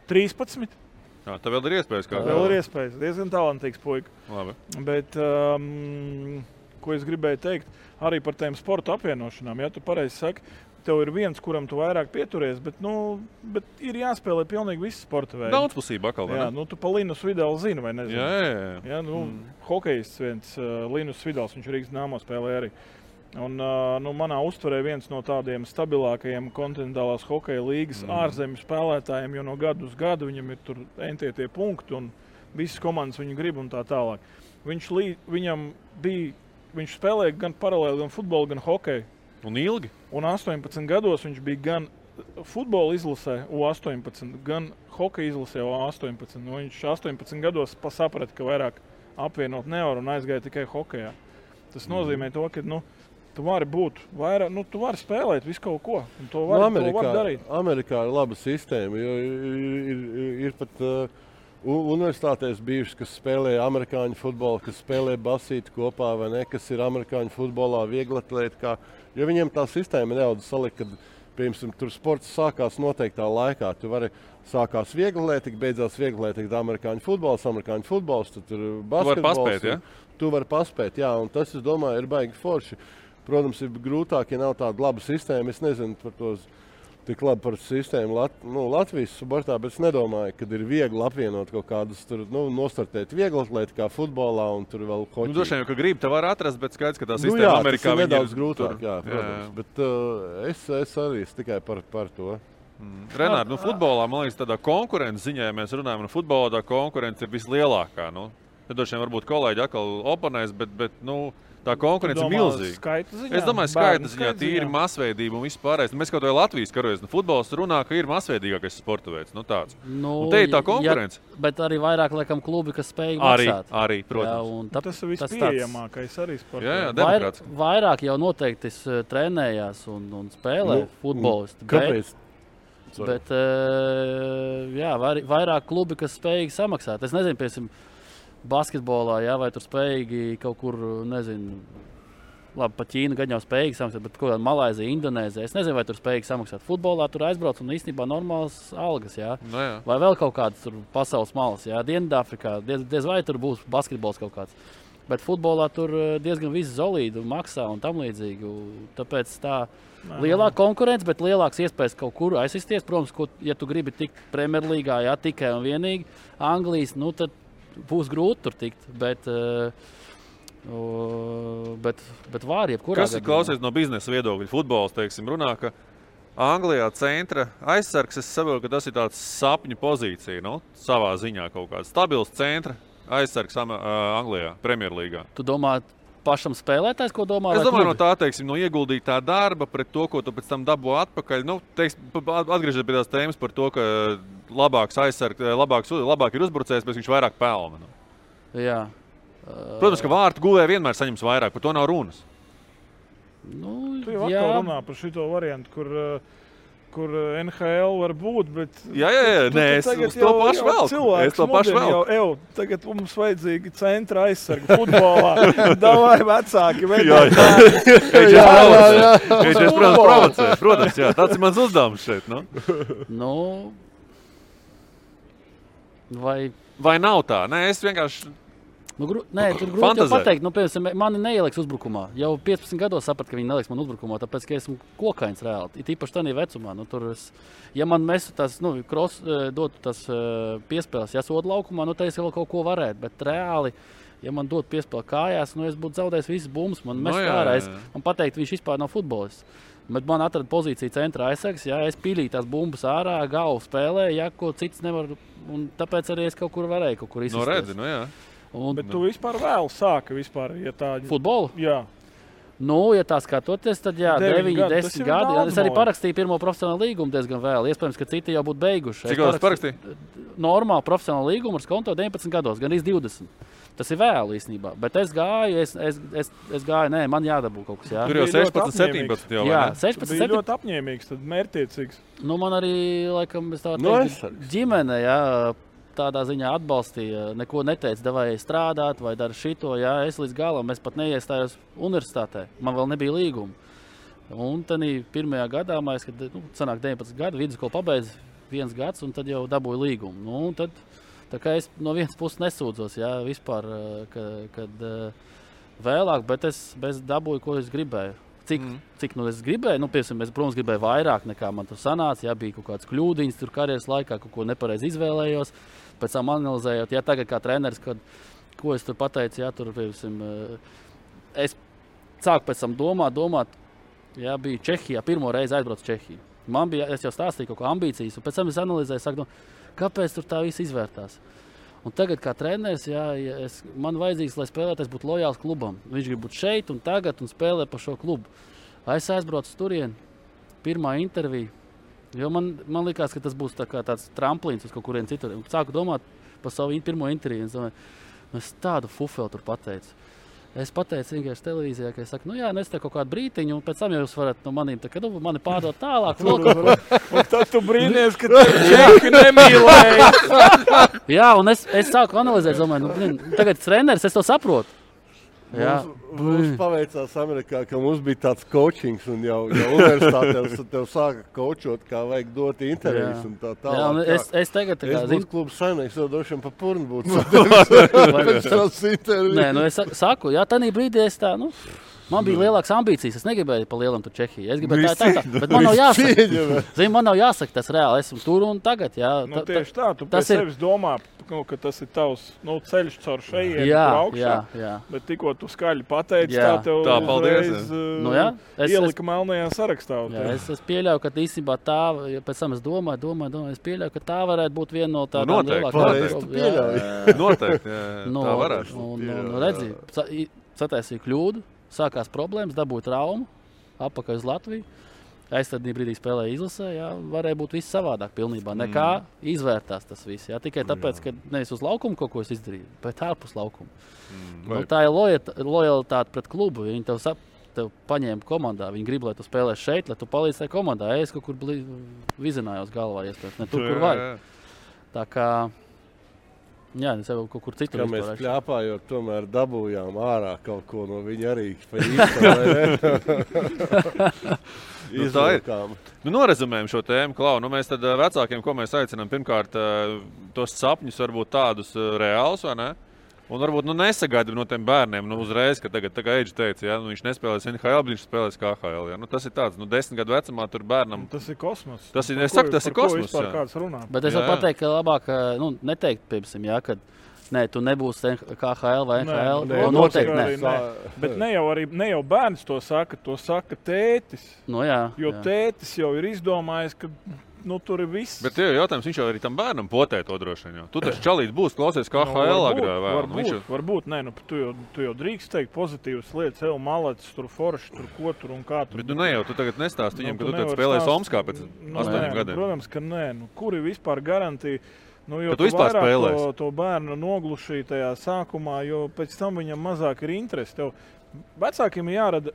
13. Tā vēl ir iespējas. Vēl ir iespējas. Diezgan talantīgs puika. Labi. Bet, ko es gribēju teikt, arī par tiem sporta apvienošanām. Ja tu pareizi saki, tev ir viens, kuram tu vairāk pieturies, bet ir jāspēlē pilnīgi visi sporta veidi. Daudzpusība atkal, vai ne? Jā, tu pa Linus Vidālu zini, vai nezinu? Jā. Hokejists viens, Linus Vidāls, viņš Rīgas Dināmo spēlē arī. Un, manā uztverē viens no tādiem stabilākajiem kontinentālās hokeja līgas ārzemju spēlētājiem, jo no gadu uz gadu viņam ir tur tie punkti un visas komandas viņu grib un tā tālāk. Viņš spēlēja gan paralēli, gan futbolu, gan hokeju. Un ilgi? Un 18 gados viņš bija gan futbola izlasē U18, gan hokeja izlasē U18. Viņš 18 gados saprata, ka vairāk apvienot nevar un aizgāja tikai hokejā. Tas nozīmē to, ka tu vari būt vairāk, tu vari spēlēt visu kaut ko, un to var darīt. Amerikā ir laba sistēma, jo ir pat universitātēs bijušas, kas spēlē amerikāņu futbolu, kas spēlē basīti kopā, vai ne, kas ir amerikāņu futbolā vieglatlētikā, jo viņiem tā sistēma nedaudz salika, kad, piemēram, tur sports sākās noteiktā laikā. Tu vari sākās vieglatlētika, beidzās vieglatlētika amerikāņu futbols, tad tur basketbols. Tu vari paspēt, jā, un tas, es domāju, ir baigi forši. Protams, ir grūtāk, ja nav tāda laba sistēma. Es nezinu par to tik labi par sistēmu Latvijas sportā, bet es nedomāju, ka ir viegli apvienot kaut kādus tur, nostartēt vieglatlētikā, futbolā un tur vēl hoķī. Droši vien, ka grib, te var atrast, bet skaidrs, ka tā sistēma Amerikā ir nedaudz grūtāk, jā, protams. Bet es arī tikai par to. Renār, futbolā, man liekas, tādā konkurences ziņā, ja mēs runājam, futbolā tā konkurence ir vislielākā. Tad droši vien varbūt kolēģi atkal oponēs, bet tā konkurence ir milzīga. Es domāju, skaita ziņā, tīri masveidība un viss pārējais. Mēs kaut vai Latvijas karojas. Futbols runā, ka ir masveidīgākais sporta veids. Tāds. Te ir tā konkurence. Ja, bet arī vairāk, laikam, klubi, kas spēj maksāt. Arī, protams. Jā, tas ir vispieejamākais arī sports. Jā, demokrāts. Vairāk jau noteikti trenējās un spēlē futbolisti. Kāpēc? Bet vairāk klubi, kas spējīgi samaksāt. Es nezinu, piemēram, basketbolā, vai tur spējīgi kaut kur, nezinu, labi, pa Ķīnu gan jau spējīgi samaksāt, bet kaut kādā Malaizija, Indonēzija, es nezinu, vai tur spējīgi samaksāt. Futbolā tur aizbrauc un īstenībā normāls algas, jā. Vai vēl kaut kādas tur pasaules malas, Dienvidāfrikā, diez vai tur būs basketbols kaut kāds. Bet futbolā tur diezgan viss zolīdu maksā un tam līdzīgi. Tāpēc tā lielāka konkurence, bet lielāks iespējas kaut kur aizsisties. Protams, ja tu gribi tikt Premjerlīgā, tikai un vienīgi Anglijas, tad būs grūti tur tikt, bet var jebkurā. Kas ir klausies no biznesa viedokļa? Futbols, teiksim, runā, ka Anglijā centra aizsargs, es saprotu, ka tas ir tāds sapņu pozīcija, savā ziņā kaut kāds stabils centra aizsargs Anglijā, Premjerlīgā. Tu domā pašam spēlētājs, ko domā? Es domāju, no tā, teiksim, no ieguldītā darba pret to, ko tu pēc tam dabū atpakaļ. Atgriežot pie tās tēmas par to, ka labāks aizsargs, labāk ir uzbrucējs, bet viņš vairāk pelna. Jā. Protams, ka vārtu guvēji vienmēr saņems vairāk, par to nav runas. Tu jau atkal runā par šito variantu, kur NHL var būt, bet... Jā, es to pašu vēl. Es to pašu vēl. Tagad mums vajadzīgi centra aizsarga futbolā. Davai vecāki. Viņš provocē. Protams, jā. Tāds ir mans uzdevums šeit. Vai nav tā? Nē, es vienkārši... Nē, tur grūti jau pateikt. Piemēram, mani neieliks uzbrukumā. Jau 15 gados sapratu, ka viņi neliks man uzbrukumā, tāpēc, ka esmu kokains reāli. Ir īpaši tādā vecumā. Ja man mestu tās, dotu tās piespēles, sodu laukumā, tad es vēl kaut ko varētu. Bet reāli, ja man dotu piespēli kājās, es būtu zaudējis visas bumbas. Man mest ārā. Man pateikt, viņš vispār nav futbolists. Bet man atrada pozīciju centra aizsargs, es pīlīju tās bumbas ārā, galvu spēlēju, ko cits nevar. Un tāpēc arī es kaut kur varēju kaut kur izsisties. Bet tu vispār vēl sāki ja tā... Futbolu? Jā. Ja tā skatoties, tad 9, 10 gadi. Es arī parakstīju pirmo profesionālu līgumu diezgan vēl. Iespējams, ka citi jau būtu beiguši. Cik gadus parakstīji? Normāli profesionālu līgumu ar skonto 19 gados, gan 20. Tas ir vēl īstenībā. Bet es gāju, man jādabū kaut kas. Jā. Tur jau 16, 17 jau. Jā, 16, 17. Bija ļoti apņēmīgs, tad mērķtiecīgs. Man arī, laikam, es tā teiktu, ģimene, tādā ziņā atbalstīja, neko neteica, vai strādāt, vai dara šito. Es līdz galam, es pat neiestājos universitātē. Man vēl nebija līguma. Un tad pirmajā gadā, kad sanāk 19 gadu, vidusskolu pabeidz 1 gads, un tad jau dabūju līgumu. Tad, tā kā es no vienas puses nesūdzos, vispār, kad vēlāk, bet es dabūju, ko es gribēju. Cik es gribēju, piemēram, es, protams, gribēju vairāk nekā man tur sanāca, bija kaut kāds kļūdiņas tur karjeras laikā, kaut ko nepareizi izvēlējos. Pēc tam analizējot, tagad kā treneris, ko es tur pateicu, tur, piemēram, es sāku pēc tam domāt, jā, bija Čehijā, pirmo reizi aizbraucu Čehiju. Man bija, es jau stāstīju kaut ko ambīcijas, un pēc tam es analizēju, saku, kāpēc tur tā viss izvērtās. Un tagad kā treneris, man vajadzīgs, lai spēlētājs būtu lojāls klubam. Viņš grib būt šeit un tagad un spēlē par šo klubu. Es aizbraucu turien, pirmā intervija, jo man likās, ka tas būs tāds tramplīns uz kaut kurien citur. Sāku domāt par savu pirmo interviju. Es tādu fufeli tur pateicu. Es pateicu vienkārši televīzijā, ka es saku, es te kaut kādu brītiņu, un pēc tam jūs varat no manīm, mani pārdot tālāk. Un tad tu brīnies, ka Čehi nemīlēja. Jā, un es sāku analizēt, domāju, tagad treneris, es to saprotu. Mums paveicās Amerikā, ka mums bija tāds coachings, un jau universitātē tev sāka coachot, kā vajag dot intervijas un tā tālāk. Jā, un es tagad būtu klubs saimnieks, jau droši vien pa purnu būtu. Nē, es saku, tanī brīdī es tā, man bija lielākas ambīcijas, es negribēju pa lielam tur Čehiju. Es gribēju tā, bet man nav jāsaka. Zini, man nav jāsaka tas reāli, esmu tur un tagad, jā. Tieši tā, tu pēc sevis domā, ka tas ir tavs ceļš caur šejienu augšā. Jā. Bet tikko tu skaļi pateici, tā tev uzreiz ielika melnajā sarakstā. Jā, es pieļauju, ka īstenībā tā, pēc tam es domāju, es pieļauju, ka tā varētu būt viena no tādām lielākām. Noteikti, tā varētu. Un redzi, sataisīju kļūdu. Sākās problēmas, dabūja traumu, atpakaļ uz Latviju. Es tad brīdī spēlēju izlasē, varēja būt viss savādāk pilnībā. Nekā izvērtās tas viss. Tikai tāpēc, ka nevis uz laukumu kaut ko es izdarīju, bet ārpus laukuma. Tā ir lojalitāte pret klubu. Viņi tev paņēma komandā. Viņi grib, lai tu spēlē šeit, lai tu palīdz tajā komandā. Es kaut kur vizinājos galvā, ne tur, kur vajag. Tā kā... Jā, es jau kaut kur citur. Kā mēs kļāpājot, tomēr dabūjām ārā kaut ko no viņa arī pa īstu, tā ir. Norezumējam šo tēmu, Klau. Mēs tad vecākiem, ko mēs aicinām, pirmkārt, tos sapņus varbūt tādus reālus, vai ne? Un varbūt nesagaida no tiem bērniem uzreiz, ka tagad, tā kā Eidži teica, viņš nespēlēs NHL, bet viņš spēlēs KHL. Tas ir tāds, 10 gadu vecumā tur bērnam. Tas ir kosmos. Tas ir, es saku, tas ir kosmos. Vispār kāds runā. Bet es varu pateikt, ka labāk, neteikt, piemēram, kad tu nebūsi KHL vai NHL. Noteikti ne. Bet ne jau bērns to saka tētis. Jo tētis jau ir izdomājis, ka tur ir viss. Bet tev jautājums, viņš jau arī tam bērnam potē to droši vien. Tu taču čalīt būs, klausies KHL agrā vēl. Varbūt, tu jau drīkst teikt pozitīvas lietas, ev malets, tur forši, tur ko tur un kā tur. Bet tu tagad nestāst viņam, ka tu tad spēlēsi Omskā pēc 8 gadiem. Protams, ka nē. Kur ir vispār garantija? Jo tu vispār spēlēsi to bērnu noglušīja tajā sākumā, jo pēc tam viņam mazāk ir interesi. Tev vecākiem ir jārada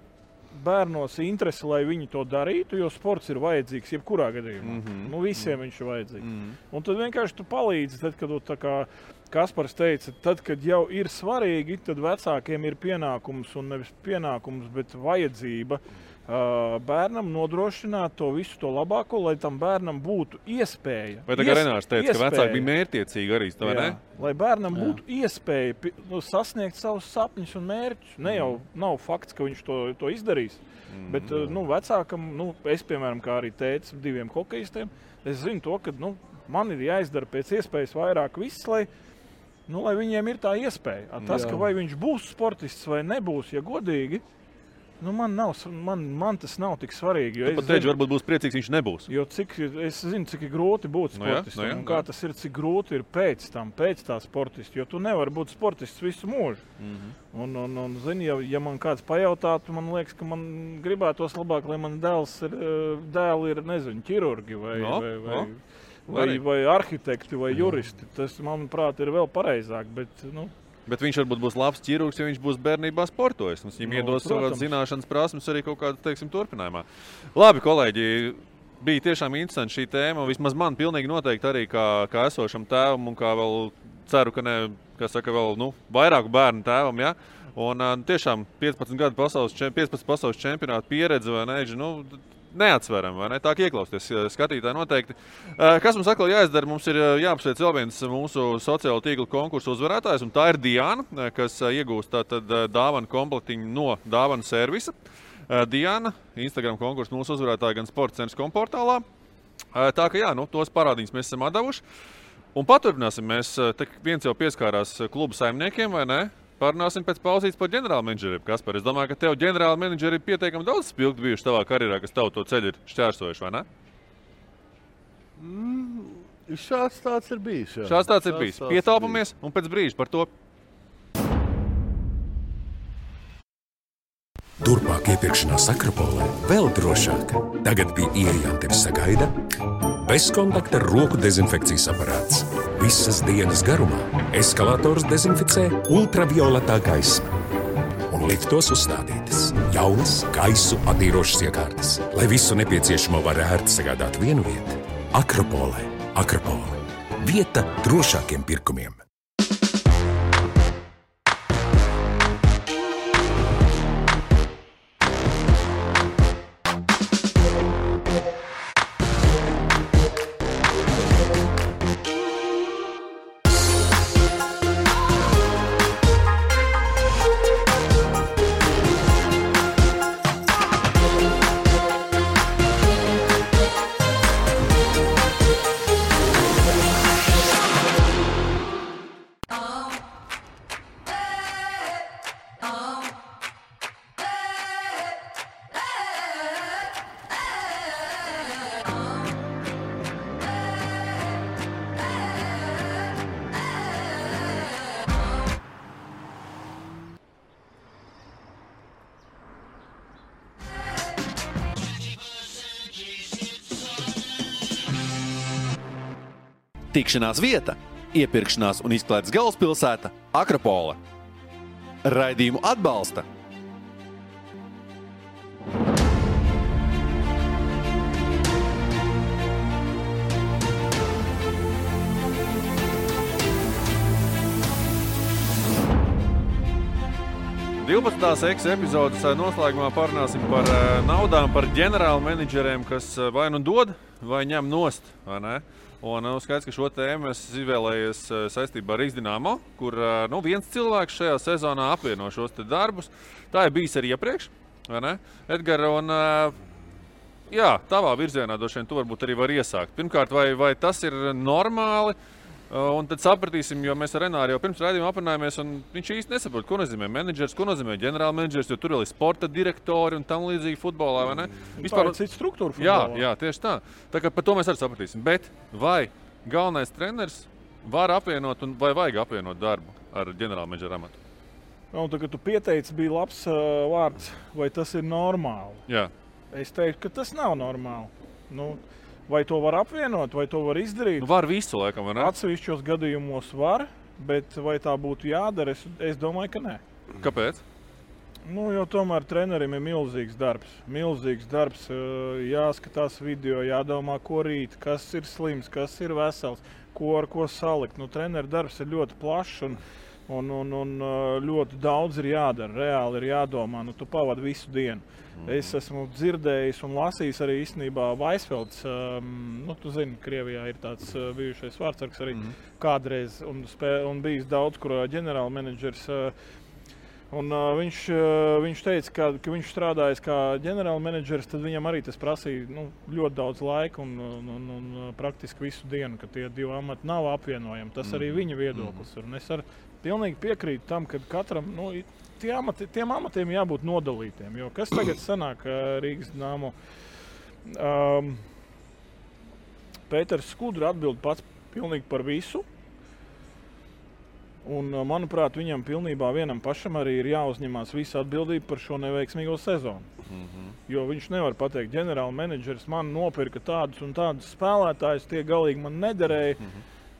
bērnos interesi, lai viņi to darītu, jo sports ir vajadzīgs jebkurā gadījumā. Visiem viņš ir vajadzīgs. Un tad vienkārši tu palīdzi, tad, kad tā kā Kaspars teica, tad, kad jau ir svarīgi, tad vecākiem ir pienākums un nevis pienākums, bet vajadzība bērnam nodrošināt to visu to labāko, lai tam bērnam būtu iespēja. Vai tā kā Renārs teica, ka vecāki bija mērķtiecīgi arī, vai ne? Lai bērnam būtu iespēja sasniegt savus sapņus un mērķus. Ne jau nav fakts, ka viņš to izdarīs, bet vecākam, es, piemēram, kā arī teicu 2 hokejistiem, es zinu to, ka man ir jāizdara pēc iespējas vairāk viss, lai viņiem ir tā iespēja. Tas, ka vai viņš būs sportists vai nebūs, ja godīgi, man tas nav tik svarīgi. Tu pat teici, varbūt būs priecīgs, viņš nebūs. Jo es zinu, cik ir grūti būt sportistam un kā tas ir, cik grūti ir pēc tā sportista, jo tu nevari būt sportists visu mūžu. Un zini, ja man kāds pajautātu, man liekas, ka man gribētos labāk, lai man dēli ir, nezinu, ķirurgi vai arhitekti vai juristi. Tas, manuprāt, ir vēl pareizāk, Bet viņš varbūt būs labs ķirurgs, ja viņš būs bērnībā sportojis. Viņam iedos savas zināšanas prasmes arī kaut kādā, turpinājumā. Labi, kolēģi, bija tiešām interesanti šī tēma. Vismaz man pilnīgi noteikti arī kā esošam tēvam un kā vēl ceru, ka vēl vairāku bērnu tēvam, ja? Un tiešām 15 pasaules čempionātu pieredze, vai ne? Neatsveram, vai ne? Tā kā ieklausties skatītāji noteikti. Kas mums atkal jāizdara? Mums ir jāapsveic vēl viens mūsu sociālo tīklu konkursu uzvarētājs, un tā ir Diana, kas iegūst tātad dāvanu komplektiņu no dāvanu servisa. Diana, Instagram konkursu mūsu uzvarētāja gan sports.com portālā. Tā kā tos parādiņus mēs esam atdevuši. Un paturpināsim mēs, viens jau pieskārās klubu saimniekiem, vai ne? Parunāsim pēc pauzītes par ģenerālmenedžeriem. Kaspar, es domāju, ka tev ģenerālmenedžeri ir pietiekami daudz spilgti bijuši tavā karjerā, kas tavu to ceļu ir šķērsojuši, vai ne? Šāds tāds ir bijis. Jā. Šāds tāds ir bijis. Pietāpamies un pēc brīža par to. Turpmāk iepirkšanās Akropolē vēl drošāk. Tagad pie ieejām tevi sagaida bezkontakta roku dezinfekcijas aparāts. Visas dienas garumā eskalators dezinficē ultravioletā gaisma. Un liftos uzstādītas jaunas gaisu attīrošas iekārtas, lai visu nepieciešamo var ērti sagādāt vienu vietu. Akropolē. Akropole. Vieta drošākiem pirkumiem. Tikšanās vieta, iepirkšanās un izklaides galvaspilsēta Akropole. Raidījumu atbalsta epizodes noslēgumā parunāsim par naudām, par ģenerālmenedžeriem, kas vai nu dod, vai ņem nost, vai ne? Un skaidrs, ka šo tēmu es izvēlējies saistībā ar Rīgas Dinamo, kur viens cilvēks šajā sezonā apvieno šos te darbus. Tā ir bijis arī iepriekš, vai ne? Edgar, un jā, tavā virzienā droši vien tu varbūt arī var iesākt. Pirmkārt, vai tas ir normāli? Un tad sapratīsim, jo mēs ar Renāru jau pirms raidījuma aprunājāmies, un viņš īsti nesaprot, ko nozīmē menedžers, ko nozīmē ģenerālmenedžers, jo tur vēl ir sporta direktori un tam līdzīgi futbolā, vai ne? Vispār ir cita struktūra futbolā. Jā, tieši tā. Tā kā par to mēs arī sapratīsim. Bet vai galvenais treneris var apvienot un vai vajag apvienot darbu ar ģenerālmenedžera amatu? Un tā, kad tu pieteici, bija labs vārds, vai tas ir normāli? Jā. Es teiktu, ka tas nav normāli. Vai to var apvienot, vai to var izdarīt? Var visu, laikam, vai ne? Atsevišķos gadījumos var, bet vai tā būtu jādara, es domāju, ka nē. Kāpēc? Jo tomēr trenerim ir milzīgs darbs. Milzīgs darbs, jāskatās video, jādomā, ko rīt, kas ir slims, kas ir vesels, ar ko salikt. Treneru darbs ir ļoti plašs un ļoti daudz ir jādara. Reāli ir jādomā, tu pavadi visu dienu. Es esmu dzirdējis un lasījis arī īstenībā Vaisfelds. Tu zini, Krievijā ir tāds bijušais vārdsargs arī kādreiz un bijis daudz, kur ģenerālmenedžers. Viņš teica, ka viņš strādājis kā ģenerālmenedžers, tad viņam arī tas prasīja ļoti daudz laika un praktiski visu dienu, ka tie divi amati nav apvienojami. Tas arī viņa viedoklis. Un es pilnīgi piekrītu tam, ka katram tiem amatiem jābūt nodalītiem. Jo kas tagad sanāk Rīgas Dinamo? Pēters Skudra atbild pats pilnīgi par visu. Un, manuprāt, viņam pilnībā vienam pašam arī ir jāuzņemās visa atbildība par šo neveiksmīgo sezonu. Jo viņš nevar pateikt, ģenerālmenedžeris man nopirka tādus un tādus spēlētājus, tie galīgi man nederēja.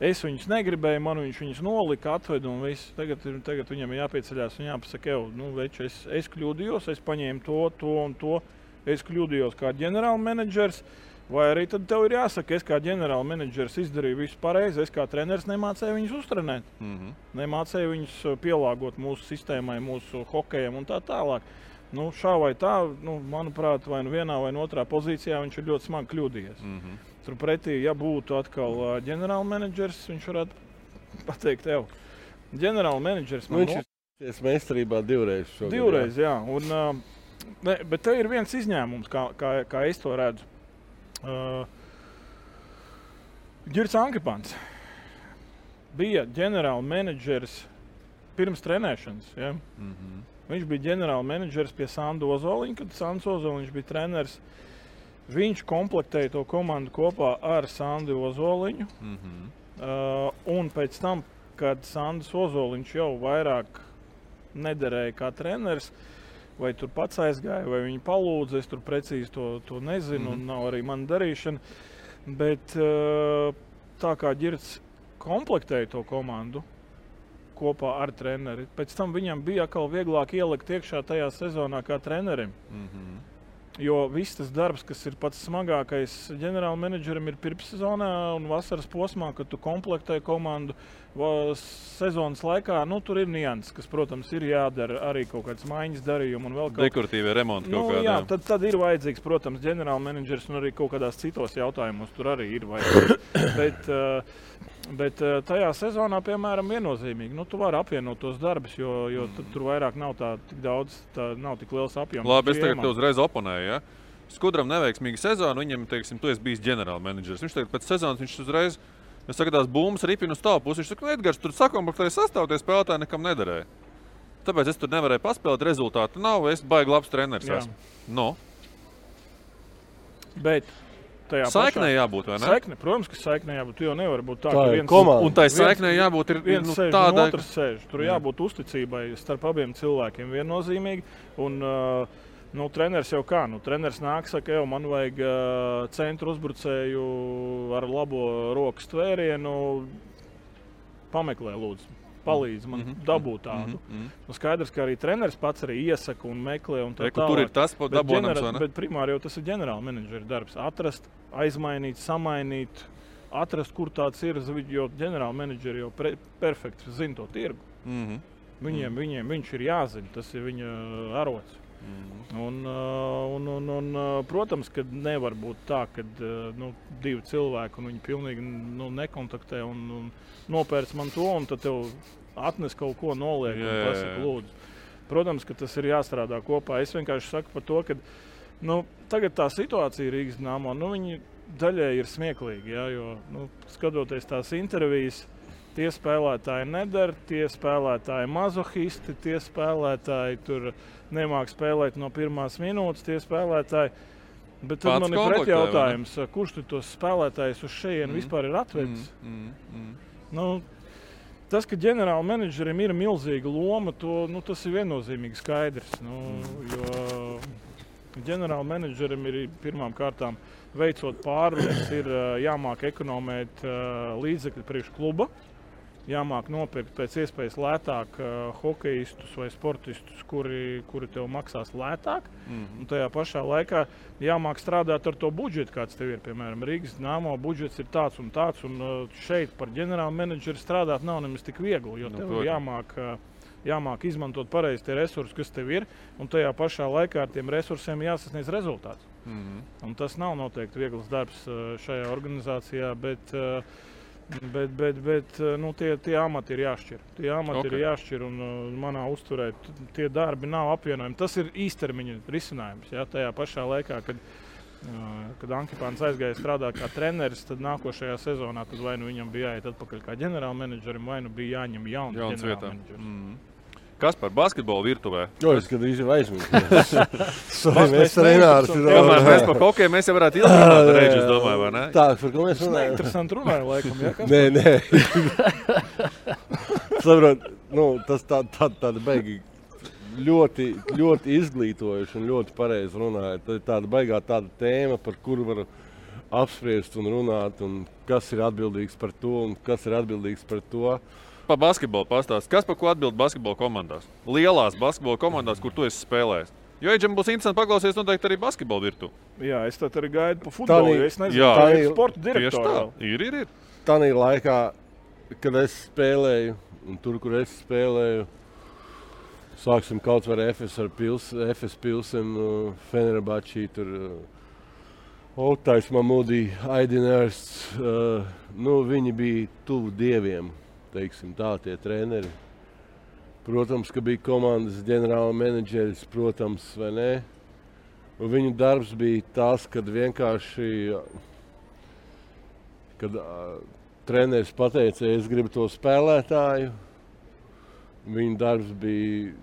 Es viņus negribēju, man viņus nolika, atveda un viss. Tagad viņam ir jāpieceļās un jāpasaka, veči, es kļūdījos, es paņēmu to un to. Es kļūdījos kā ģenerālmenedžers, vai arī tad tev ir jāsaka, es kā ģenerālmenedžers izdarīju visu pareizi, es kā treneris nemācēju viņus uztrenēt. Nemācēju viņus pielāgot mūsu sistēmai, mūsu hokejam un tā tālāk. Šā vai tā, manuprāt, vai vienā vai otrā pozīcijā viņš ir ļoti smagi kļūdījies. Turpretī, ja būtu atkal ģenerālmenedžers, viņš varētu pateikt, ģenerālmenedžers man ir meistarībā divreiz šogad. Divreiz, jā. Bet te ir viens izņēmums, kā es to redzu. Ģirds Ankepans bija ģenerālmenedžers pirms trenēšanas. Ja? Viņš bija ģenerāla menedžers pie Sandu Ozoliņa, kad Sands Ozoliņš bija treneris. Viņš komplektēja to komandu kopā ar Sandu Ozoliņu. Un pēc tam, kad Sandis Ozoliņš jau vairāk nederēja kā treneris, vai tur pats aizgāja, vai viņi palūdza, es tur precīzi to nezinu, un nav arī mana darīšana. Bet tā kā Ģirds komplektēja to komandu kopā ar treneri, pēc tam viņam bija atkal vieglāk ielikt iekšā tajā sezonā kā trenerim. Jo viss tas darbs, kas ir pats smagākais ģenerāla menedžerim, ir pirmssezonā un vasaras posmā, kad tu komplektē komandu sezonas laikā. Tur ir nianses, kas, protams, ir jādara arī kaut kāds maiņas darījumi un vēl kaut dekoratīvie remonti kaut kādā. Jā, tad ir vajadzīgs, protams, ģenerāla menedžers un arī kaut kādās citos jautājumos tur arī ir vajadzīgs. Bet tajā sezonā, piemēram, viennozīmīgi, tu vari apvienot tos darbus, jo tur vairāk nav tik daudz, nav tik liels apjoms. Labi, es tagad tev uzreiz oponēju, ja? Skudram neveiksmīga sezona, viņam, teiksim, tu esi bijis ģenerāla menedžers. Viņš tagad pēc sezonas, viņš uzreiz, es saka, tās bumbas ripina uz tavu pusi. Viņš saka, Edgars, tur sakomplektēja sastāv, tie spēlētāji nekam nederēja. Tāpēc es tur nevarēju paspēlēt, rezultātu nav, es baigi labs treneris esmu. No. Bet saiknē jābūt, vai ne? Saikne, protams, ka saiknē jābūt. Tu jau nevar būt tā, ka viens komanda. Un tai saiknē jābūt ir viens sēž tāda, un otrs sēž. Tur jābūt uzticībai starp abiem cilvēkiem viennozīmīgi. Un treneris jau kā? Treneris nāk, saka, man vajag centru uzbrucēju ar labo rokas tvērienu. Pameklē, lūdzu. Palīdz man dabūt tādu. Skaidrs, ka arī treneris pats arī iesaka un meklē un tā tālāk. Tur ir tas dabonams, vai ne? Bet primāri jau tas ir ģenerāla menedžera darbs. Atrast, aizmainīt, samainīt, atrast, kur tāds ir, jo ģenerāla menedžeri jau perfekti zina to tirgu. Viņiem viņš ir jāzina, tas ir viņa arots. Un, protams, ka nevar būt tā, ka divi cilvēki un viņi pilnīgi nekontaktē un nopērc man to, un tad tev atnes kaut ko noliek un pasaka, lūdzu. Protams, ka tas ir jāstrādā kopā. Es vienkārši saku par to, ka tagad tā situācija Rīgas Dinamo, viņi daļēji ir smieklīgi, jo skatoties tās intervijas, tie spēlētāji nedara, tie spēlētāji mazohisti, tie spēlētāji tur nemāk spēlēt no pirmās minūtes, tie spēlētāji. Bet tad man ir pretjautājums, kurš tu tos spēlētājus uz šejienu vispār ir atvedis? Tas, ka ģenerāla menedžerim ir milzīga loma, tas ir viennozīmīgi skaidrs. Jo ģenerāla menedžerim ir pirmām kārtām veicot pārunas, ir jāmāk ekonomēt līdzekļi priekš kluba. Jāmāk nopirkt pēc iespējas lētāk hokeistus vai sportistus, kuri tev maksās lētāk. Un tajā pašā laikā jāmāk strādāt ar to budžetu, kāds tev ir. Piemēram, Rīgas Dinamo budžets ir tāds, un šeit par ģenerālu menedžeri strādāt nav nemaz tik viegli, jo tev jāmāk izmantot pareizi tie resursi, kas tev ir, un tajā pašā laikā ar tiem resursiem jāsasniedz rezultāts. Un tas nav noteikti viegls darbs šajā organizācijā, bet tie amati ir jāšķir. Tie amati ir jāšķir, un manā uzturē tie darbi nav apvienojami. Tas ir īstermiņa risinājums. Ja? Tajā pašā laikā, kad Ankipāns aizgāja strādāt kā treneris, tad nākošajā sezonā tad vai viņam bija jāiet atpakaļ kā ģenerāla menedžerim, vai bija jāņem jauns ģenerāla menedžeris. Kas par basketbolu virtuvē? Jo, es gandrīz jau aizmirsu. Mēs Renārs. Kamēr mēs par hokeju, mēs jau varētu ilgāk reiķi, es domāju, vai ne? Tā, par ko mēs runājam? Interesanti runāju, laikam, ja? Nē. Saprot, tas tāda beigi ļoti izglītojuši un ļoti pareizi runāja. Tā ir tāda baigā tāda tēma, par kuru var apspriest un runāt, un kas ir atbildīgs par to, un kas ir atbildīgs par to. Pa basketbolu pastāst. Kas par ko atbild basketbola komandās? Lielās basketbola komandās, kur tu esi spēlējis. Jo Eģem būs interesanti paklausīties noteikti arī basketbola virtu. Jā, es tad arī gaidu pa futbolu, jo es nezinu, tā ir sporta direktora. Ir. Tanī laikā, kad es spēlēju, un tur, kur es spēlēju, sāksim kaut vai FS Pilsen, Fenerbahčī, tur Oktais Mamudī, Aidinārsts, viņi bija tuvu dieviem. Teiksim tā, tie treneri. Protams, ka bija komandas ģenerāla menedžeris, protams, vai ne? Un viņu darbs bija tas, kad vienkārši, treneris pateica, es gribu to spēlētāju, Viņa darbs bija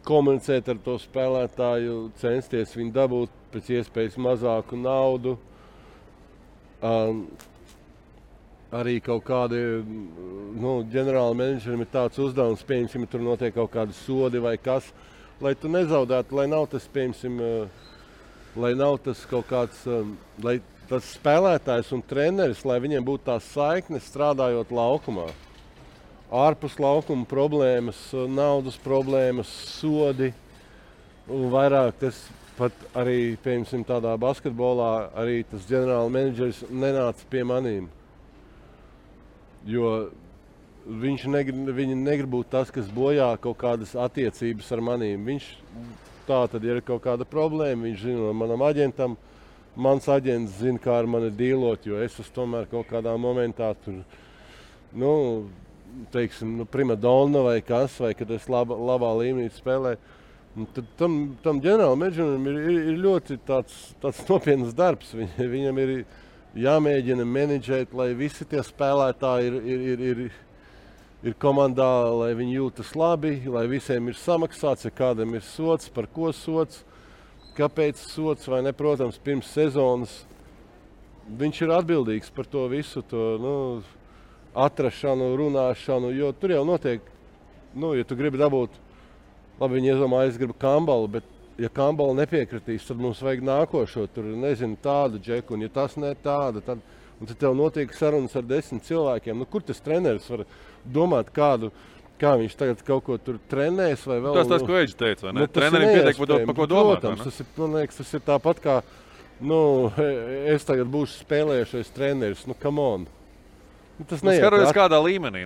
komunicēt ar to spēlētāju, censties viņu dabūt pēc iespējas mazāku naudu. Arī kaut kādi, ģenerāli menedžerim ir tāds uzdevums, pieņemsim, ja tur notiek kaut kādi sodi vai kas, lai tu nezaudētu, lai nav tas, pieņemsim, lai nav tas kaut kāds, lai tas spēlētājs un treneris, lai viņiem būtu tās saiknes strādājot laukumā. Ārpus laukuma problēmas, naudas problēmas, sodi un vairāk tas pat arī, piemēram, tādā basketbolā arī tas ģenerāla menedžeris nenāca pie manīm. Jo viņi negrib būt tas, kas bojā kaut kādas attiecības ar manīm. Viņš tā tad ir kaut kāda problēma, viņš zina manam aģentam, mans aģents zina, kā ar mani dīlot, jo es tomēr kaut kādā momentā tur, teiksim, primadonna vai kas, vai kad es labā līmenī spēlēju. Tad tam ģenerāla menedžerim ir ļoti tāds nopietnas darbs. Viņam ir jāmēģina menedžēt, lai visi tie spēlētāji ir komandā, lai viņi jūtas labi, lai visiem ir samaksāts, ja kādam ir sots, par ko sots, kāpēc sots vai ne. Protams, pirms sezonas viņš ir atbildīgs par to visu, atrašanu, runāšanu, jo tur jau notiek, ja tu gribi dabūt, labi, viņi iedomājas, es gribu Kambalu, bet ja Kambala nepiekritīs, tad mums vajag nākošo, tur, nezinu, tādu džeku, un ja tas ne tāda, tad tev notiek sarunas ar 10 cilvēkiem. Kur tas treneris var domāt kā viņš tagad kaut ko tur trenēs vai vēl? Tas, ko Eģis teica, vai ne? Trenerim pietiek par ko domāt, protams, man liekas, tas ir tāpat kā, es tagad būšu spēlējušais treneris, come on. Tas skaroties kādā līmenī.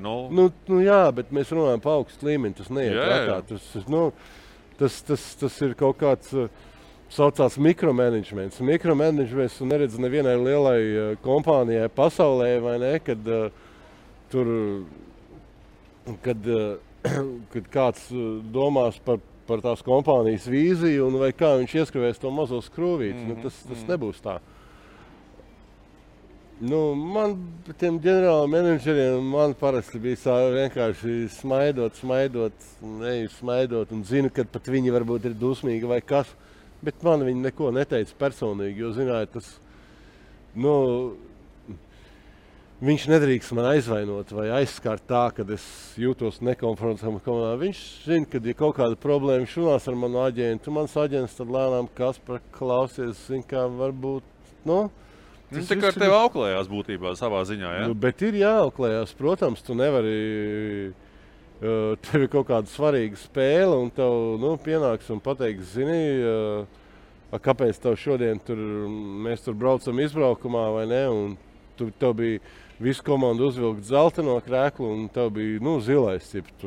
Jā, bet mēs runājam pa augstu līmeni, tas neiet prātā. Tas ir kaut kāds saucās mikromanagements. Mikromanagements tu neredz nevienai lielai kompānijai pasaulē, vai ne, kad kāds domās par tās kompānijas vīziju un vai kā viņš ieskrivēs to mazo skrūvīti. Tas nebūs tā. Man tiem ģenerāla menedžeriem parasti bija vienkārši smaidot, un zinu, ka pat viņi varbūt ir dusmīgi vai kas, bet man viņi neko neteica personīgi, jo, zināju, tas, viņš nedrīkst man aizvainot vai aizskart tā, kad es jūtos nekomfortabli komandā. Viņš zina, kad ir kaut kāda problēma, viņš runās ar manu aģentu, mans aģents tad lēnām Kaspar klausies, zina, kā varbūt, Tas tā kā ar tevi auklējās būtībā savā ziņā, ja? Bet ir jāauklējās, protams, tu nevari, tev ir kaut kāda svarīga spēle un tev, pienāks un pateiks, zini, kāpēc tev šodien mēs tur braucam izbraukumā vai ne, un tev bija visu komandu uzvilkt zeltaino krēklu un tev bija, zilais cips,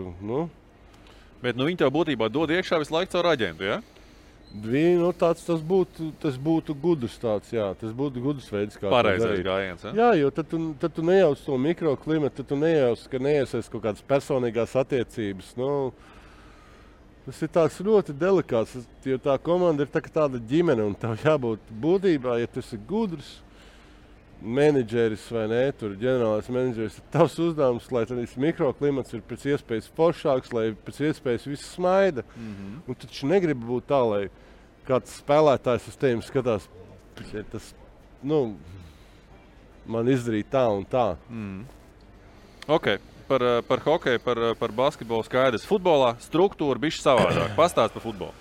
Bet, viņi tev būtībā dod iekšā visu laiku caur aģentu, ja? Tas būtu gudrs tāds, jā. Tas būtu gudrs veids, kā pareizais gājiens, ja? Jā, jo tad tu nejauc to mikroklimatu, tad tu nejauc, ka neiesaist kaut kādas personīgās attiecības. Tas ir tāds ļoti delikāts, jo tā komanda ir tāda ģimene, un tev jābūt būtībā, ja tu esi gudrs menedžeris vai ne, tur ģenerālais menedžeris, tavs uzdevums, lai tas mikroklimats ir pēc iespējas foršāks, lai pēc iespējas viss smaida. Un taču negribu būt tā, lai kāds spēlētājs uz tevi skatās, tas, man izdarīja tā un tā. Ok, par hokeju, par basketbolu skaidrs. Futbolā struktūra bišķi savādāk. Pastāst par futbolu.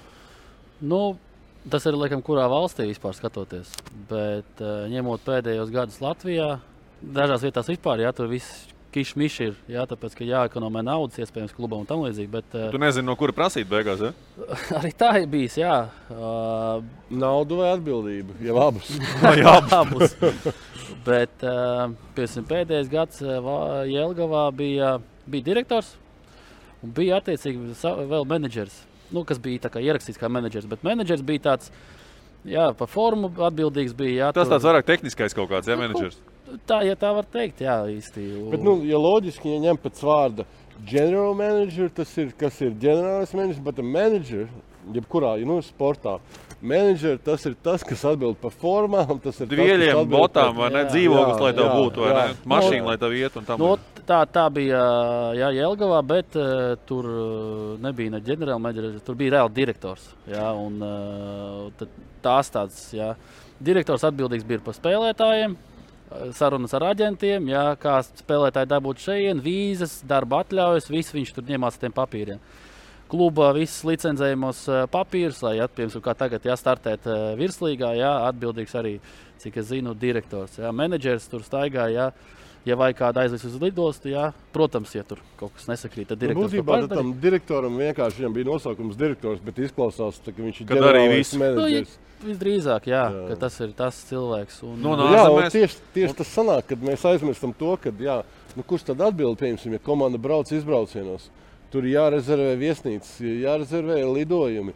Tas ir, laikam, kurā valstī vispār skatoties, bet ņemot pēdējos gadus Latvijā, dažās vietās vispār, tur viss kišmiš ir, tāpēc, ka jāekonomē naudas iespējams klubam un tam līdzīgi, bet... Tu nezini, no kura prasīt beigās, ja? Arī tā ir bijis, jā. Naudu vai atbildību, jau abus. Jā, abus. Bet, pēdējais gads Jelgavā bija direktors un bija attiecīgi vēl menedžers. Kas bija tā kā ierakstīts kā menedžers, bet menedžers bija tāds, par formu atbildīgs bija. Tas tāds vairāk tehniskais kaut kāds, menedžers? Tā, ja tā var teikt, jā, īsti. Bet, ja loģiski, ja ņem pēc vārda general manager, tas ir, kas ir ģenerālis menedžers, bet manager, jebkurā, sportā, manager, tas ir tas, kas atbild par formām, tas ir Dvieļiem, botām, vai ne, dzīvoklis, lai tev būtu, vai ne, mašīna, lai tev iet un tam. tā bija Jelgavā, bet tur nebija ne ģenerālmenedžers, tur bija reāli direktors. Jā, un tās tāds, jā. Direktors atbildīgs bija par spēlētājiem, sarunas ar aģentiem, jā, kā spēlētāji dabūt šeit, vīzas, darba atļaujas, viss viņš tur ņemās ar tiem papīriem. Kluba visas licencējumos papīrus, lai piemēram, kā tagad startēt virslīgā, atbildīgs arī, cik es zinu, direktors. Jā, menedžers tur staigā, ja vajag kādu aizvest uz lidostu, protams, ja tur kaut kas nesakrīt, tad direktors būtībā tam direktoram vienkārši viņam bija nosaukums direktors, bet izklausās, ka viņš ir ģenerālais menedžers. Visdrīzāk, ka tas ir tas cilvēks. Un, tieši tas sanāk, kad mēs aizmirstam to, ka, kurš tad atbild, piemēram, ja komanda brauc izbraucienos. Tur jārezervē viesnīcas, jārezervē lidojumi.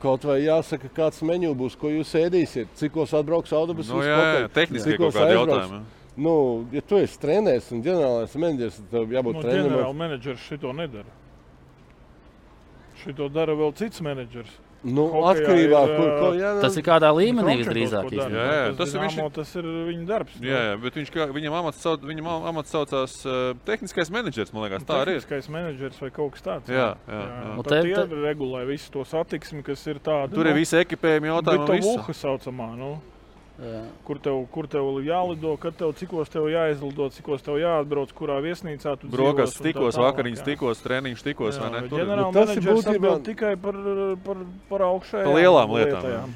Kaut vai jāsaka, kāds meņu būs, ko jūs ēdīsiet, cikos atbrauks autobusus. Tehniski kaut kādi jautājumi. Ja tu esi treneris un ģenerālais menedžers, tad tev jābūt trenerim. Ģenerāla menedžers šito nedara. Šito dara vēl cits menedžers. Atkarībā, tas ir kādā līmenī visdrīzāk. Tas ir viņa darbs. Bet viņam amats saucās tehniskais menedžers, man liekas, tā arī ir. Tehniskais menedžers vai kaut kas tāds. Tad tie regulē visu to satiksmi, kas ir tāda. Tur ir visi ekipējumi jautājumi. Britovuha saucamā, Kur tev jālido, kad cikos tev jāizlido, cikos tev jāatbrauc, kurā viesnīcā tu dzīvos. Brokas tikos, vakariņas tikos, treniņš tikos, vai ne? Ģenerāla menedžers atbild tikai par augšējām par lielām lietām.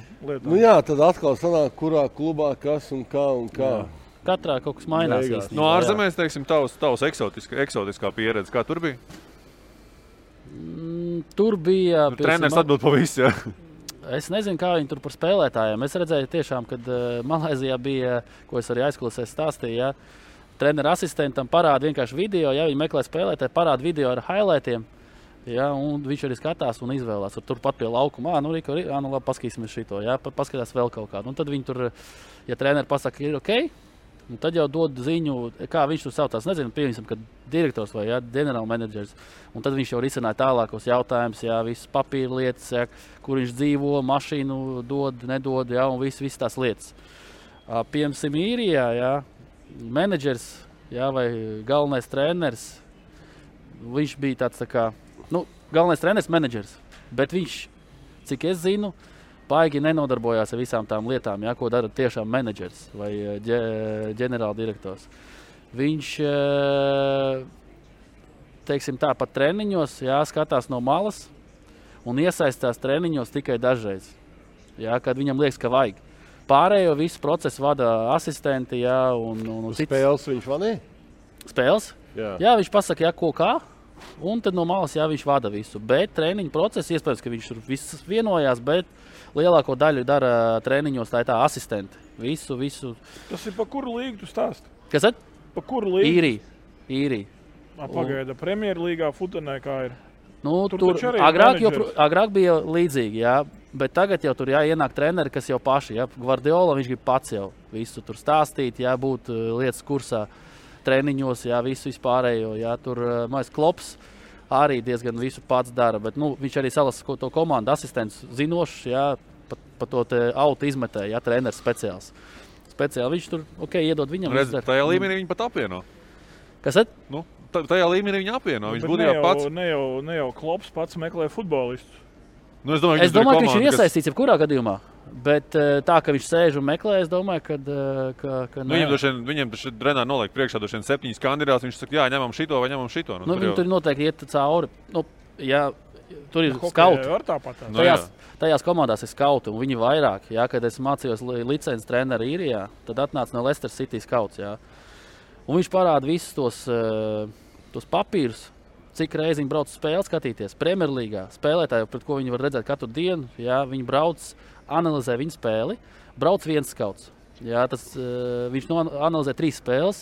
Tad atkal sanāk, kurā klubā kas un kā. Katrā kaut kas mainās. No ārzemēs, teiksim, tavs eksotiskā pieredze, kā tur bija? Tur bija... Treneris atbild pa visu, Es nezinu, kā viņi tur par spēlētājiem. Es redzēju tiešām, kad Malaizijā bija, ko es arī aizklausēs stāstīju, treneru asistentam parāda vienkārši video, viņi meklē spēlētāju, parāda video ar highlightiem, un viņš arī skatās un izvēlās. Turpat pie laukuma, labi, paskatīsimies šito, paskatās vēl kaut kādu. Un tad viņi tur, ja treneri pasaka, ir ok, un tad jau dod ziņu, kā viņš tur saucās. Nezinu, pieņemsim, kad direktors vai ģenerāla menedžers. Un tad viņš jau risināja tālākos jautājumus, visas papīra lietas, kur viņš dzīvo, mašīnu dod, nedod, un visas tās lietas. Piemēram, Īrijā, menedžers, vai galvenais treneris, viņš bija tāds tā kā, galvenais treneris, menedžers, bet viņš, cik es zinu, paigi nenodarbojās ar visām tām lietām, ko dara tiešām menedžers vai ģenerāla direktors. Viņš, teiksim tā, pat treniņos, skatās no malas un iesaistās treniņos tikai dažreiz, kad viņam liekas, ka vajag. Pārējo visu procesu vada asistenti, un spēles viņš vadīja? Spēles? Jā, viņš pasaka, ko kā. Un tad no malas viņš vada visu. Bet treniņu procesu, iespējams, ka viņš tur viss vienojās, bet lielāko daļu dara treniņos tā asistenti. Visu. Tas ir pa kuru līgu tu stāsti? Kas tad? Pa kuru līgu? Īrija. Pagaida, Premjerlīgā Futenē kā ir? Tur agrāk bija līdzīgi, bet tagad jau tur ienāk treneri, kas jau paši. Gvardiola, viņš grib pats jau visu tur stāstīt, būt lietas kursā. Treniņos, visu vispārējo, tur mājas Klops arī diezgan visu pats dara, bet viņš arī salasa to komandu asistents zinošs, pa to auto izmetēja, treneris speciāls. Speciāli viņš tur, iedod viņam. Redz, tajā līmenī viņi pat apvieno. Kas tad? Tajā līmenī viņi apvieno, viņš būtībā pats. Ne jau Klops pats meklē futbolistus. Es domāju, ka viņš ir iesaistīts jebkurā gadījumā. Bet tā, ka viņš sēž un meklē, es domāju, ka viņam taču trenā noliek priekšā 7 kandidātus. Viņš saka, ņemam šito vai ņemam šito. Viņi tur noteikti iet cauri. Tur ir skauti. Tajās komandās ir skauti, un viņi vairāk. Kad es mācījos licences treneru Īrijā, tad atnāca no Leicester City skauts. Un viņš parāda visus tos papīrus. Cik reizi viņi brauc spēli skatīties. Premjerlīgā spēlētāji, pret ko viņi var redzēt katru dienu, viņi brauc, analizē viņu spēli, brauc viens skauts. Viņš analizē 3 spēles.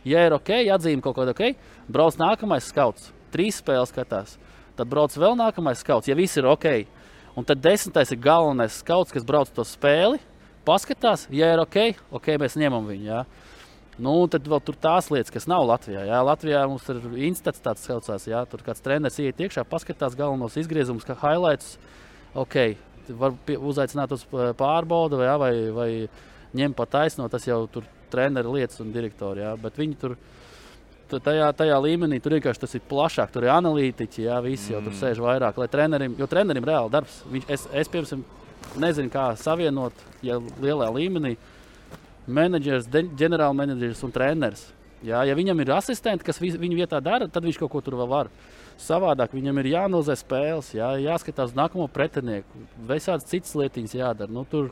Ja ir ok, atzīme kaut kāda ok, brauc nākamais skauts. 3 spēles skatās. Tad brauc vēl nākamais skauts, ja viss ir ok. Un tad 10. ir galvenais skauts, kas brauc to spēli, paskatās, ja ir ok, mēs ņemam viņu. Tad vēl tur tās lietas, kas nav Latvijā. Latvijā mums ir instats tāds saucās, tur kāds treneris iet iekšā, paskatās galvenos izgriezumus, kā highlights. Var uzaicināt uz pārbaudu vai ņem pa taisno, tas jau tur treneri lietas un direktori. Bet viņi tur tajā līmenī tur vienkārši tas ir plašāk, tur ir analītiķi, jā, visi jau tur sēž vairāk, lai trenerim reāli darbs. Es piemēram, nezinu, kā savienot, ja lielā līmenī, menedžers, ģenerālmenedžers un treneris. Jā, ja viņam ir asistenti, kas viņu vietā dara, tad viņš kaut ko tur vēl var. Savādāk viņam ir jāanalizē spēles, jāskatās uz nākamo pretinieku, visādas citas lietiņas jādara. Nu, tur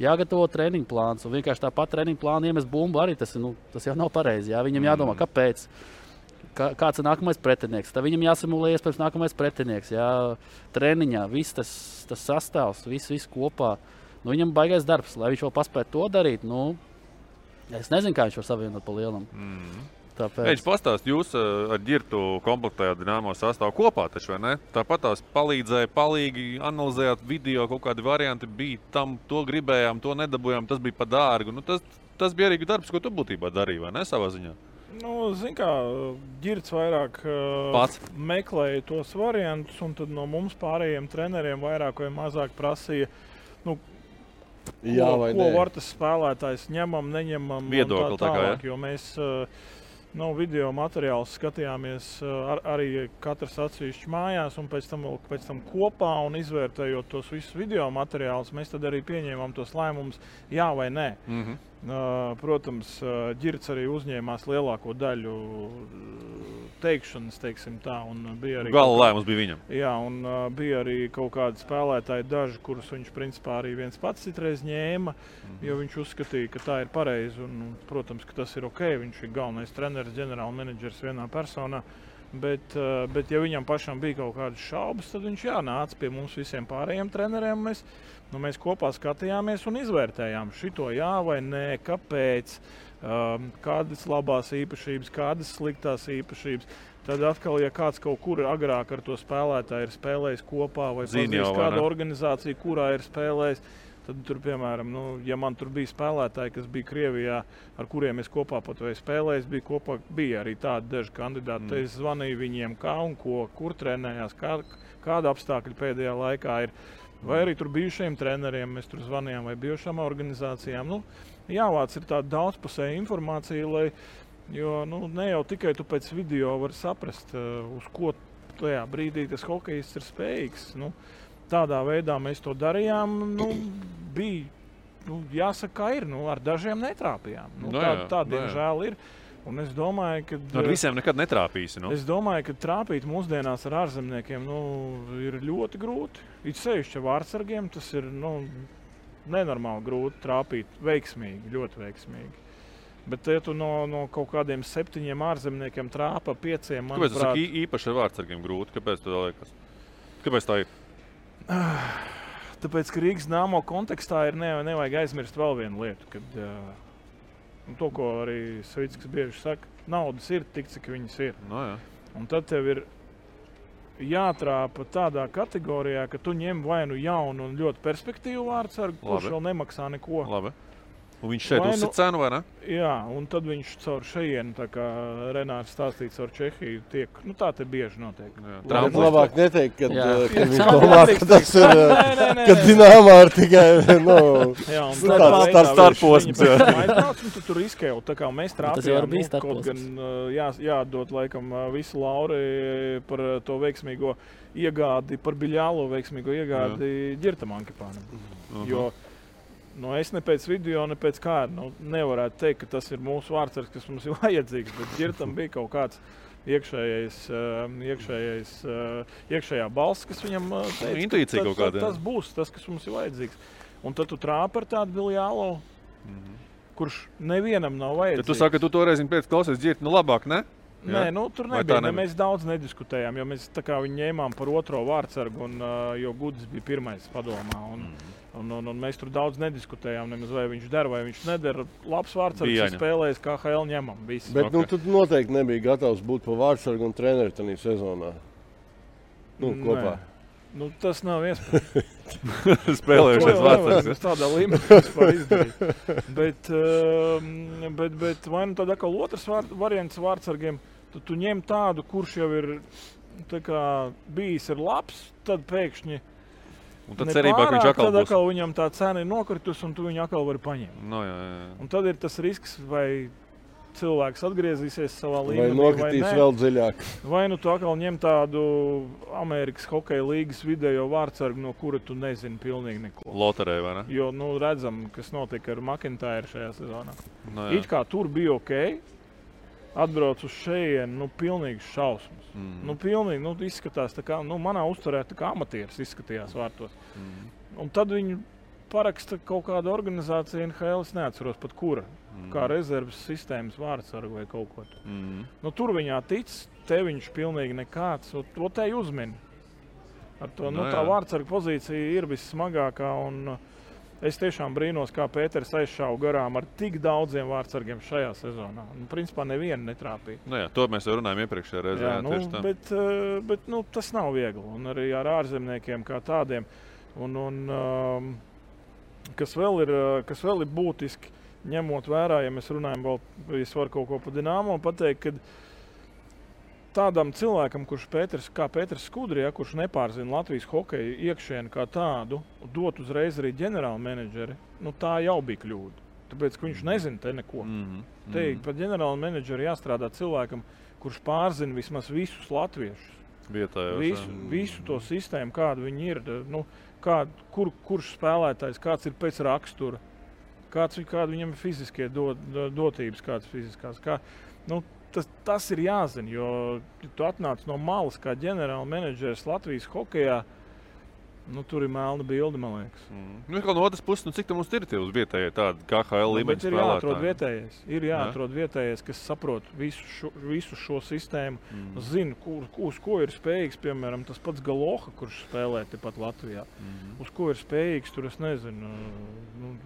jāgatavo treniņu plāns, un vienkārši tāpat treniņu plānu iemest bumbu arī tas jau nav pareizi. Jā. Viņam jādomā, kāpēc, kāds ir nākamais pretinieks. Tad viņam jāsimulē iespējams nākamais pretinieks. Jā. Treniņā viss tas sastāvs, viss kopā. Nu, viņam baigais darbs, lai viņš vēl paspētu to darīt. Nu, es nezinu, kā viņš var savienot pa lielam. Viņš pastāst, jūs ar Ģirtu komplektējāt Dinamo sastāvu kopā, taču, vai ne? Tāpat tās palīdzēja, palīgi analizējāt video, kaut kādi varianti bija tam, to gribējām, to nedabūjām, tas bija pa dārgu. Nu, tas bija arī darbs, ko tu būtībā darīji, vai ne, savā ziņā? Nu, zin kā, Ģirts vairāk meklēja tos variantus, un tad no mums pārējiem treneriem vairāk vai mazāk prasīja, nu, ko var tas spēlētājs ņemam, neņemam viedokli, un tā tālāk, jo mēs video materiālus skatījāmies arī katrs atsevišķi mājās un pēc tam kopā un izvērtējot tos visus video materiālus, mēs tad arī pieņēmām tos lēmumus jā vai nē. Protams, Ģirts arī uzņēmās lielāko daļu teikšanas, teiksim tā, un bija arī gala lēmums bija viņam. Jā, un bija arī kaut kādi spēlētāji daži, kurus viņš principā arī viens pats citreiz ņēma, jo viņš uzskatīja, ka tā ir pareizi, un, protams, ka tas ir ok, viņš ir galvenais treneris, ģenerālmenedžers vienā personā, bet ja viņam pašam bija kaut kādas šaubas, tad viņš nāca pie mums visiem pārējiem treneriem, mēs kopā skatījāmies un izvērtējām šito jā vai nē, kāpēc, kādas labās īpašības, kādas sliktās īpašības. Tad atkal, ja kāds kaut kur agrāk ar to spēlētāju ir spēlējis kopā vai pazīst kāda organizācija, kurā ir spēlējis, tad tur, piemēram, ja man tur bija spēlētāji, kas bija Krievijā, ar kuriem es kopā pat vai spēlējis, bija arī tādi daži kandidāti. Es zvanīju viņiem kā un ko, kur trenējās, kāda apstākļa pēdējā laikā ir. Vai arī tur bijušajiem treneriem mēs tur zvanījām vai bijušām organizācijām. Jāvāc ir tāda daudzpusēja informācija, jo ne jau tikai tu pēc video vari saprast, uz ko tajā brīdī tas hokejists ir spējīgs. Tādā veidā mēs to darījām, bija, jāsaka, kā ir, ar dažiem netrāpījām. Tā diemžēl ir. Un es domāju, ka ar visiem nekad netrāpīsi. Es domāju, ka trāpīt mūsdienās ar ārzemniekiem ir ļoti grūti. It sevišķi vārdsargiem tas ir nenormāli grūti trāpīt veiksmīgi, ļoti veiksmīgi. Bet ja tu no kaut kādiem 7 ārzemniekiem trāpa 5, manuprāt... Kāpēc tas ir īpaši ar vārdsargiem grūti? Kāpēc tā liekas? Kāpēc tā ir? Tāpēc, ka Rīgas Dinamo kontekstā ir nevajag aizmirst vēl vienu lietu, kad... to, ko arī Savickas bieži saka, naudas ir tik, cik viņas ir. Un tad tev ir jātrāpa tādā kategorijā, ka tu ņem vai nu jaunu un ļoti perspektīvu vārdsargu, kurš vēl nemaksā neko. Labi. Un viņš šeit uzsit cenu, vai ne? Jā, un tad viņš caur šejienu, tā kā Renārs stāstīja, caur Čehiju tiek, tā te bieži notiek. Labāk neteikt, kad viņš domā, ka tas ir, kad Dinamo ir tikai, starposms. Tu tur izkēli, tā kā mēs trāpījām, kaut gan jādod laikam visu lauri par to veiksmīgo iegādi, par Biļālo veiksmīgo iegādi Ģirtam Ankipānam. Jo es ne pēc video, ne pēc kāda nevarētu teikt, ka tas ir mūsu vārdsargs, kas mums ir vajadzīgs, bet Ģirtam bija kaut kāds iekšējā balss, kas viņam teica, tas būs tas, kas mums ir vajadzīgs. Un tad tu trāpi ar tādu Biļālo, kurš nevienam nav vajadzīgs. Tu saki, ka tu toreiz pēc klausies Ģirti, labāk, ne? Nē, tur nebija. Mēs daudz nediskutējām, jo mēs tā kā viņu ņēmām par otro vārdsargu, jo Gudis bija pirmais padomā. Un mēs tur daudz nediskutējām, nemaz vai viņš der, vai viņš neder. Labs vārdsargs, kas spēlējas KHL, ņemam visi. Bet tu noteikti nebija gatavs būt pa vārdsargu un treneri tanī sezonā. Kopā. Tas nav iespējams. Spēlējušies vārdsargs. Tādā līmenī vispār izdarīt. Bet vai tad atkal otrs variants vārdsargiem, tad tu ņem tādu, kurš jau ir bijis ir labs, tad pēkšņi un tad cerībā, ka viņš atkal būs. Tad atkal viņam tā cena ir nokritus un tu viņu atkal vari paņemt. Un tad ir tas risks, vai cilvēks atgriezīsies savā līmenī, vai nokritīs vēl dziļāk. Vai nu tu atkal ņem tādu Amerikas hokeja līgas video vārdsargu, no kura tu nezini pilnīgi neko. Loterē, vai ne? Jo, redzam, kas notika ar McIntyre šajā sezonā. No, It kā tur bija ok, atbrauc uz šejienu, pilnīgs šausmas. Pilnīgi, izskatās tā kā, manā uzturē tā kā amatieris izskatījās vārtos. Un tad viņi paraksta kaut kāda organizācija NHL, es neatceros pat kura, kā rezerves sistēmas vārdsargu vai kaut ko. Tur viņā tic, te viņš pilnīgi nekāds, to te uzmini. Ar to, tā vārdsarga pozīcija ir vissmagākā, un es tiešām brīnos, kā Pēters aizšāva garām ar tik daudziem vārdsargiem šajā sezonā. Principā nevienu netrāpīja. To mēs jau runājam iepriekšējā reizē. Bet tas nav viegli, un arī ar ārzemniekiem kā tādiem. Kas vēl ir būtiski, ņemot vērā, ja mēs runājam vēl, es varu kaut ko par Dinamo pateikt, ka tādam cilvēkam, kā Pēters Skudri, kurš nepārzina Latvijas hokeju iekšienu kā tādu, dot uzreiz arī ģenerāla menedžeri, tā jau bija kļūda. Tāpēc, ka viņš nezina te neko. Te par ģenerāla menedžeri jāstrādā cilvēkam, kurš pārzina vismaz visus latviešus. Visu to sistēmu, kāda viņi ir. Kurš spēlētājs, kāds ir pēc rakstura, kāda viņam ir fiziskie dotības, kādas fiziskās. Tas ir jāzina, jo tu atnāc no malas kā ģenerāla menedžers Latvijas hokejā, tur ir melna bilde, man liekas. No otras puses, cik tam mums ir tie uz vietējie tādi KHL līmeņa spēlētāji? Ir jāatrod vietējais, kas saprot visu šo sistēmu, zina, uz ko ir spējīgs, piemēram, tas pats Galoha, kurš spēlē tepat Latvijā. Uz ko ir spējīgs, tur es nezinu,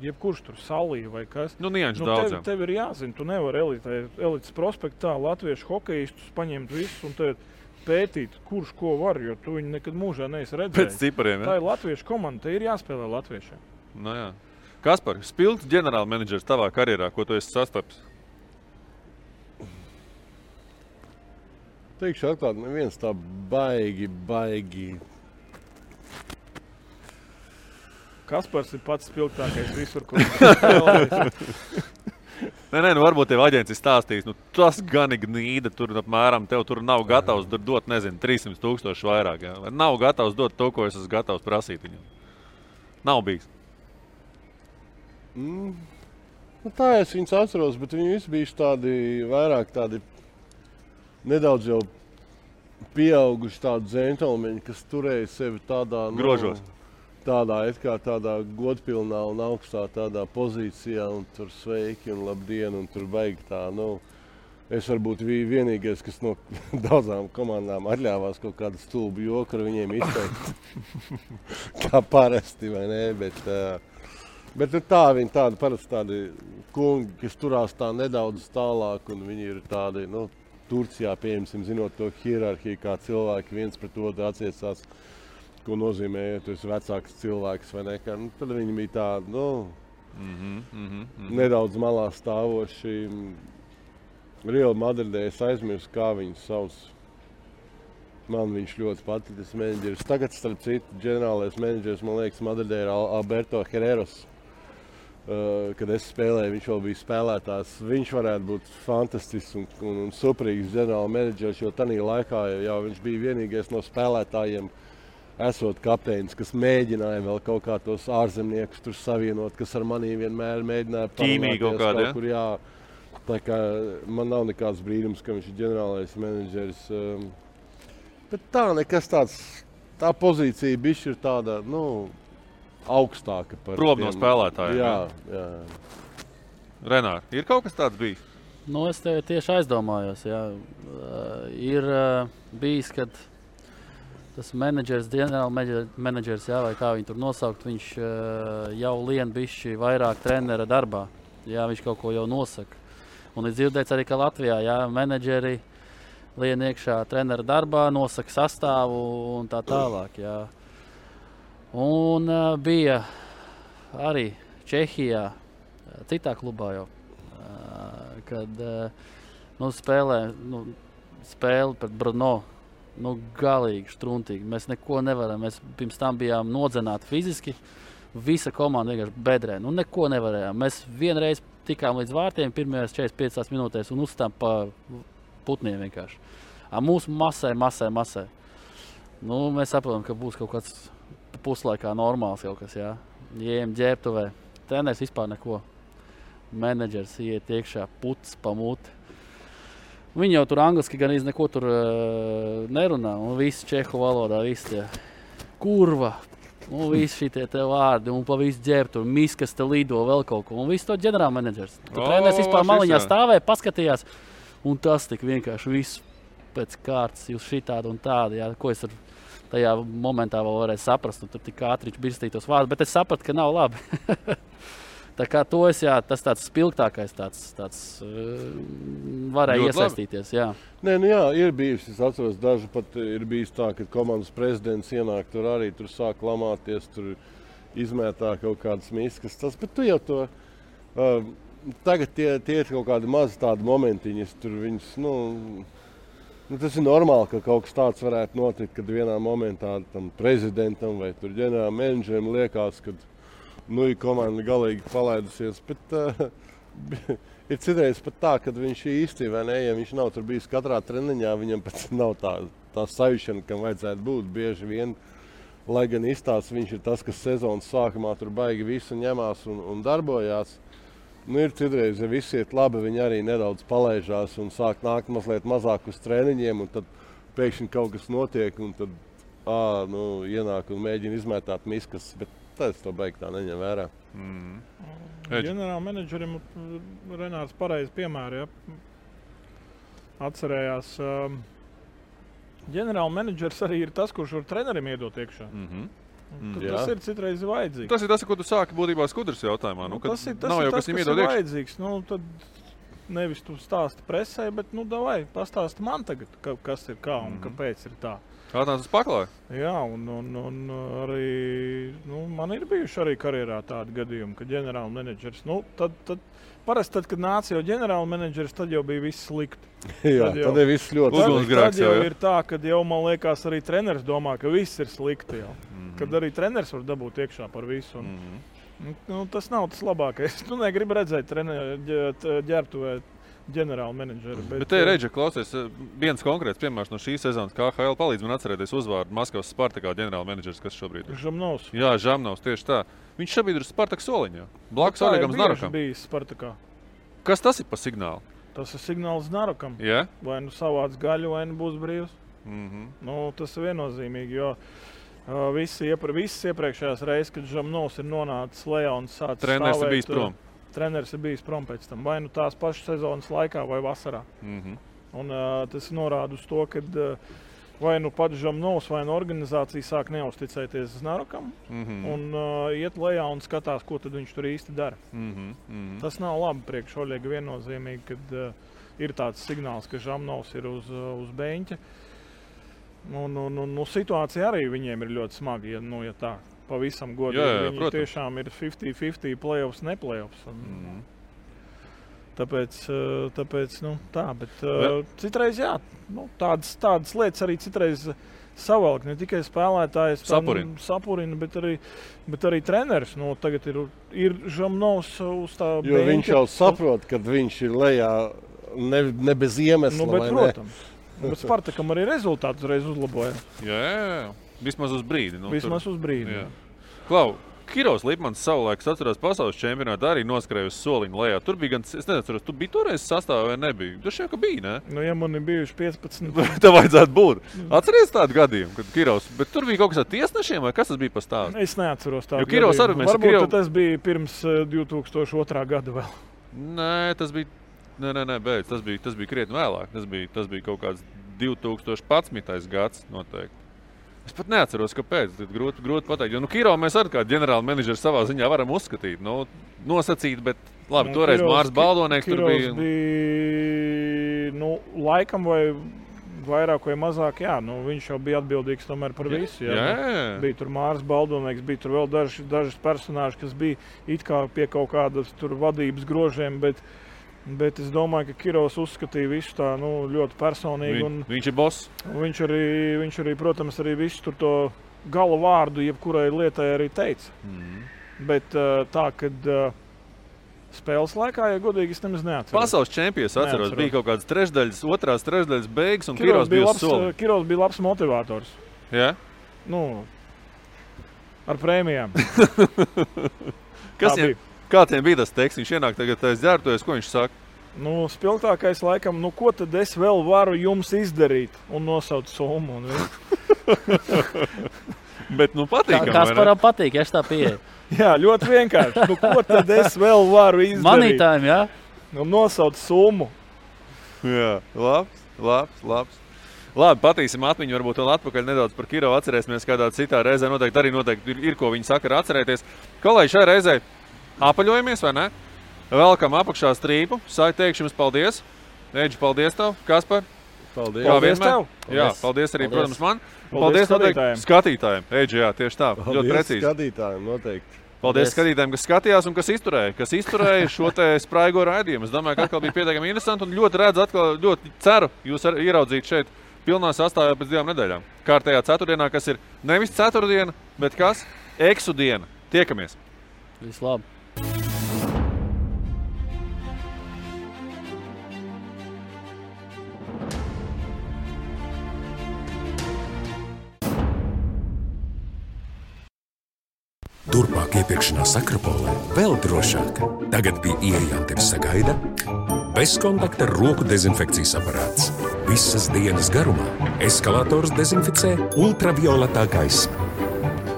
jebkurš tur Salī vai kas. Tev ir jāzina, tu nevari elites prospektā latviešu hokejistus paņemt visus un tev pētīt, kurš ko var, jo tu viņu nekad mūžā neesi redzējis. Pēc cipariem, ja? Tā ir latviešu komanda, te ir jāspēlē latviešiem. Kaspar, spilgts ģenerāla menedžers tavā karjerā, ko tu esi sastapis? Teikšu atklāt, neviens tā baigi. Kaspars ir pats spilgtākais visur, kur spēlējis. Varbūt tev aģents ir stāstījis, tas gan ir gnīda, tur apmēram tev tur nav gatavs dot, 300,000 vairāk. Vai nav gatavs dot to, ko es esmu gatavs prasīt viņam? Nav bijis. Tā es viņus atceros, bet viņi visi bijuši vairāk tādi nedaudz jau pieauguši tādi džentelmeņi, kas turēja sevi tādā... Grožos. Tādā godpilnā un augstā tādā pozīcijā, un tur sveiki un labdien, un tur baigi tā, es varbūt biju vienīgais, kas no daudzām komandām atļāvās kaut kādu stulbu joku ar viņiem izteikt. Kā parasti, vai ne, bet viņi tādi parasti tādi kungi, kas turās tā nedaudz tālāk, un viņi ir tādi, Turcijā, pieņemsim, zinot to hierarhiju, kā cilvēki viens pret otru attiecās, ko nozīmē, ja tu esi vecāks cilvēks vai nekā. Tad viņi bija tādi, nedaudz malā stāvoši. Real Madridē es aizmirsu, kā viņus sauc. Man viņš ļoti patīk, tas menedžeris. Tagad, starp citu, ģenerālais menedžeris, man liekas, Madridē ir Alberto Herreros. Kad es spēlēju, viņš vēl bija spēlētājs. Viņš varētu būt fantastisks un superīgs ģenerāla menedžeris, jo tanī laikā jau viņš bija vienīgais no spēlētājiem, esot kapteinis, kas mēģināja vēl kaut kā tos ārzemniekus tur savienot, kas ar manī vienmēr mēģināja ķīmīgi kaut kādā, kur, jā. Tā kā man nav nekāds brīnums, ka viņš ir ģenerālais menedžeris. Bet tā nekas tāds, tā pozīcija bišķi ir tāda, augstāka par prom no spēlētājiem. Jā. Renār, ir kaut kas tāds bijis? Es tev tieši aizdomājos, jā. Ir bijis, kad tas menedžers, ģenerāla menedžers, vai kā viņu tur nosaukt, viņš jau lien bišķi vairāk trenera darbā. Jā, viņš kaut ko jau nosaka. Un ir dzirdēts arī, ka Latvijā, menedžeri lien iekšā trenera darbā, nosaka sastāvu un tā tālāk, jā. Un bija arī Čehijā, citā klubā jau, kad spēle pret Brno. Galīgi štruntīgi. Mēs neko nevaram. Mēs pirms tam bijām nodzināti fiziski. Visa komanda vienkārši bedrē. Neko nevarējām. Mēs vienreiz tikām līdz vārtiem pirmajās 45 minūtēs un uzstām pa putniem vienkārši. Mūsu masē. Nu, mēs saprotam, ka būs kaut kāds puslaikā normāls kaut kas, jā. Ejam ģērbtuvē. Treneris vispār neko. Menedžers iet iekšā, puts pa muti. Viņi jau tur angliski gan neko tur nerunā. Un visi čehu valodā, visi tie kurva. Un visi šitie te vārdi, un pa visu ģērbtu, un miskas te lido vēl kaut ko. Un visu to ģenerālmenedžers. Treneris vispār maliņā stāvēja, paskatījās. Un tas tik vienkārši viss pēc kārtas, jūs šitādi un tādi, jā, ko es tajā momentā vēl varēju saprast. Un tur tik ātri birstītos vārdus, bet es sapratu, ka nav labi. Tā kā to es, jā, tas tāds spilgtākais tāds varēja ļoti iesaistīties, jā. Nē, nu jā, ir bijis, es atceros, daži pat ir bijis tā, ka komandas prezidents ienāk tur arī, tur sāk lamāties, tur izmētā kaut kādas miskas, tas, bet tu jau to, tagad tie ir kaut kādi mazi tādi momentiņas, tur viņas, nu, tas ir normāli, ka kaut kas tāds varētu notikt, kad vienā momentā tam prezidentam vai tur ģenerāla menedžerim liekas, kad ir komanda galīgi palaidusies, bet ir citreiz pat tā, kad viņš īsti vai ne, ja viņš nav tur bijis katrā treniņā, viņam pat nav tā sajūšana, kam vajadzētu būt bieži vien, lai gan izstāsts viņš ir tas, kas sezonas sākumā tur baigi visu ņemās un darbojās. Nu, ir citreiz, ja viss iet labi, viņi arī nedaudz palaižās un sāk nākt mazliet mazāk uz treniņiem, un tad pēkšņi kaut kas notiek, un tad ienāk un mēģina izmētāt miskas, bet tas to beig tā neņem vērā. Ģenerāla menedžerim Renārs pareizi piemēri, ja? Atcerējās. Ģenerāla menedžers arī ir tas, kurš var trenerim iedot iekšā. Tas ir citreiz vajadzīgs. Tas ir tas, ko tu sāki būtībā Skudras jautājumā. Tas ir tas, kas ir vajadzīgs. Tad nevis tu stāsti presē, bet davai, pastāsti man tagad, kas ir kā un kāpēc ir tā. Atnāc uz paklāju? Jā, un arī man ir bijuši arī karjerā tādi gadījumi, ka ģenerāla menedžers, parasti tad, kad nāca jau ģenerāla menedžers, tad jau bija viss slikti. Jā, tad ir viss ļoti slikti. Tad jau ir tā, kad jau man liekas arī treneris domā, ka viss ir slikti jau. Kad arī treneris var dabūt iekšā par visu. Tas nav tas labākais. Tu negribi redzēt ģērbtuvē ģenerāla menedžera. Bet te ir Reģa, klausies, viens konkrēts piemērs no šīs sezonas KHL palīdz man atcerēties uzvārdu Maskavas Spartakā ģenerāla menedžers, kas šobrīd ir. Žamnovs. Jā, Žamnovs, tieši tā. Viņš šobrīd ir Spartak soliņā. Blakus Olegam Znarokam. Tā ir bijis Spartakā. Kas tas ir pa signālu? Tas ir signāls Znarokam. Jā? Vai savāds gaļu, vai būs brīvs. Tas ir viennozīmīgi, jo visas iepriekšējās reizes, kad Žamnovs ir nonācis lejā un sācis treneris ir bijis prom. Treneris ir bijis prom pēc tam, vai tās pašas sezonas laikā, vai vasarā. Un tas norāda uz to, ka vai pats Žamnovs, vai organizācija sāk neuzticēties Znarokam un iet lejā un skatās, ko tad viņš tur īsti dara. Tas nav labi priekš Oļega viennozīmīgi, kad ir tāds signāls, ka Žamnovs ir uz beņķa. Situācija arī viņiem ir ļoti smaga, ja tā. Pavisam godīgi. Viņi tiešām ir 50-50 playoffs, ne playoffs. Tāpēc tā, bet citreiz jā, tādas lietas arī citreiz savalk, ne tikai spēlētājs sapurina, bet arī treneris. Tagad ir Žamnovs uz tā beņķa. Jo viņš jau saprot, kad viņš ir lejā ne bez iemesla, bet, protams. Bet Spartakam arī rezultātus reiz uzlaboja. Jā. Vismaz uz brīdi. Uz brīdi. Klau, Kirovs Lipmans savulaik, atceros, pasaules čempionātā arī noskrēja uz soliņu lejā. Tur bija gan, es nezinu, tu biji toreiz sastāvā vai nebija? Tu šeit, ka bija, ne? Ja man ir bijuši 15. Tā vajadzētu būt. Atceries tādu gadījumu, kad Kirovs, bet tur bija kaut kas ar tiesnešiem vai kas tas bija pa stāstu? Es neatceros tādu gadījumu. Varbūt tas bija pirms 2002. gada vēl. Nē, tas bija, beidz, tas bija krietni vēlāk. Tas bija kaut kāds 2011. gads noteikti. Es pat neatceros, kāpēc. Grūti pateikt. Jo Kirovu mēs arī kā ģenerāla menedžeri savā ziņā varam uzskatīt. Nosacīt, bet labi, toreiz Mārs Baldonieks tur bija. Laikam vai vairāk vai mazāk, jā. Viņš jau bija atbildīgs tomēr par visu. Jā. Bija tur Mārs Baldonieks, bija tur vēl dažas personāži, kas bija it kā pie kaut kādas tur vadības grožiem, bet es domāju, ka Kirovs uzskatīja visu tā ļoti personīgi. Viņš ir boss. Viņš arī, protams, arī visu tur to gala vārdu jebkurai lietai arī teica. Bet tā, kad Spēles laikā, ja godīgi, es nemaz neatceros. Pasaules čempions atceros, bija kaut kādas trešdaļas, otrās trešdaļas beigas, un Kirovs bija uz soli. Kirovs bija labs motivators. Jā? Ar prēmijām. Kā tiem bija tas teksts? Viņš ienāk tagad dzērtojas, ko viņš saka? Spilgtākais laikam, ko tad es vēl varu jums izdarīt? Un nosauc summu. Bet, patīkam, Kasparam patīk, ja tā pieeja. Jā, ļoti vienkārši. Ko tad es vēl varu izdarīt? Manītājiem, jā? Un nosauc summu. Jā, labs. Labi, patīsim atmiņu, varbūt vēl atpakaļ nedaudz par Kirovu atcerēsimies kādā citā reizē. Noteikti ir ko viņi saka, atcerēties. Kolēģi, šai reizē apaļojamies, vai ne? Velkam apakšā strīpu. Teikšu jums paldies. Eģi, paldies tev. Kaspar? Paldies tev. Jā, paldies arī, protams, man. Paldies skatītājiem. Eģi, jā, tieši tā. Ļoti precīzi. Paldies skatītājiem, noteikti. Paldies skatītājiem, kas skatījās un kas izturēja šo te spraigo raidījumu. Es domāju, ka atkal bija pietiekami interesanti un ļoti ceru jūs ieraudzīt šeit pilnā sastāvā pēc 2 nedēļām. Kārtējā ceturtdienā, kas ir nevis ceturtdiena, bet kas? Eksu diena. Tiekamies. Vislabāk. Turpmāk iepirkšanās Akropolē vēl drošāk. Tagad pie ieejām tevi sagaida bezkontakta roku dezinfekcijas aparāts. Visas dienas garumā eskalators dezinficē ultravioletā gaisma.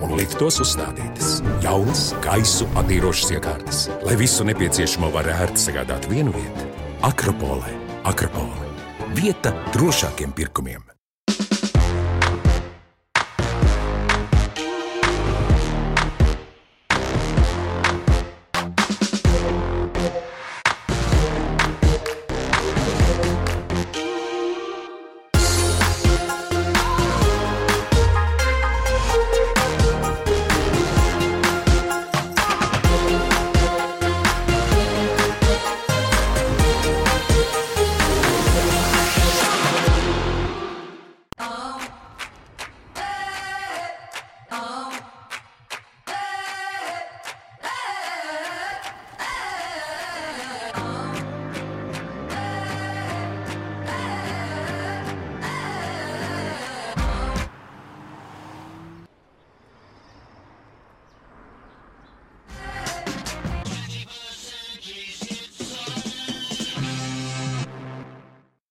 Un liftos uzstādītas jaunas gaisu attīrošas iekārtas, lai visu nepieciešamo var ērti sagādāt vienu vietu. Akropolē. Vieta drošākiem pirkumiem.